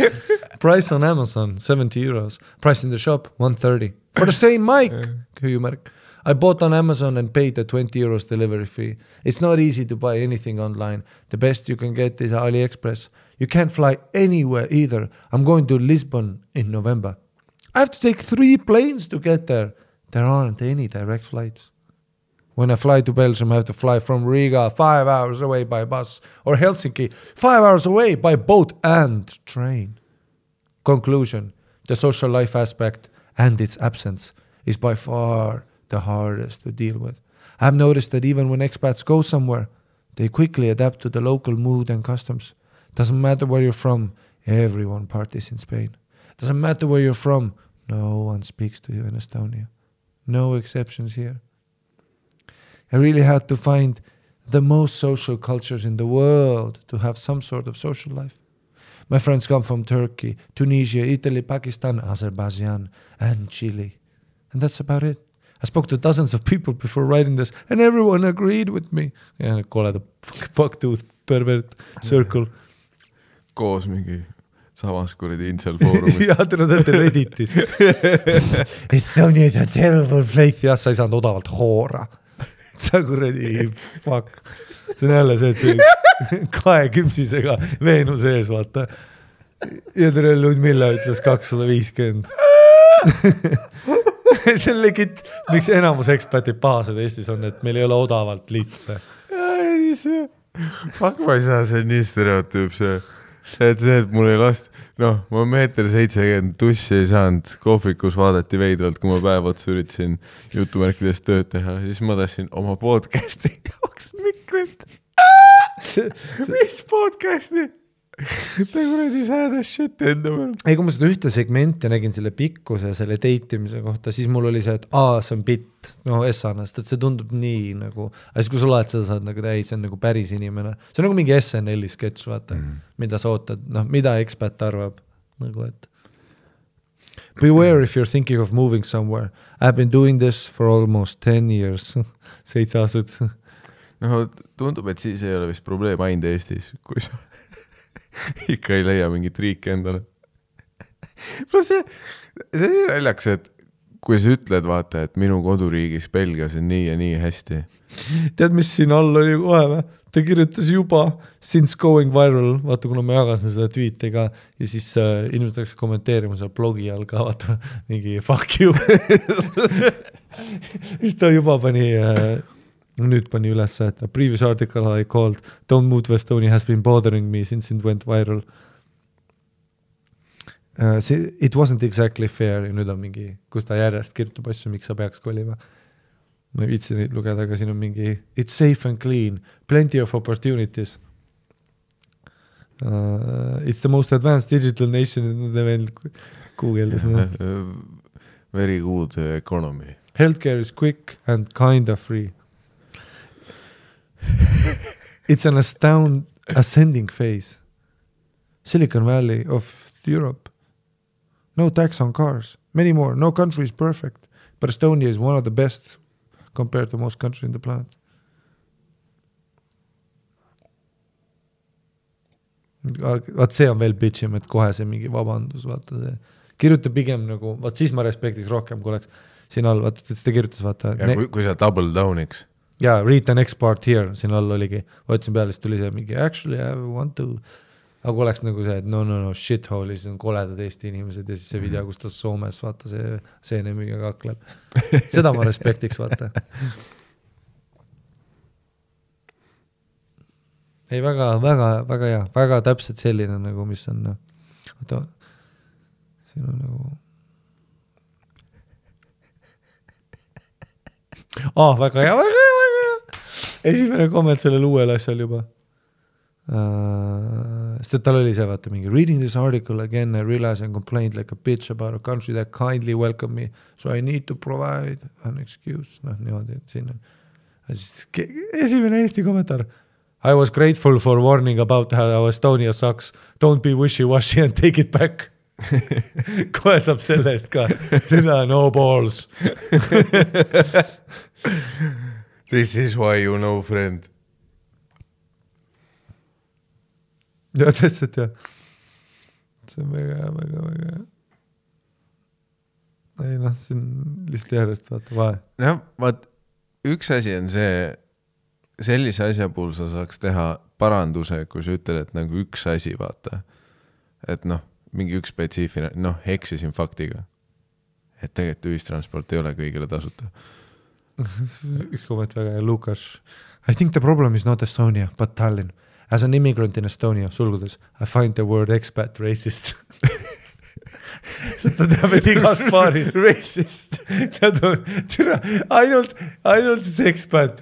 Speaker 1: Price on Amazon, €70. Price in the shop, $130. For the same mic. I bought on Amazon and paid the €20 delivery fee. It's not easy to buy anything online. The best you can get is AliExpress. You can't fly anywhere either. I'm going to Lisbon in November. I have to take 3 planes to get there. There aren't any direct flights. When I fly to Belgium, I have to fly from Riga 5 hours away by bus, or Helsinki 5 hours away by boat and train. Conclusion, the social life aspect and its absence is by far the hardest to deal with. I've noticed that even when expats go somewhere, they quickly adapt to the local mood and customs. Doesn't matter where you're from, everyone parties in Spain. Doesn't matter where you're from, no one speaks to you in Estonia. No exceptions here. I really had to find the most social cultures in the world to have some sort of social life. My friends come from Turkey, Tunisia, Italy, Pakistan, Azerbaijan, and Chile. And that's about it. I spoke to dozens of people before writing this, and everyone agreed with me. Ja kole the bucktooth pervert circle.
Speaker 2: Koos mingi samas kuradi incel foorumit.
Speaker 1: Ja, te olete Redditis. Estonia is a terrible place. Ja, sa ei saanud odavalt hoora. Sa kuradi, fuck. See on jälle see, et see 2 küpsisega Veenus ees, vaata. Ja tere Ludmilla ütles 250. See on legit, miks enamus ekspatid pahased Eestis on, et meil ei ole odavalt litse.
Speaker 2: Fuck, ma ei saa, see on nii stereotüüp see. Et mul ei last, noh, ma 1.70 tussi ei saanud, kohvikus vaadati veidralt, kui ma päev otsa üritasin jutumärkides tööd teha, siis ma tahtsin oma podcasti jaoks mikrit. Mis podcasti? Ta kuradi sääda shit enda peal.
Speaker 1: Ei, kui ma seda ühte segmenti nägin selle pikkuse ja selle deitimise kohta, siis mul oli see, et see on bitt, no essanast, et see tundub nii nagu, aga siis kui sa laed seda, saad nagu, see on nagu päris inimene. See on nagu mingi SNL-i sketš, vaata, mida sa ootad, noh, mida ekspat arvab, nagu et beware if you're thinking of moving somewhere. I've been doing this for almost 10 years, 7 aastat.
Speaker 2: No, tundub, et siis ei ole vist probleem ainult Eestis, kui sa ikka ei leia mingit riiki endale. See nii naljaks, et kui sa ütled, vaata, et minu koduriigis Belgias on nii ja nii hästi.
Speaker 1: Tead, mis siin all oli kohe või? Ta kirjutas juba since going viral, vaata, kuna ma jagasin seda tweetiga ja siis inimesed läks kommenteerima seda blogi all ka, vaata, mingi fuck you. Siis ta juba pani... Nüüd pani üles, et a previous article I called Don't Move to Estonia has been bothering me since it went viral. It wasn't exactly fair ja nüüd on mingi, kus ta järjest kirjutab asju, miks sa peaks kolima. Ma ei viitsi neid lugeda, aga siin on mingi it's safe and clean, plenty of opportunities. It's the most advanced digital nation in the world. Google'is.
Speaker 2: Very good economy.
Speaker 1: Healthcare is quick and kinda free. It's an ascending phase. Silicon Valley of Europe. No tax on cars. Many more. No country is perfect. But Estonia is one of the best compared to most countries in the planet. Vaat see on veel bitchim, et kohe see mingi vabandus, vaata see. Kirjuta pigem nagu, vaat siis ma respektiks rohkem, kui oleks siin all, vaata, et seda kirjutas, vaata.
Speaker 2: Ja kui sa double downiks.
Speaker 1: Ja, read the next part here, siin all oligi. Võtsin peale, siis tuli see mingi, actually I want to aga kui oleks nagu see, et no shithole, siis on koledad Eesti inimesed ja siis see video, kus ta Soomes, vaata see seenemiga kakleb. Seda ma respektiks, vaata. Ei, väga hea, väga täpselt selline nagu, mis on, oota, siin on nagu väga hea. Esimene komment sellel uuel asjal juba. Sest et tal oli see, vaata, mingi reading this article again, I realize and complained like a bitch about a country that kindly welcome me, so I need to provide an excuse. Niimoodi, et siin on. Esimene Eesti kommentaar. I was grateful for warning about how Estonia sucks. Don't be wishy-washy and take it back. Kohe saab selle eest ka. No balls.
Speaker 2: This is why you know, friend.
Speaker 1: Ja, tõstet, ja. See on väga hea. Ei, siin lihtsalt järjest vaata vahe.
Speaker 2: Jah, vaat, üks asi on see, sellise asja puhul sa saaks teha paranduse, kui sa ütled, et nagu üks asi, vaata. Et mingi üks spetsiifine, eksisin faktiga. Et tegelikult ühistransport ei ole kõigile tasuta.
Speaker 1: Üks komment väga hea, Lukas. I think the problem is not Estonia, but Tallinn. As an immigrant in Estonia, sulgudes, I find the word expat racist. Ta teab, et igas paaris racist. Ainult expat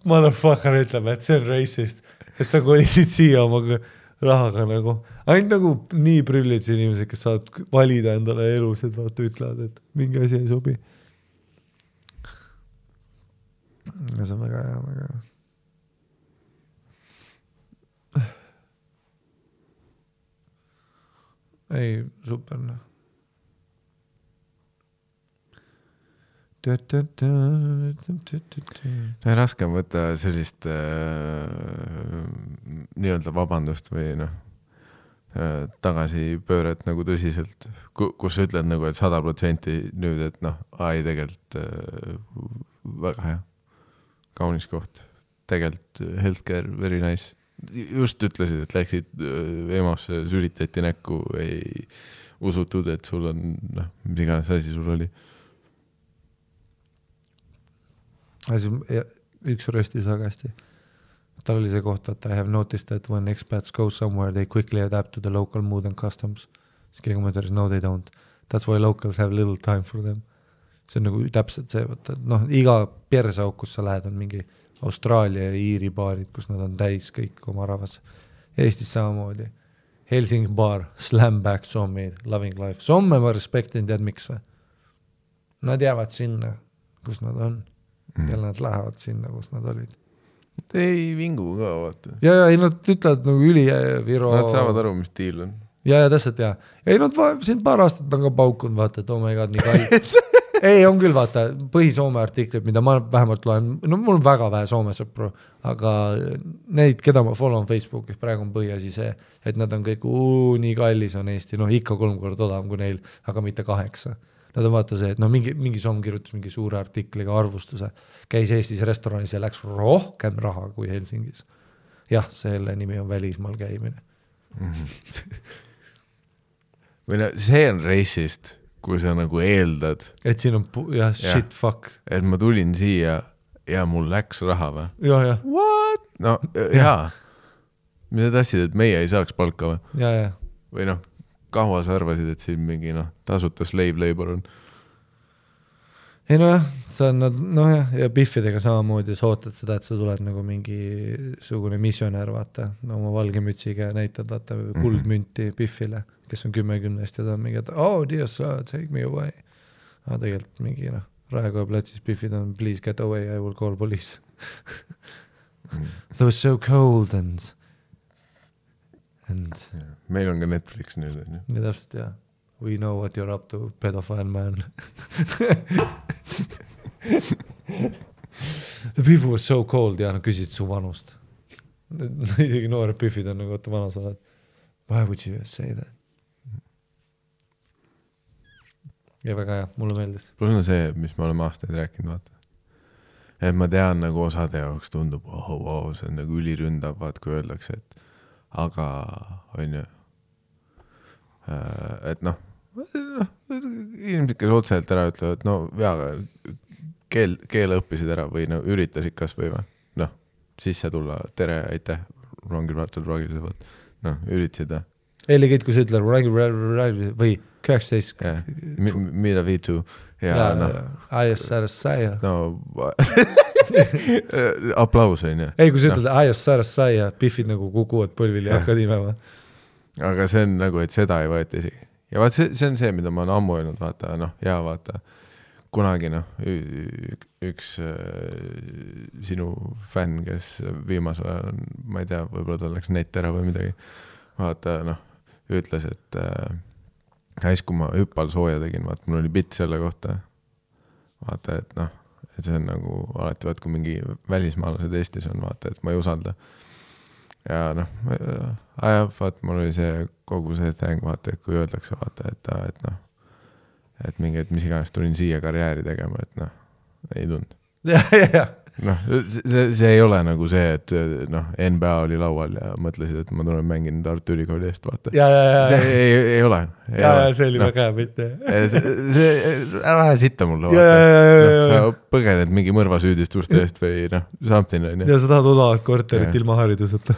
Speaker 1: motherfucker ütleb, et see on racist. Et sa kolisid siia oma rahaga nagu. Ainult nagu nii prüllid inimesed, kes saavad valida endale elus, et vaata ütlevad, et mingi asi ei sobi. Ja see on väga hea. Ei, super.
Speaker 2: Raske on võtta sellist nii-öelda vabandust või tagasipööret nagu tõsiselt, kus sa ütled nagu, et 100% nüüd, et ei tegelikult väga hea, kaunis koht, tegelikult healthcare, very nice. Just ütlesid, et läksid EMO-sse, süritati näkku, ei usutud, et sul on, mis iganes asi sul oli.
Speaker 1: Üks röstis väga hästi. Tal oli see koht, et I have noticed that when expats go somewhere, they quickly adapt to the local mood and customs. Siis keegi mõtles, no they don't. That's why locals have little time for them. See on nagu täpselt see, iga persauk, kus sa lähed, on mingi Austraalia ja Iiri baarid, kus nad on täis kõik oma rahvas. Eestis samamoodi. Helsingi baar, Slamback, Sommid, Loving Life. Somme ma respektin, tead miks või? Nad jäävad sinna, kus nad on. Ja nad lähevad sinna, kus nad olid.
Speaker 2: Ei vingu ka, vaata.
Speaker 1: Ja, nad ütlevad nagu üli Viro.
Speaker 2: Nad saavad aru, mis tiil on.
Speaker 1: Ja, täpselt, ja. Ei, nad siin paar aastat on ka paukunud, vaata, et oh my god, nii kalli. Ei, on küll, vaata, põhi-Soome artiklid, mida ma vähemalt loen, mul on väga vähe Soome sõpru, aga neid, keda ma follow on Facebookis, praegu on põhiasi see, et nad on kõik, nii kallis on Eesti, ikka 3 korda odavam kui neil, aga mitte 8. Nad on vaata see, et mingi Soome kirjutas mingi suure artikliga arvustuse, käis Eestis restoranis ja läks rohkem raha kui Helsingis. Jah, selle nimi on välismaal käimine.
Speaker 2: Või see on racist, kui sa nagu eeldad.
Speaker 1: Et siin on, shit, fuck.
Speaker 2: Et ma tulin siia ja mul läks raha või?
Speaker 1: Ja.
Speaker 2: What? No, jaa. Mida tahtsid, et meie ei saaks palka või?
Speaker 1: Ja.
Speaker 2: Või kaua sa arvasid, et siin mingi tasuta slave labor on?
Speaker 1: Ei see on ja Biffidega samamoodi sa ootad seda, et sa tuled nagu mingi sugune missionär, vaata, oma valge mütsiga näitad, vaata, kuldmünti Biffile, kes on 10 ja ta on mingi, et dear sir, take me away. Tegelikult mingi, Raekoja platsis Biffid on, please get away, I will call police. That was so cold and
Speaker 2: meil on ka Netflix nüüd.
Speaker 1: Ja täpselt, ja. We know what you're up to, pedophile man. The people were so cold ja küsid su vanust. Isegi noored Biffid on nagu, vana sa oled. Why would you say that? Ja väga hea, mulle meeldis.
Speaker 2: Plus on see, mis me oleme aastaid rääkinud, vaata. Et ma tean, nagu osade jaoks tundub, see on nagu üliründav, vaat kui öeldakse, et aga on ju, et noh, inimesed, kes otseselt ära ütlevad, no veaga keele õppisid ära või no üritasid kas või noh, sisse tulla, tere, aitäh, rongil vaatad rongil, noh, üritasid
Speaker 1: Legit, kui sa ütled või 19
Speaker 2: mida viitu ja noh
Speaker 1: ISRSI
Speaker 2: no aplaus on ju.
Speaker 1: Ei, kui sa ütled ISRSI ja pihvid nagu kukuvad põlvil ja hakkad imema.
Speaker 2: Aga see on nagu, et seda ei võeta isegi. Ja vaat see on see, mida ma olen ammu öelnud, vaata, noh, ja vaata, kunagi noh, üks sinu fänn, kes viimasel ajal on, ma ei tea, võib-olla ta läks net ära või midagi, vaata, noh, ütles, et kui ma hüppal sooja tegin, vaata, mul oli bitt selle kohta, vaata, et noh, et see on nagu alati, vaat, kui mingi välismaalased Eestis on, vaata, et ma ei usalda. Ja noh, vaat, mul oli see kogu see täng, vaata, et kui öeldakse, vaata, et noh, et mingi, et mis iganes tulin siia karjääri tegema, et noh, ei tund. Noh, see ei ole nagu see, et noh, NBA oli laual ja mõtlesid, et ma tulen mängin Tartu Ülikooli eest, vaata. See ei ole.
Speaker 1: See oli väga hea mitte.
Speaker 2: Ära sitta mulle, vaata. Sa põgened mingi mõrvasüüdistuste eest või noh, something.
Speaker 1: Ja sa tahad odavat korterit ilma hariduseta.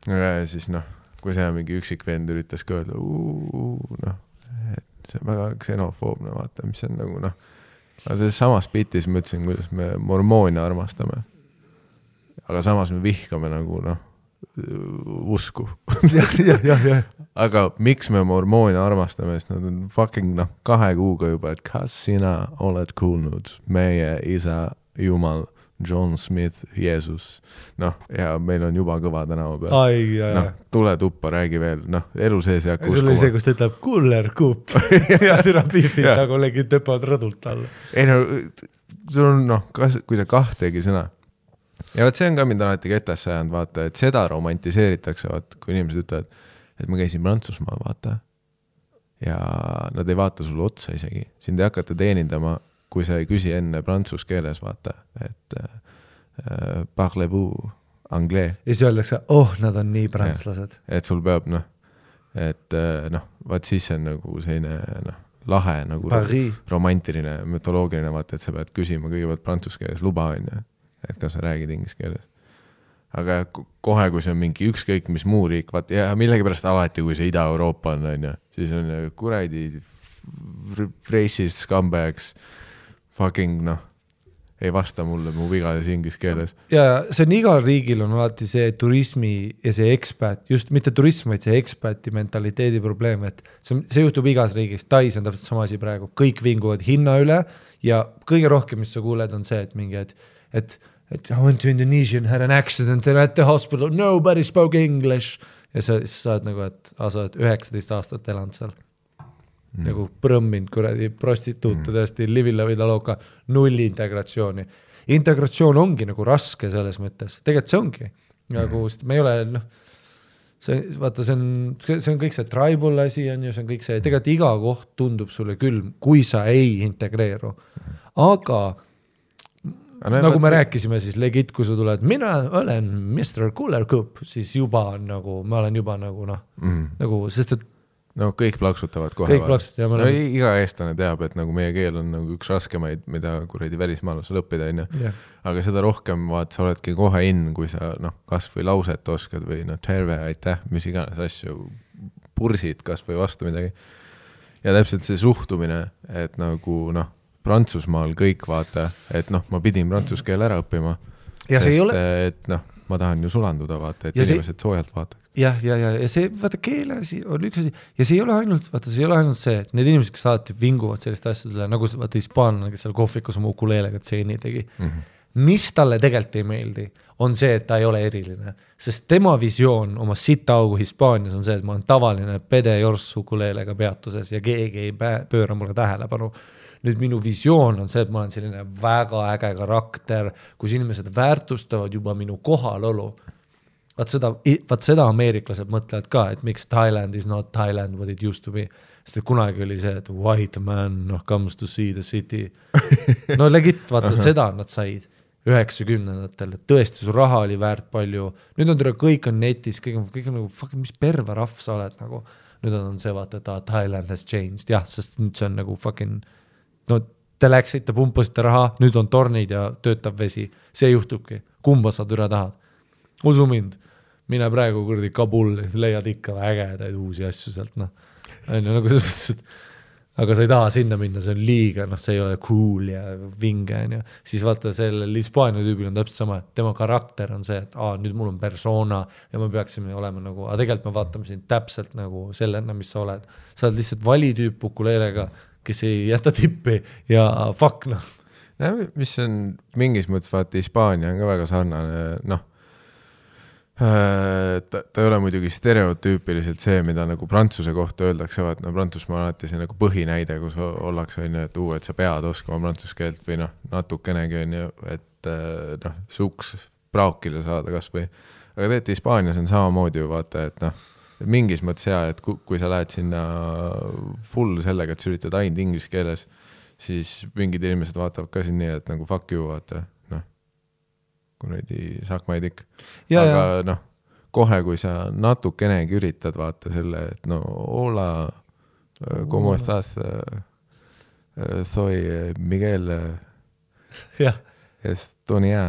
Speaker 2: Ja siis noh, kui see mingi üksik vend üritas ka öelda, noh, et see on väga ksenofoobne, vaata, mis on nagu noh, aga selles samas bitis ma ütlesin, kuidas me mormoone armastame. Aga samas me vihkame nagu, noh, usku. Aga miks me mormoone armastame, sest nad on fucking, noh, 2 kuuga juba, et kas sina oled kuulnud meie isa Jumal, John Smith, Jeesus. Noh, ja meil on juba kõva tänava peal. Noh, tule tuppa, räägi veel. Noh, elu sees jääb
Speaker 1: uskuma. Sul oli see, kus ta ütleb kuller kup ja türa pihvid ta kollegid töpavad rõdult alla.
Speaker 2: Ei no, sul on noh, kui sa 2 sõna. Ja vaat see on ka mind alati ketasse ajanud, vaata, et seda romantiseeritakse, vaata, kui inimesed ütlevad, et ma käisin Prantsusmaal, vaata. Ja nad ei vaata sulle otsa isegi. Sind ei hakata teenindama, kui sa ei küsi enne prantsus keeles, vaata, et parlez-vous anglais.
Speaker 1: Ja siis öeldakse, nad on nii prantslased.
Speaker 2: Et sul peab, noh, et noh, vaat siis on nagu selline, noh, lahe, nagu romantiline, mütoloogiline, vaata, et sa pead küsima kõigepealt prantsus keeles luba, on ju, et kas sa räägid inglise keeles. Aga kohe, kui see on mingi ükskõik, mis muu riik, vaat, ja millegipärast alati, kui see Ida-Euroopa on, siis on kuradi racist scumbags, fucking, noh, ei vasta mulle mu vigades inglise keeles.
Speaker 1: Ja see on igal riigil on alati see turismi ja see expat, just mitte turism, vaid see expati mentaliteedi probleem, et see juhtub igas riigis. Tais on täpselt sama asi praegu. Kõik vinguvad hinna üle ja kõige rohkem, mis sa kuuled, on see, et mingi, et I went to Indonesia and had an accident and at the hospital, nobody spoke English. Ja sa saad nagu, et sa oled 19 aastat elanud seal. Nagu prõmminud kuradi prostituute tõesti livilla või taloka, 0 integratsiooni. Integratsioon ongi nagu raske selles mõttes. Tegelikult see ongi. Nagu, me ei ole, noh, vaata, see on kõik see tribal asi on ju, see on kõik see, tegelikult iga koht tundub sulle külm, kui sa ei integreeru. Aga nagu me rääkisime, siis legit, kui sa tuled, mina olen Mr. Cooler Cup, siis juba nagu, ma olen juba nagu, noh, nagu, sest et
Speaker 2: no kõik plaksutavad kohe.
Speaker 1: Kõik plaksutavad,
Speaker 2: no, iga eestlane teab, et nagu meie keel on nagu üks raskemaid, mida kuradi välismaalasel õppida, on ju. Aga seda rohkem, vaat, sa oledki kohe kui sa, noh, kas või lauset oskad või, noh, terve, aitäh, mis iganes asju, pursid kas või vastu midagi. Ja täpselt see suhtumine, et nagu, noh, Prantsusmaal kõik vaata, et noh, ma pidin prantsuse keel ära õppima, ja sest et noh, ma tahan ju sulanduda vaata, et ja inimesed soojalt vaataks.
Speaker 1: Ja see, vaata, keele asi on üks asi, ja see ei ole ainult, vaata, see ei ole ainult see, et need inimesed, kes alati vinguvad sellist asjadele, nagu vaata hispaanlane, kes seal kohvikus oma ukuleelega tseeni tegi, mis talle tegelikult ei meeldi, on see, et ta ei ole eriline, sest tema visioon oma sitaugu Hispaanias on see, et ma olen tavaline pede jors ukuleelega peatuses ja keegi ei pööra mulle tähelepanu. Nüüd minu visioon on see, et ma olen selline väga äge karakter, kus inimesed väärtustavad juba minu kohalolu. Vaat seda ameeriklased mõtlevad ka, et miks Thailand is not Thailand what it used to be. Sest kunagi oli see, et white man comes to see the city. No legit, vaata, seda nad said. 90ndatel, tõesti su raha oli väärt palju, nüüd on kõik on netis, kõik on nagu fucking, mis perva rahv sa oled nagu, nüüd on see vaata, et Thailand has changed, jah, sest nüüd see on nagu fucking, no te läksite, pumpasite raha, nüüd on tornid ja töötab vesi, see juhtubki, kumba sa türa tahad, usu mind, mine praegu kurdi Kabul, leiad ikka ägedaid uusi asju sealt, noh, on ju, nagu selles mõttes, et aga sa ei taha sinna minna, see on liiga, noh, see ei ole cool ja vinge, on ju. Siis vaata, sellel Hispaania tüübil on täpselt sama, tema karakter on see, et nüüd mul on persona ja me peaksime olema nagu, aga tegelikult me vaatame sind täpselt nagu sellena, mis sa oled. Sa oled lihtsalt valitüüp ukuleelega, kes ei jäta tippi ja fuck, noh.
Speaker 2: Mis on mingis mõttes, vaata, Hispaania on ka väga sarnane, noh, ta ei ole muidugi stereotüüpiliselt see, mida nagu Prantsuse kohta öeldakse, vaat no Prantsusmaa on alati see nagu põhinäide, kus ollakse, on ju, et sa pead oskama prantsuse keelt või noh, natukenegi on ju, et noh, suks praakile saada kas või. Aga tegelikult Hispaanias on samamoodi ju vaata, et noh, mingis mõttes hea, et kui sa lähed sinna full sellega, et sa üritad ainult inglise keeles, siis mingid inimesed vaatavad ka siin nii, et nagu fuck you, vaata, noh, kuradi sakmaid ikka. Aga noh, kohe, kui sa natukenegi üritad vaata selle, et no hola, como estás, soy Miguel Estonia.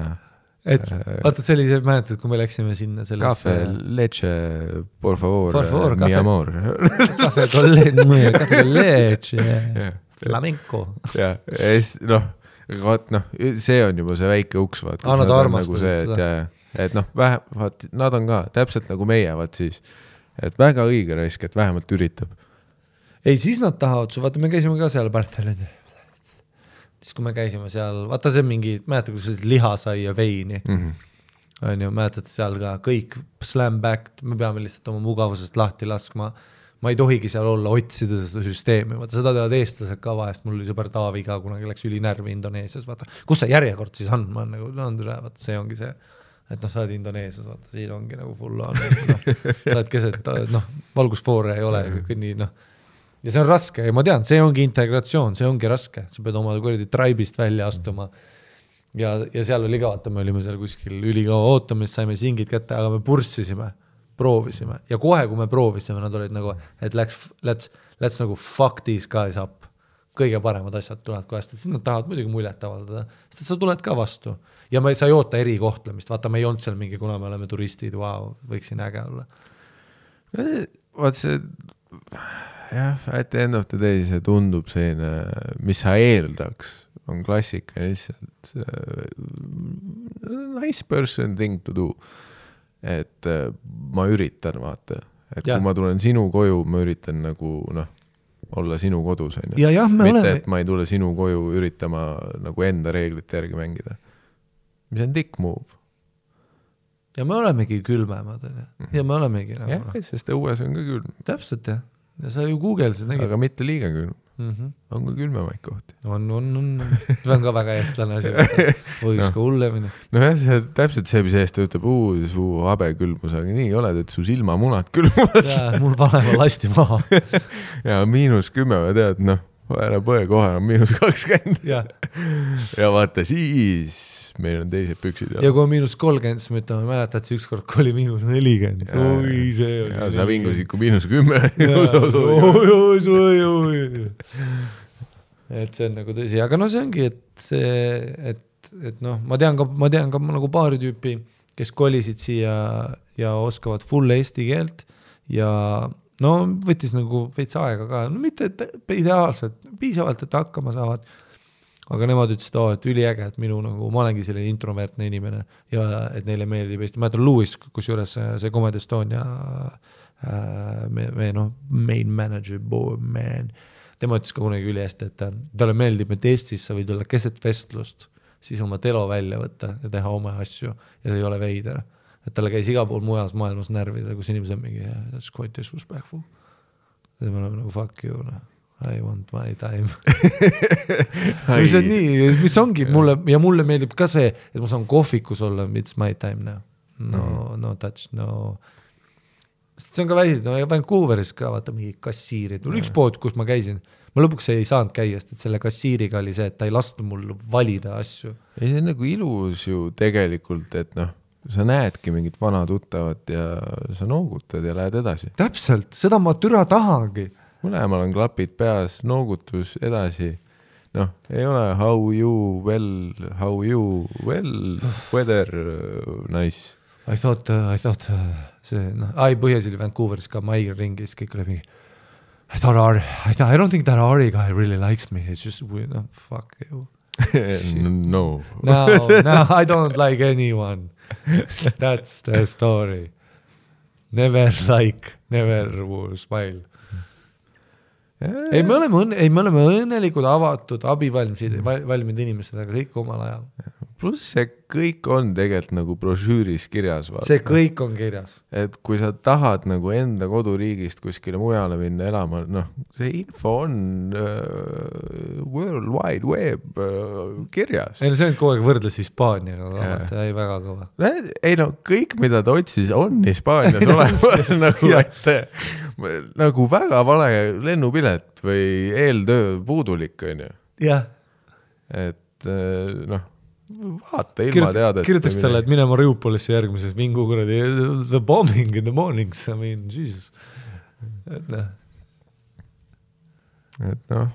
Speaker 1: Et vaata, see oli see, mäletad, kui me läksime sinna selles...
Speaker 2: Cafe, leche, por favor mi amor.
Speaker 1: Cafe con leche, flamenco.
Speaker 2: Ja, noh, see on juba see väike uks, vaat.
Speaker 1: Nad armastasid
Speaker 2: nagu seda. Et noh, vaat, nad on ka täpselt nagu meie, vaat siis, et väga õige raisk, et vähemalt üritab.
Speaker 1: Ei, siis nad tahavad su, vaata, me käisime ka seal Barthelini. Siis kui me käisime seal, vaata see mingi, mäletad, kui see liha sai ja veini, on ju, mäletad seal ka kõik slam back, me peame lihtsalt oma mugavusest lahti laskma, ma ei tohigi seal olla, otsida seda süsteemi, vaata seda teavad eestlased ka vahest, mul oli sõber Taavi ka, kunagi läks ülinärvi Indoneesias, vaata, kus see järjekord siis on, ma nagu, vaata, see ongi see, et noh, sa oled Indoneesias, vaata, siin ongi nagu full on, noh, sa oled keset, noh, valgusfoore ei ole, nii, noh, ja see on raske ja ma tean, see ongi integratsioon, see ongi raske, sa pead oma kuradi tribe'ist välja astuma ja seal oli ka, vaata, me olime seal kuskil ülikaua ootamist, saime singid kätte, aga me purssisime, proovisime ja kohe, kui me proovisime, nad olid nagu, et let's nagu fuck these guys up, kõige paremad asjad tulevad kohest, et siis nad tahavad muidugi muljet avaldada, sest sa tuled ka vastu ja sa ei oota erikohtlemist, vaata, me ei olnud seal mingi, kuna me oleme turistid, wow, võiksin äge olla.
Speaker 2: Vaat see, jah, at the end of the day see tundub selline, mis sa eeldaks, on klassika lihtsalt nice person thing to do. Et ma üritan, vaata, et kui ma tulen sinu koju, ma üritan nagu, noh, olla sinu kodus, on ju. Mitte, et ma ei tule sinu koju üritama nagu enda reeglite järgi mängida. Mis on dick move.
Speaker 1: Ja me olemegi külmemad, ja me olemegi nagu...
Speaker 2: Jah, sest õues on ka külm.
Speaker 1: Täpselt, jah. Ja sa ju Google'sid nägid.
Speaker 2: Aga mitte liiga külm. On ka külmemaid kohti.
Speaker 1: On. See on ka väga eestlane asi. Võiks ka hullemini.
Speaker 2: No jah, see täpselt see, mis eest ütleb, su habe külmus, aga nii oled, et su silmamunad külmuvad.
Speaker 1: Jaa, mul vanema lasti maha.
Speaker 2: Ja -10, tead, noh, ära põe kohe, on -20. Ja vaata, siis meil on teised püksid.
Speaker 1: Ja kui on -30, siis me ütleme, mäletad, see ükskord oli -40. Oi, see oli.
Speaker 2: Ja sa vingusid kui -10.
Speaker 1: Et see on nagu tõsi, aga no see ongi, et noh, ma tean ka nagu paari tüüpi, kes kolisid siia ja oskavad full eesti keelt ja no võttis nagu veits aega ka, no mitte ideaalselt, piisavalt, et hakkama saavad. Aga nemad ütlesid, et üliäge, et minu nagu, ma olengi selline introvertne inimene ja et neile meeldib Eesti. Ma ütlen Louis, kus juures see Comedy Estonia main manager, man. Tema ütles ka kunagi üli hästi, et talle meeldib, et Eestis sa võid olla keset vestlust, siis oma telo välja võtta ja teha oma asju ja see ei ole veider. Et talle käis iga pool mujas maailmas närvida, kus inimesed on mingi, that's quite disrespectful. Ja me oleme nagu fuck you, I want my time. mis on nii, mis ongi mulle, ja mulle meeldib ka see, et ma saan kohvikus olla, it's my time now. No touch, no. see on ka väisid, no Vancouveris ka vaata mingi kassiirid, mul üks pood, kus ma käisin, ma lõpuks ei saanud käia, sest selle kassiiriga oli see, et ta ei lasknud mul valida asju.
Speaker 2: ei, see on nagu ilus ju tegelikult, et noh, sa näedki mingit vana tuttavat ja sa noogutad ja lähed edasi.
Speaker 1: Täpselt, seda ma türa tahangi.
Speaker 2: Mõlemal on klapid peas, noogutus edasi. Noh, ei ole how you, weather, nice.
Speaker 1: I thought see, noh, põhjas oli Vancouveris ka Maiger ringis, kõik oli mingi I don't think that Ari guy really likes me, it's just, no, fuck you.
Speaker 2: No,
Speaker 1: I don't like anyone. That's the story. Never will smile. Ei, me oleme õnnelikud, avatud, abivalmid inimesed, aga kõik omal ajal.
Speaker 2: Pluss see kõik on tegelikult nagu brošüüris kirjas. Vaata.
Speaker 1: See kõik on kirjas.
Speaker 2: Et kui sa tahad nagu enda koduriigist kuskile mujale minna elama, noh, see info on World Wide Web kirjas.
Speaker 1: Ei, no see on kogu aeg võrdles Hispaaniaga, vaata, ei väga kõva.
Speaker 2: Ei no, kõik mida ta otsis on Hispaanias olemas nagu, nagu väga vale lennupilet või eeltöö puudulik, on ju.
Speaker 1: Jah.
Speaker 2: Et noh, vaata ilma teada.
Speaker 1: Kirjutaks talle, et mine Mariupolisse järgmises mingu kuradi the bombing in the mornings, I mean, Jesus. Et
Speaker 2: noh,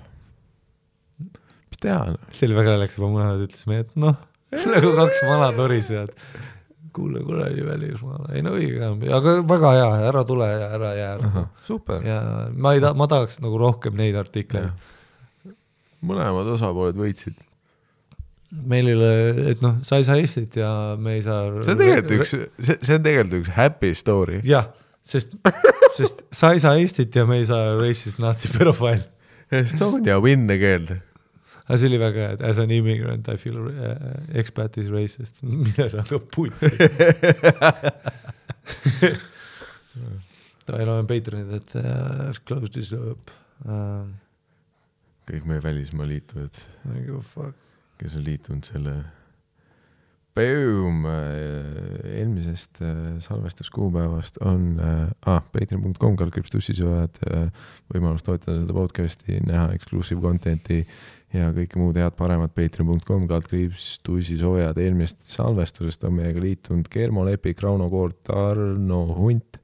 Speaker 2: mis teha?
Speaker 1: See oli väga läks juba mõned, ütlesime, et noh, nagu kaks vana torisejad. Kuule kuradi välismaale, ei no õige, aga väga hea, ära tule ja ära jää.
Speaker 2: Super.
Speaker 1: Ja ma tahaks nagu rohkem neid artikleid.
Speaker 2: Mõlemad osapooled võitsid.
Speaker 1: Meil ei ole, et noh, sa ei saa Eestit ja me ei saa...
Speaker 2: See on tegelikult üks happy story.
Speaker 1: Jah, sest sa ei saa Eestit ja me ei saa racist nazi pedofiil.
Speaker 2: Estonia win again.
Speaker 1: Aga see oli väga, et as an immigrant I feel expat is racist. Mine sa hakkab putsi. Ta ei ole Patreonid, et let's close this up.
Speaker 2: Kõik meie välismaa liituvad.
Speaker 1: Fuck.
Speaker 2: Kes on liitunud selle Boom! Eelmisest salvestuskuupäevast on patreon.com/tussisojad võimalus toetada seda podcasti, näha exclusive contenti ja kõike muud head paremat patreon.com/tussisojad. Eelmisest salvestusest on meiega liitunud Kermo Lepik, Rauno Koort, Arno Hunt,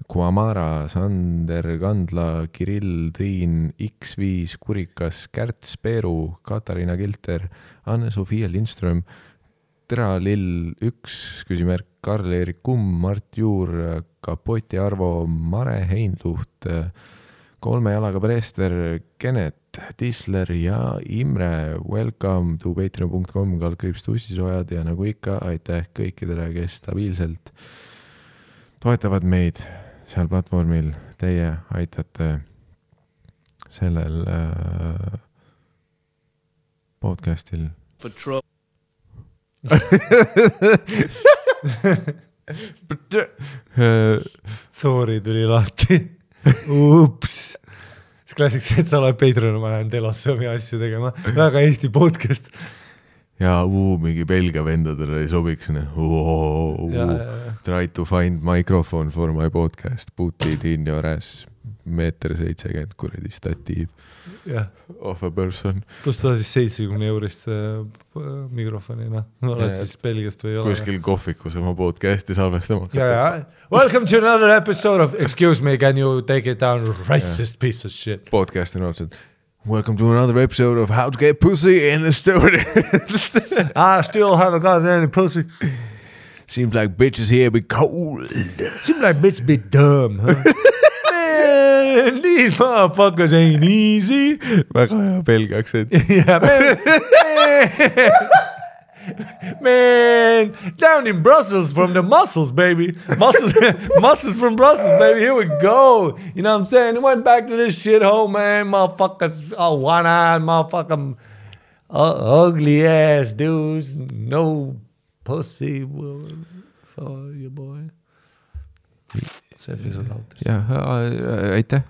Speaker 2: Kuamara, Sander Kandla, Kirill, Triin, X5, Kurikas, Kärts, Peeru, Katariina Kilter, Anne-Sofia Lindström, Tera Lill 1, küsimärk, Karl-Erik Kumm, Mart Juur, Kapoti Arvo, Mare Heinluht, Kolme jalaga Preester, Kenet, Tisler ja Imre. Welcome to patreon.com/tussisojad ja nagu ikka, aitäh kõikidele, kes stabiilselt toetavad meid seal platvormil. Teie aitate sellel podcastil.
Speaker 1: Story tuli lahti. Ups. See klassiks, et sa oled Patreon, ma lähen Telossomi asju tegema. Väga Eesti podcast.
Speaker 2: Ja mingi Belgia vendadele ei sobiks. Try to find microphone for my podcast. Put it in your ass. 1.70 kuradi statiiv. Of a person.
Speaker 1: Plus ta siis 70 eurist mikrofonina. Oled siis Belgiast või ei ole?
Speaker 2: Kuskil kohvikus oma podcasti salvestama.
Speaker 1: Welcome to another episode of Excuse me, can you take it down, racist piece of shit.
Speaker 2: Podcast on otseselt. Welcome to another episode of How to Get Pussy in Estonia.
Speaker 1: I still haven't gotten any pussy.
Speaker 2: Seems like bitches here be cold.
Speaker 1: Seems like bitches be dumb, huh? Man, these motherfuckers ain't easy.
Speaker 2: Väga hea Belgia aktsent.
Speaker 1: Yeah, man, down in Brussels from the muscles, baby. Muscles from Brussels, baby. Here we go. You know what I'm saying? Went back to this shithole, man. Motherfuckers, one-eyed, motherfucking ugly ass dudes. No pussy for you, boy. See fisul lautas.
Speaker 2: Ja, aitäh.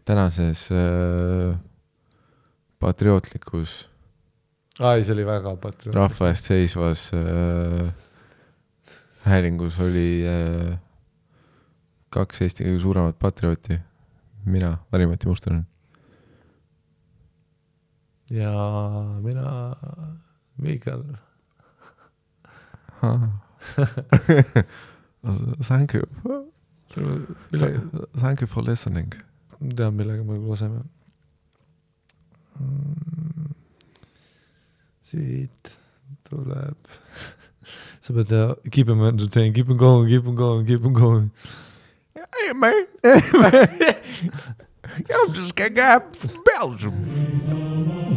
Speaker 2: Tänases patriootlikus
Speaker 1: see oli väga patriootlik.
Speaker 2: Rahva eest seisvas häälingus oli 2 Eesti kõige suuremat patriooti. Mina, Mari-Mati Mustonen.
Speaker 1: ja mina Miikal.
Speaker 2: Thank you. Thank you for listening.
Speaker 1: Tean, millega me laseme. Siit tuleb. Sa pead keep him entertained, keep him going.
Speaker 2: Hey man, I'm just getting up from Belgium.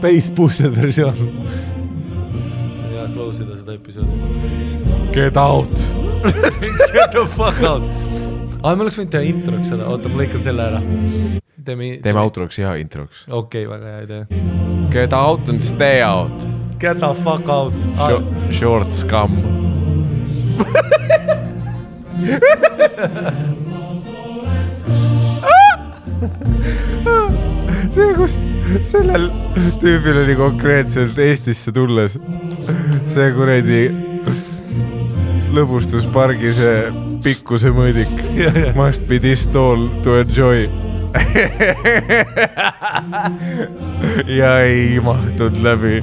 Speaker 1: Bass boosted versioon. See on hea close ida seda episoodi.
Speaker 2: Get out.
Speaker 1: Get the fuck out. Me oleks võinud teha introks seda, oota, ma lõikan selle ära.
Speaker 2: Teeme outroks ja introks.
Speaker 1: Okei, väga hea idee.
Speaker 2: Get out and stay out.
Speaker 1: Get the fuck out.
Speaker 2: Short scum. See, kus sellel tüübil oli konkreetselt Eestisse tulles see kuredi lõbustuspargi see pikkuse mõõdik. Must be this tall to enjoy. Ja ei mahtud läbi.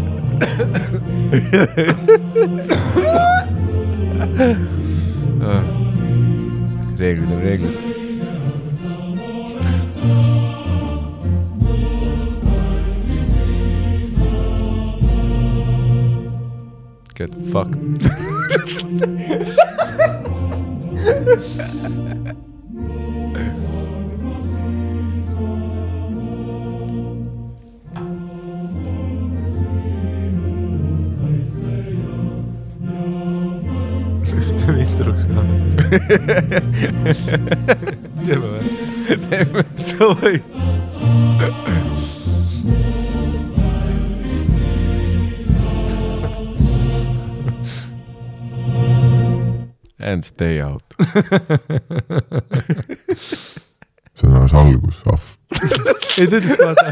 Speaker 2: Reeglid on reeglid. Get fucked.
Speaker 1: Teeme introks ka. Teeme või?
Speaker 2: Teeme.
Speaker 1: Davai.
Speaker 2: And stay out.
Speaker 4: See on alles algus, ahv.
Speaker 1: Ei, ta ütles vaata.